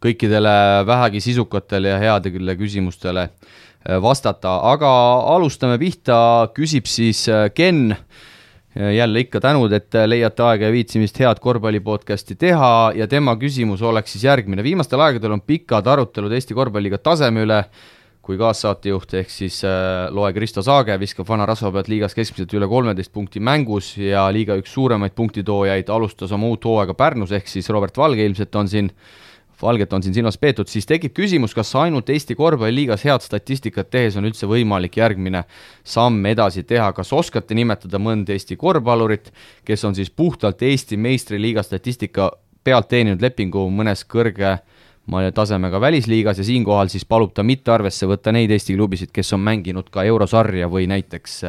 kõikidele vähegi sisukatele ja headele küsimustele vastata. Aga alustame pihta, küsib siis Ken, jälle ikka tänud, et leiate aega ja viitsimist head korvpallipodcasti teha ja tema küsimus oleks siis järgmine. Viimastel aegadel on pikad arutelud Eesti korvpalliga taseme üle, kui kaassaatejuht ehk siis Loe Kristo Saage viskab Vana Rasva pealt liigas keskmiselt üle 13 punkti mängus ja liiga üks suuremaid punktitoojaid alustas oma uut hooaega Pärnus ehk siis Robert Valge ilmselt Valget on siin silmas peetud, siis tekib küsimus, kas ainult Eesti korvpalliliigas head statistikat tehes on üldse võimalik järgmine samm edasi teha. Kas oskate nimetada mõnd Eesti korvpallurit, kes on siis puhtalt Eesti meistriliiga statistika pealt teeninud lepingu mõnes kõrge tasemega välisliigas ja siinkohal siis palub ta mitte arvesse võtta neid Eesti klubisid, kes on mänginud ka eurosarja või näiteks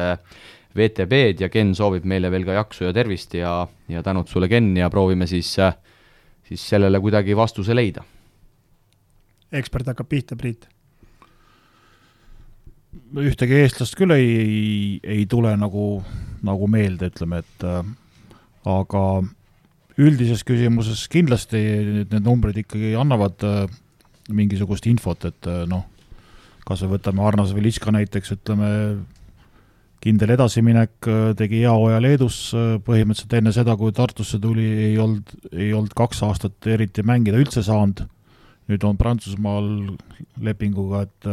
VTB-d ja Ken soovib meile veel ka jaksu ja tervist ja tänud sulle, Ken, ja proovime siis sellele kuidagi vastuse leida. Ekspert hakkab pihta, Priit. Ühtegi eestlast küll ei tule nagu meelde, ütleme, et aga üldises küsimuses kindlasti need numbrid ikkagi annavad mingisugust infot, et kas me võtame Arnas Velitska näiteks, ütleme, kindel edasiminek, tegi hea hooaja Leedus, põhimõtteliselt enne seda, kui Tartusse tuli, ei olnud 2 aastat eriti mängida üldse saanud. Nüüd on Prantsusmaal lepinguga, et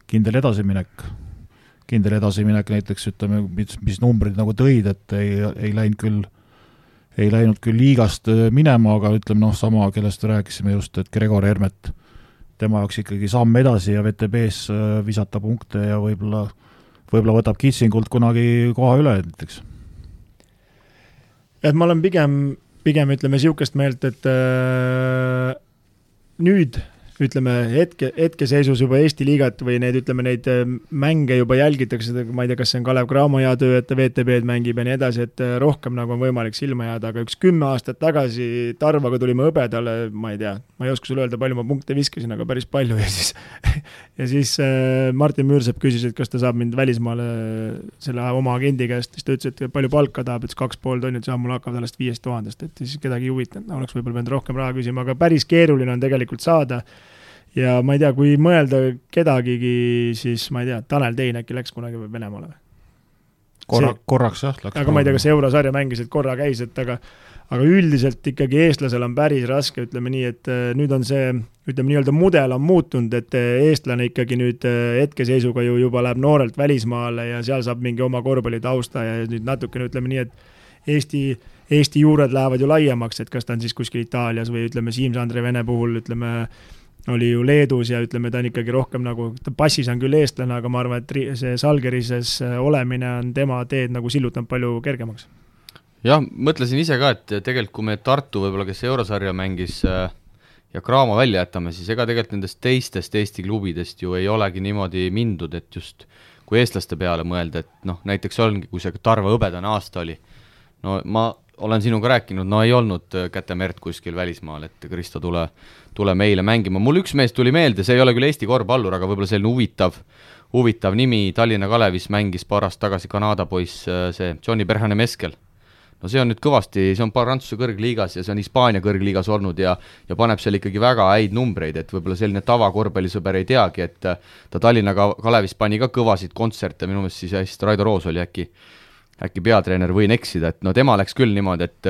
kindel edasiminek näiteks, ütleme, mis numbrid nagu tõid, et ei läinud küll liigast minema, aga ütleme, sama, kellest rääkisime just, et Gregor Hermet, tema jaoks ikkagi samm edasi ja VTB-s visata punkte ja võib-olla võtab Kitsingult kunagi koha üle näiteks. Et ma olen pigem ütleme siukest meelt, et nüüd ütleme, hetkeseisus juba Eesti liigat või neid, ütleme, neid mänge juba jälgitakse, ma ei tea, kas see on Kalev Cramo hea töö, et ta VTB-d mängib ja nii edasi, et rohkem nagu on võimalik silma jääda, aga üks 10 aastat tagasi Tarvaga tulime Hõbedale, ma ei tea, ma ei oska sulle öelda, palju ma punkte viskasin, aga päris palju ja siis Martin Müürsepp küsis, et kas ta saab mind välismaale selle oma agendi käest, siis ta ütles, et palju palka tahab, et 2,5 tonnit saab, mul hakkab sellest 5000, et siis kedagi huvitanud, oleks võib-olla pidanud rohkem raha küsima, aga päris keeruline on tegelikult saada. Ja ma ei tea, kui mõelda kedagigi, siis ma ei tea, Tanel Tein äkki läks kunagi Venemaale või? Korraks jah. Aga ma ei tea, kas eurosarja mängis, et korra käis, et aga üldiselt ikkagi eestlasel on päris raske, ütleme nii, et nüüd on see, ütleme nii-öelda mudel on muutunud, et eestlane ikkagi nüüd hetkeseisuga ju juba läheb noorelt välismaale ja seal saab mingi oma korvpallitausta ja nüüd natukene ütleme nii, et Eesti juured lähevad ju laiemaks, et kas ta on siis kuskil Itaalias või ütleme Siim-Sandre Vene puhul, ütleme oli ju Leedus ja ütleme, ta on ikkagi rohkem nagu, ta passis on küll eestlane, aga ma arvan, et see Salgerises olemine on tema teed nagu sillutanud palju kergemaks. Jah, mõtlesin ise ka, et tegelikult kui me Tartu võib-olla, kes eurosarja mängis ja Cramo välja jätame, siis ega tegelikult nendest teistest Eesti klubidest ju ei olegi niimoodi mindud, et just kui eestlaste peale mõelda, et noh, näiteks ongi, kui see Tarva hõbedane aasta oli, no ma olen sinuga rääkinud, no ei olnud kätemerd kuskil välismaal, et Kristo tule meile mängima. Mul üks mees tuli meelde, see ei ole küll Eesti korvpallur, aga võib-olla selline huvitav nimi, Tallinna Kalevis mängis paar aastat tagasi Kanada poiss, see Johnny Berhane-Meskel. No see on nüüd kõvasti, see on Prantsuse kõrgliigas ja see on Hispaania kõrgliigas olnud ja paneb seal ikkagi väga häid numbreid, et võib-olla selline tavakorvpallisõber ei teagi, et ta Tallinna Kalevis pani ka kõvasid kontserte, minu meelest siis Raido Roos oli äkki peatreener, võin eksida, et no tema läks küll niimoodi, et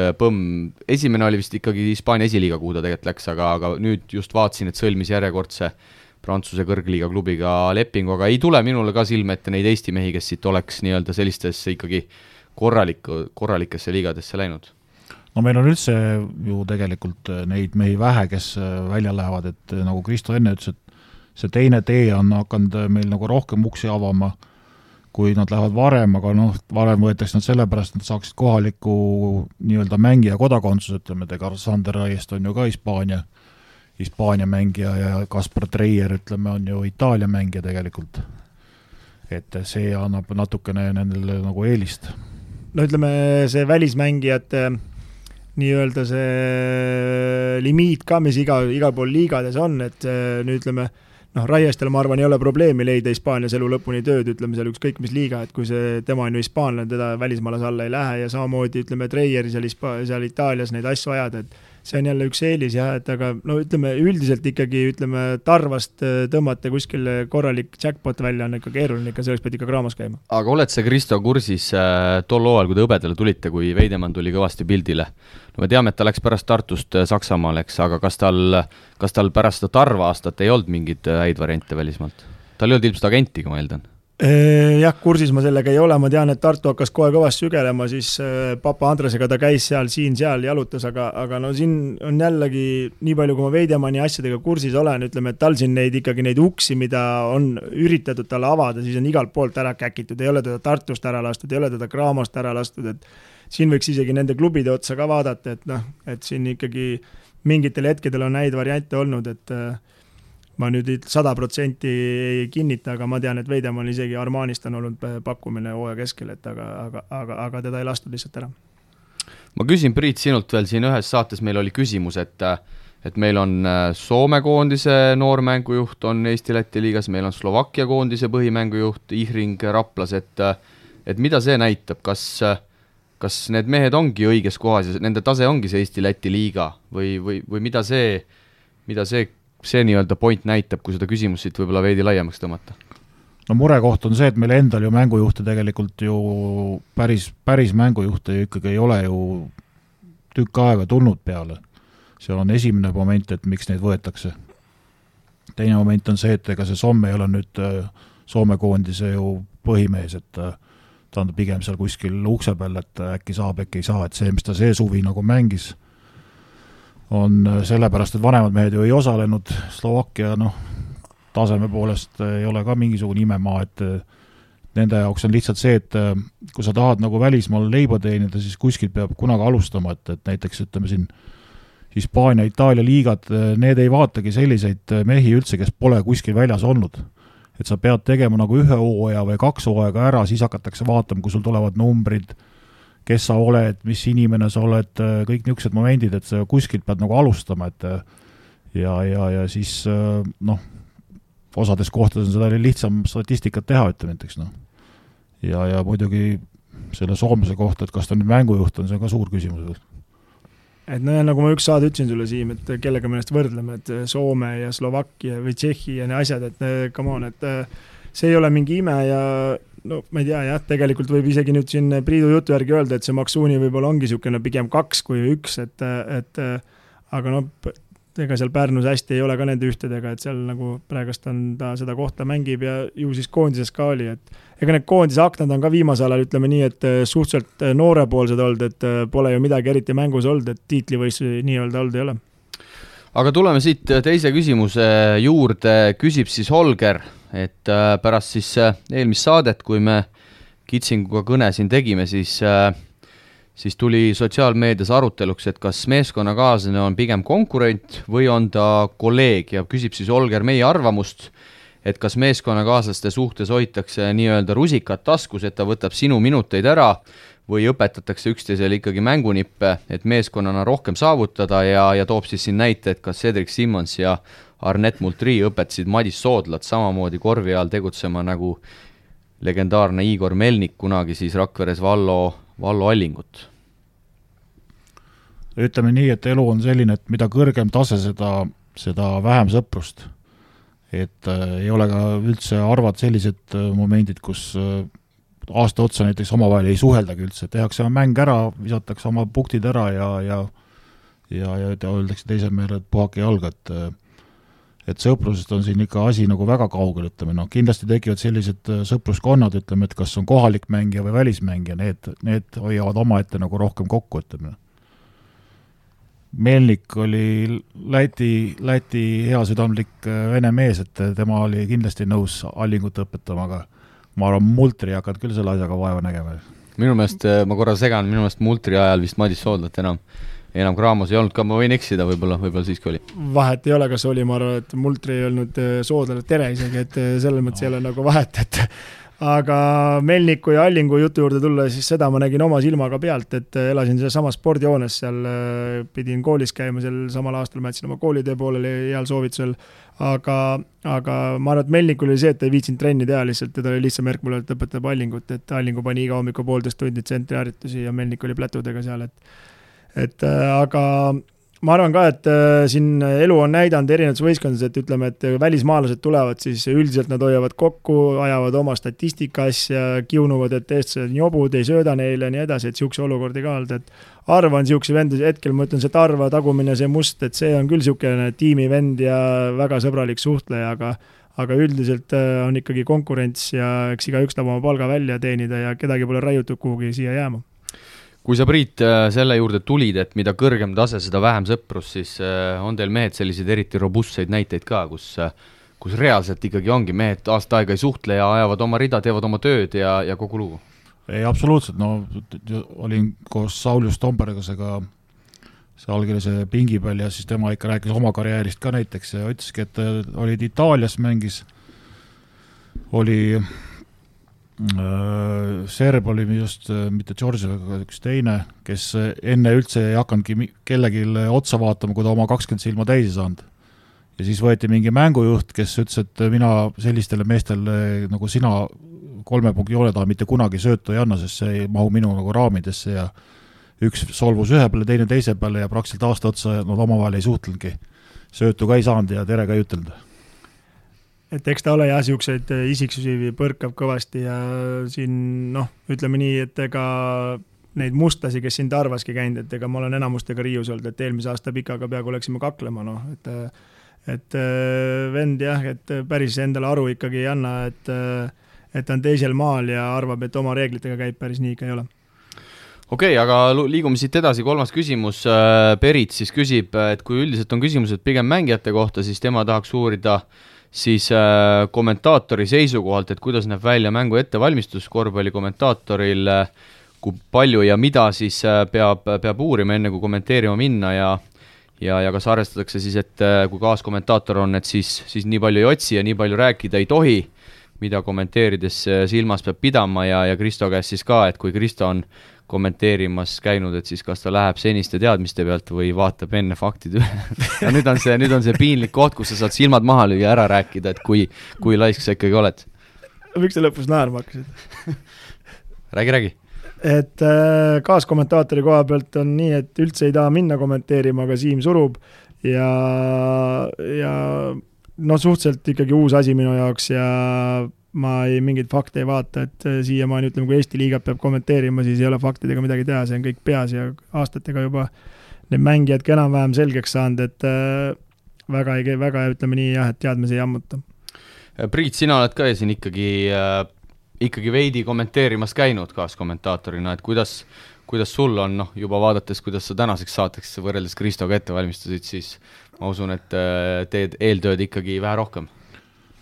esimene oli vist ikkagi Hispaania esiliiga, kuhu ta tegelikult läks, aga nüüd just vaatasin, et sõlmis järjekordse Prantsuse kõrgliiga klubiga lepingu, aga ei tule minule ka silme ette neid Eesti mehi, kes siit oleks nii-öelda sellistesse ikkagi korralikesse liigadesse läinud. No meil on üldse ju tegelikult neid mehi vähe, kes välja lähevad, et nagu Kristo enne ütles, et see teine tee on hakanud meil nagu rohkem uksi avama, kui nad lähevad varem, aga noh, varem võetakse nad sellepärast, nad saaksid kohaliku nii-öelda mängija kodakondsus, ütleme, Sander Raiest on ju ka Hispaania mängija ja Kaspar Treier, ütleme, on ju Itaalia mängija tegelikult. Et see annab natukene nendele nagu eelist. No ütleme, see välismängijate nii-öelda see limiit ka, mis igal pool liigades on, et nüüd ütleme, Raiestel, ma arvan, ei ole probleemi leida Hispaanias elu lõpuni tööd, ütleme seal ükskõik mis liiga, et kui tema on ju hispaanlane, teda välismaalas alla ei lähe ja samamoodi, ütleme, Treieri seal Itaalias neid asju ajada, et see on jälle üks eelis jah, et aga no ütleme, üldiselt ikkagi, ütleme, Tarvast tõmmata kuskil korralik jackpot välja on ikka keeruline, ikka selleks pead ikka Cramos käima. Aga oled sa, Kristo, kursis tol hooajal, kui te Hõbedale tulite, kui Veidemann tuli kõvasti pildile? No me teame, et ta läks pärast Tartust Saksamaale, eks, aga kas tal pärast seda Tarva aastat ei olnud mingid häid variante välismaalt? Tal ei olnud ilmselt agentiga, ma eeldan. Jah, kursis ma sellega ei ole, ma tean, et Tartu hakkas kohe kõvasti sügelema, siis Papa Andresega ta käis seal jalutas, aga no siin on jällegi nii palju, kui ma Veidemanni asjadega kursis olen, ütleme, et tal siin neid uksi, mida on üritatud talle avada, siis on igalt poolt ära käkitud, ei ole teda Tartust ära lastud, ei ole teda Cramost ära lastud, et siin võiks isegi nende klubide otsa ka vaadata, et siin ikkagi mingitel hetkedel on häid variante olnud, et ma nüüd 100% ei kinnita, aga ma tean, et Veidemann isegi Armanist on olnud pakkumine hooaja keskel, et aga teda ei lastud lihtsalt ära. Ma küsin, Priit, sinult veel siin ühes saates meil oli küsimus, et meil on Soome koondise noormängujuht on Eesti-Läti liigas, meil on Slovakkia koondise põhimängujuht Ihring Raplas, et mida see näitab, kas need mehed ongi õiges kohas ja nende tase ongi see Eesti-Läti liiga või mida see nii-öelda point näitab, kui seda küsimust siit võib-olla veidi laiemaks tõmmata? No murekoht on see, et meil endal ju mängujuhte tegelikult ju päris mängujuhte ju ikkagi ei ole ju tükk aega tulnud peale. See on esimene moment, et miks neid võetakse. Teine moment on see, et ega see Somme ei ole nüüd Soome koondise ju põhimees, et ta on pigem seal kuskil ukse peal, et äkki saab, äkki ei saa, et see, mis ta see suvi nagu mängis, on sellepärast, et vanemad mehed ju ei osalenud, Slovakkia taseme poolest ei ole ka mingisugune imemaa, et nende jaoks on lihtsalt see, et kui sa tahad nagu välismaal leiba teenida, siis kuskilt peab kunagi alustama, et näiteks ütleme siin Hispaania, Itaalia liigad, need ei vaatagi selliseid mehi üldse, kes pole kuskil väljas olnud. Et sa pead tegema nagu 1 hooaja või 2 hooaega ära, siis hakatakse vaatama, kui sul tulevad numbrid, kes sa oled, mis inimene sa oled, kõik niisugused momendid, et sa kuskilt pead nagu alustama, et ja siis osades kohtades on seda lihtsam statistikat teha, ütleme näiteks, ja muidugi selle soomlase kohta, et kas ta nüüd mängujuht on, see on ka suur küsimus. Et nagu ma üks saade ütlesin sulle, Siim, et kellega me ennast võrdleme, et Soome ja Slovakkia või Tšehhi ja ne asjad, et come on, et see ei ole mingi ime ja no ma ei tea, jah, tegelikult võib isegi nüüd siin Priidu jutu järgi öelda, et see Maksuuni võib-olla ongi niisugune pigem 2 kui 1, et aga ega seal Pärnus hästi ei ole ka nende ühtedega, et seal nagu praegust on ta seda kohta mängib ja ju siis koondises ka oli, et ega need koondise aknad on ka viimasel ajal, ütleme nii, et suhteliselt noorepoolsed olnud, et pole ju midagi eriti mängus olnud, et tiitlivõistlusi nii-öelda olnud ei ole. Aga tuleme siit teise küsimuse juurde, küsib siis Holger, et pärast siis eelmist saadet, kui me Kitsinguga kõne siin tegime, siis tuli sotsiaalmeedias aruteluks, et kas meeskonnakaaslane on pigem konkurent või on ta kolleeg ja küsib siis Holger meie arvamust, et kas meeskonnakaaslaste suhtes hoitakse nii-öelda rusikat taskus, et ta võtab sinu minuteid ära või õpetatakse üksteisele ikkagi mängunippe, et meeskonnana rohkem saavutada ja toob siis siin näite, et kas Cedric Simmons ja Arnett Multri õpetasid Madis Soodlat samamoodi korvi all tegutsema nagu legendaarne Igor Melnik kunagi siis Rakveres Vallo Allingut. Ütleme nii, et elu on selline, et mida kõrgem tase, seda vähem sõprust. Et ei ole ka üldse arvad sellised momendid, kus aasta otsa näiteks omavahel ei suheldagi üldse, tehakse mäng ära, visatakse oma punktid ära ja öeldakse teise meele, et puhake jalga, et sõprusest on siin ikka asi nagu väga kaugel, ütleme, kindlasti tekivad sellised sõpruskonnad, ütleme, et kas on kohalik mängija või välismängija, need hoiavad omaette nagu rohkem kokku, ütleme. Melnik oli Läti hea südamlik vene mees, et tema oli kindlasti nõus Allingut õpetama, aga ma arvan, Multri hakkad küll selle asjaga vaeva nägema. Minu meelest, ma korra segan, minu meelest Multri ajal vist Madis Soodlat enam Graamos ei olnud ka, ma võin eksida, võib-olla siiski oli. Vahet ei ole, kas oli, ma arvan, et Multri ei olnud Soodlale tere isegi, et selles mõttes ei ole nagu vahet, et aga Melniku ja Allingu jutu juurde tulla, siis seda ma nägin oma silmaga pealt, et elasin selle sama spordijoones, seal pidin koolis käima, seal samal aastal ma jätsin oma koolitöö pooleli heal soovitusel, aga ma arvan, et Melnikul oli see, et ei viitsinud trenni teha lihtsalt, teda oli lihtsam märk mulle, et õpetab Allingut, et Allingu pani iga hommiku 1,5 tundi tsentriharjutusi ja Melnik oli plätudega seal, aga ma arvan ka, et siin elu on näidanud erinevates võistkondades, et ütleme, et välismaalased tulevad, siis üldiselt nad hoiavad kokku, ajavad oma statistika asja, kiunuvad, et eestlased jobud, ei sööda neile ja nii edasi, et siukse olukordi ka olnud, et Arva on siukse vend, hetkel ma ütlen, see Tarva tagumine, see Must, et see on küll siukene tiimivend ja väga sõbralik suhtleja, aga üldiselt on ikkagi konkurents ja eks igaüks tahab oma palga välja teenida ja kedagi pole raiutud kuhugi siia jääma. Kui sa, Priit, selle juurde tulid, et mida kõrgem tase, seda vähem sõprus, siis on teil mehed selliseid eriti robustseid näiteid ka, kus reaalselt ikkagi ongi mehed aasta aega ei suhtle ja ajavad oma rida, teevad oma tööd ja kogu lugu? Ei, absoluutselt, olin koos Saulius Tombergasega see allkirjase pingi peal ja siis tema ikka rääkis oma karjäärist ka näiteks ja ütleski, et olid Itaalias mängis, oli Serb oli just mitte George, aga üks teine, kes enne üldse ei hakanudki kellegi otsa vaatama, kui ta oma 20 silma täisi saanud. Ja siis võeti mingi mängujuht, kes ütles, et mina sellistele meestele nagu sina 3 punkti joone taha mitte kunagi söötu ei anna, sest see ei mahu minu nagu raamidesse ja üks solvus ühe peale, teine teise peale ja praktiliselt aasta otsa nad omavahel ei suhtlenudki. Söötu ka ei saanud ja tere ka ei ütelnud. Et eks ta ole jah, siukseid isiksusi põrkab kõvasti ja siin, ütleme nii, et ega neid mustlasi, kes siin Tarvaski käinud, et ega ma olen enamustega riius olnud, et eelmise aasta pikaga peaaegu oleksime kaklema, et vend jah, et päris endale aru ikkagi ei anna, et on teisel maal ja arvab, et oma reeglitega käib, päris nii ikka ei ole. Okei, aga liigume siit edasi, 3. küsimus. Perit siis küsib, et kui üldiselt on küsimused pigem mängijate kohta, siis tema tahaks uurida siis kommentaatori seisukohalt, et kuidas näeb välja mängu ettevalmistus korvpalli kommentaatoril, kui palju ja mida siis peab uurima enne kui kommenteerima minna ja kas arvestatakse siis, et kui kaaskommentaator on, et siis nii palju ei otsi ja nii palju rääkida ei tohi, mida kommenteerides silmas peab pidama ja Kristo käest siis ka, et kui Kristo on kommenteerimas käinud, et siis kas ta läheb seniste teadmiste pealt või vaatab enne faktid üle. Ja nüüd on see piinlik koht, kus sa saad silmad maha lüüa ära rääkida, et kui laisk sa ikkagi oled. Miks sa lõpus naerma hakkasid? Räägi. Et kaaskommentaatori koha pealt on nii, et üldse ei taha minna kommenteerima, aga Siim surub ja suhteliselt ikkagi uus asi minu jaoks ja ma mingeid fakte ei vaata, et siiamaani ütleme, kui Eesti liigat peab kommenteerima, siis ei ole faktidega midagi teha, see on kõik peas ja aastatega juba need mängijad enam-vähem selgeks saanud, et väga ütleme nii jah, et teadmisi ei ammuta. Priit, sina oled ka siin ikkagi veidi kommenteerimas käinud kaaskommentaatorina, et kuidas sul on, juba vaadates, kuidas sa tänaseks saateks võrreldes Kristoga ette valmistasid, siis ma usun, et teed eeltööd ikkagi vähe rohkem.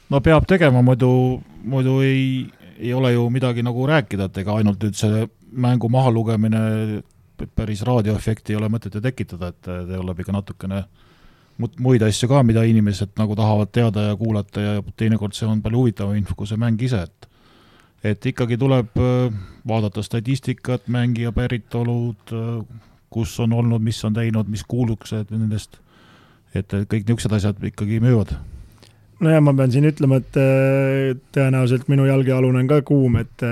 No peab tegema, muidu ei ole ju midagi nagu rääkida, et ega ainult nüüd see mängu maha lugemine päris raadioefekti ei ole mõtet ju tekitada, et tuleb ikka natukene muid asju ka, mida inimesed nagu tahavad teada ja kuulata ja teinekord see on palju huvitav info, kui see mäng ise, et ikkagi tuleb vaadata statistikat, mängija päritolud, kus on olnud, mis on teinud, mis kuuluksed nendest, et kõik niisugused asjad ikkagi müüvad. No ja ma pean siin ütlema, et tõenäoliselt minu jalgealune on ka kuum, et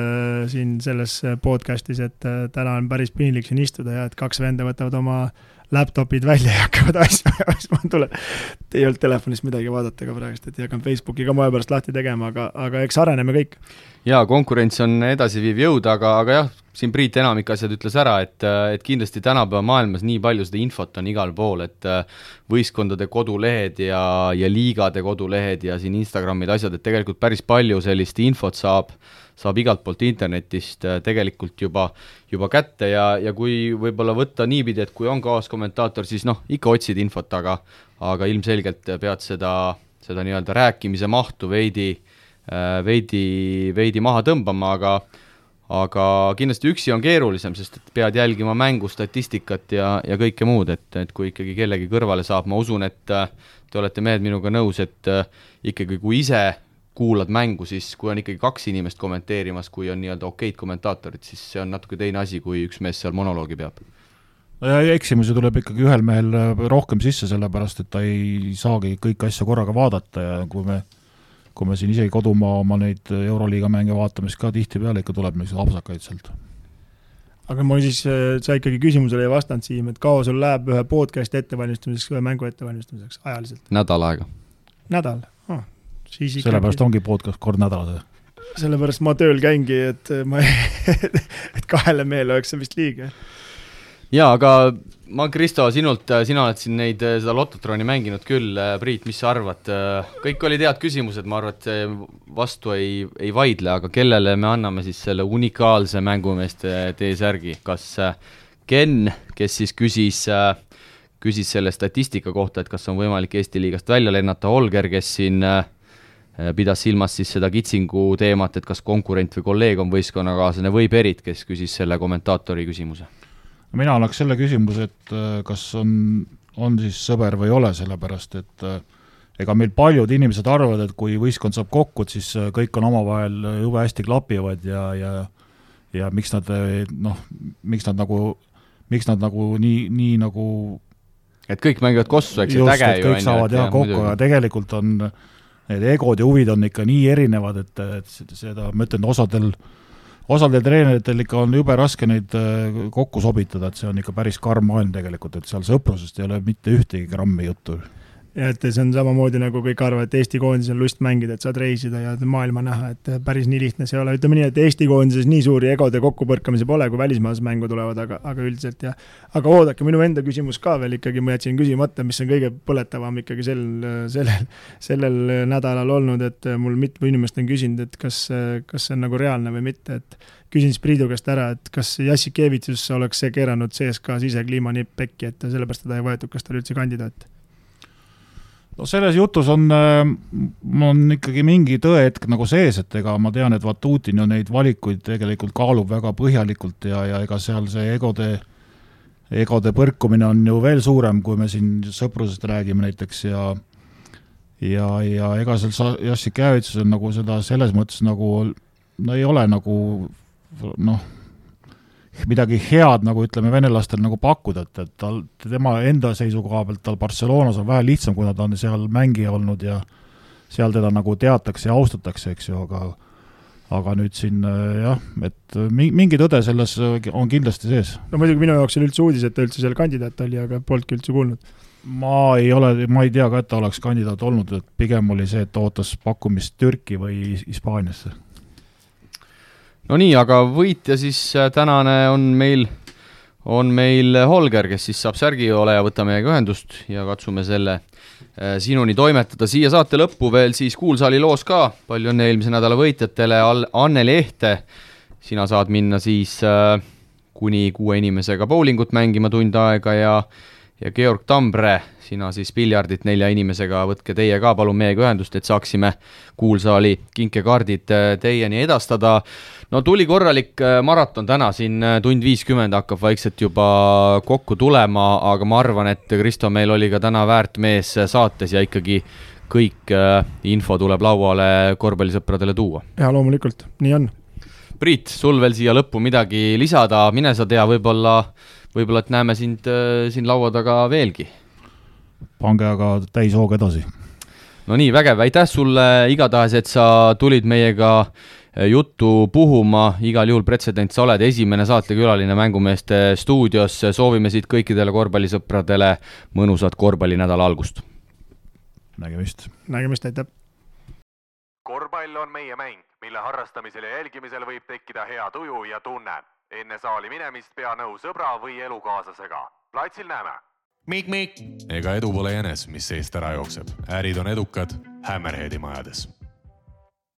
siin selles podcastis, et täna on päris piinlik siin istuda ja et 2 venda võtavad oma laptopid välja ja hakkavad asju, ei olnud telefonist midagi vaadata ka praegust, et ei hakanud Facebooki ka moe pärast lahti tegema, aga eks areneme kõik. Jaa, konkurents on edasiviiv jõud, aga jah, siin Priit enamik asjad ütles ära, et kindlasti tänapäeva maailmas nii palju seda infot on igal pool, et võistkondade kodulehed ja liigade kodulehed ja siin Instagramid asjad, et tegelikult päris palju sellist infot saab igalt poolt internetist tegelikult juba kätte ja kui võib-olla võtta niipidi, et kui on kaaskommentaator, siis ikka otsid infot, aga ilmselgelt pead seda nii-öelda rääkimise mahtu veidi maha tõmbama, aga kindlasti üksi on keerulisem, sest et pead jälgima mängu, statistikat ja kõike muud, et kui ikkagi kellegi kõrvale saab, ma usun, et te olete mehed minuga nõus, et ikkagi kui ise kuulad mängu, siis kui on ikkagi 2 inimest kommenteerimas, kui on nii-öelda okeid kommentaatorid, siis see on natuke teine asi, kui üks mees seal monoloogi peab. No ja eksimusi tuleb ikkagi ühel mehel rohkem sisse, sellepärast, et ta ei saagi kõik asja korraga vaadata ja kui me siin isegi kodumaa oma neid Euroliiga mänge vaatame, siis ka tihti peale ikka tuleb neid apsakaid sealt. Aga ma siis, sa ikkagi küsimusele ei vastanud, Siim, et kaua sul läheb ühe podcasti ettevalmistamiseks, ühe mängu ettevalmistamiseks ajaliselt? Nädal aega. Nädal? Sellepärast ongi podcast kord nädalas. Sellepärast ma tööl käingi, et 2 mehele oleks see vist liiga. Jaa, aga ma, Kristo, sina oled siin seda Lototroni mänginud küll. Priit, mis sa arvad? Kõik olid head küsimused, ma arvan, et vastu ei vaidle, aga kellele me anname siis selle unikaalse mängumeeste T-särgi? Kas Ken, kes siis küsis selle statistika kohta, et kas on võimalik Eesti liigast välja lennata, Holger, kes siin pidas silmas siis seda kitsingu teemat, et kas konkurent või kolleeg on võistkonnakaaslane, või Perit, kes küsis selle kommentaatori küsimuse. Mina annaks selle küsimuse, et kas on siis sõber või ei ole, sellepärast, et ega meil paljud inimesed arvavad, et kui võistkond saab kokku, siis kõik on omavahel jube hästi klapivad ja miks nad nagu nii nagu et kõik mängivad kossu, eks just, et kõik saavad jah kokku, aga tegelikult on need egod ja huvid on ikka nii erinevad, et seda, ma ütlen, osadel treeneritel ikka on jube raske neid kokku sobitada, et see on ikka päris karm maailm tegelikult, et seal sõprusest ei ole mitte ühtegi grammi juttu. Ja et see on samamoodi nagu kõik arvavad, et Eesti koondis on lust mängida, et saad reisida ja maailma näha, et päris nii lihtne see ei ole. Ütleme nii, et Eesti koondises nii suuri egode kokkupõrkamise pole, kui välismaas mängu tulevad, aga üldiselt ja. Aga oodake, minu enda küsimus ka veel ikkagi, ma jätsin küsimata, mis on kõige põletavam ikkagi sellel nädalal olnud, et mul mitu inimest on küsinud, et kas see on nagu reaalne või mitte, et küsin siis Priidu käest ära, et kas Jassikevitsus oleks see keeranud CSKA sisekliimanipp pekki, et sellepärast teda ei võetud, kas ta oli üldse kandidaat? No selles jutus on ikkagi mingi tõehetk nagu sees, et ega ma tean, et Vatutin ju neid valikuid tegelikult kaalub väga põhjalikult ja ega seal see egode egode põrkumine on ju veel suurem, kui me siin sõprusest räägime näiteks ja ega seal Jassikevitsus on nagu seda selles mõttes nagu, no ei ole nagu midagi head nagu ütleme venelastel nagu pakkuda, et tema enda seisukoha pealt tal Barcelonas on vähe lihtsam, kuna ta on seal mängija olnud ja seal teda nagu teatakse ja austatakse, eks ju, aga nüüd siin jah, et mingi tõde selles on kindlasti sees. No muidugi minu jaoks oli üldse uudis, et ta üldse seal kandidaat oli, aga polnudki üldse kuulnud. Ma ei tea ka, et ta oleks kandidaat olnud, et pigem oli see, et ta ootas pakkumist Türki või Hispaaniasse. No nii, aga võitja siis tänane on meil Holger, kes siis saab särgi ole ja võtame meiega ühendust ja katsume selle sinuni toimetada. Siia saate lõppu veel siis Kuulsaali loos ka. Palju õnne eelmise nädala võitjatele. Anneli Ehte, sina saad minna siis kuni 6 inimesega bowlingut mängima tund aega ja Georg Tambre, sina siis piljardit 4 inimesega, võtke teie ka palun meiega ühendust, et saaksime Kuulsaali kinkekaardid teieni edastada. No tuli korralik maraton täna, siin tund 50 hakkab vaikselt juba kokku tulema, aga ma arvan, et Kristo, meil oli ka täna väärt mees saates ja ikkagi kõik info tuleb lauale korvpallisõpradele tuua. Ja loomulikult, nii on. Priit, sul veel siia lõppu midagi lisada, mine sa tea, võib-olla, et näeme sind siin laua taga veelgi. Pange aga täis hoog edasi. No nii, vägev, aitäh sulle igatahes, et sa tulid meiega juttu puhuma, igal juhul pretsedent, sa oled esimene saatekülaline Mängumeeste stuudios, soovime siit kõikidele korvpallisõpradele mõnusat korvpallinädala algust. Nägemist, aitäh! Korvpall on meie mäng, mille harrastamisel ja jälgimisel võib tekkida hea tuju ja tunne. Enne saali minemist pea nõu sõbra või elukaaslasega. Platsil näeme! Mik! Ega edu pole jänes, mis seest ära jookseb. Ärid on edukad Hammerheadi majades.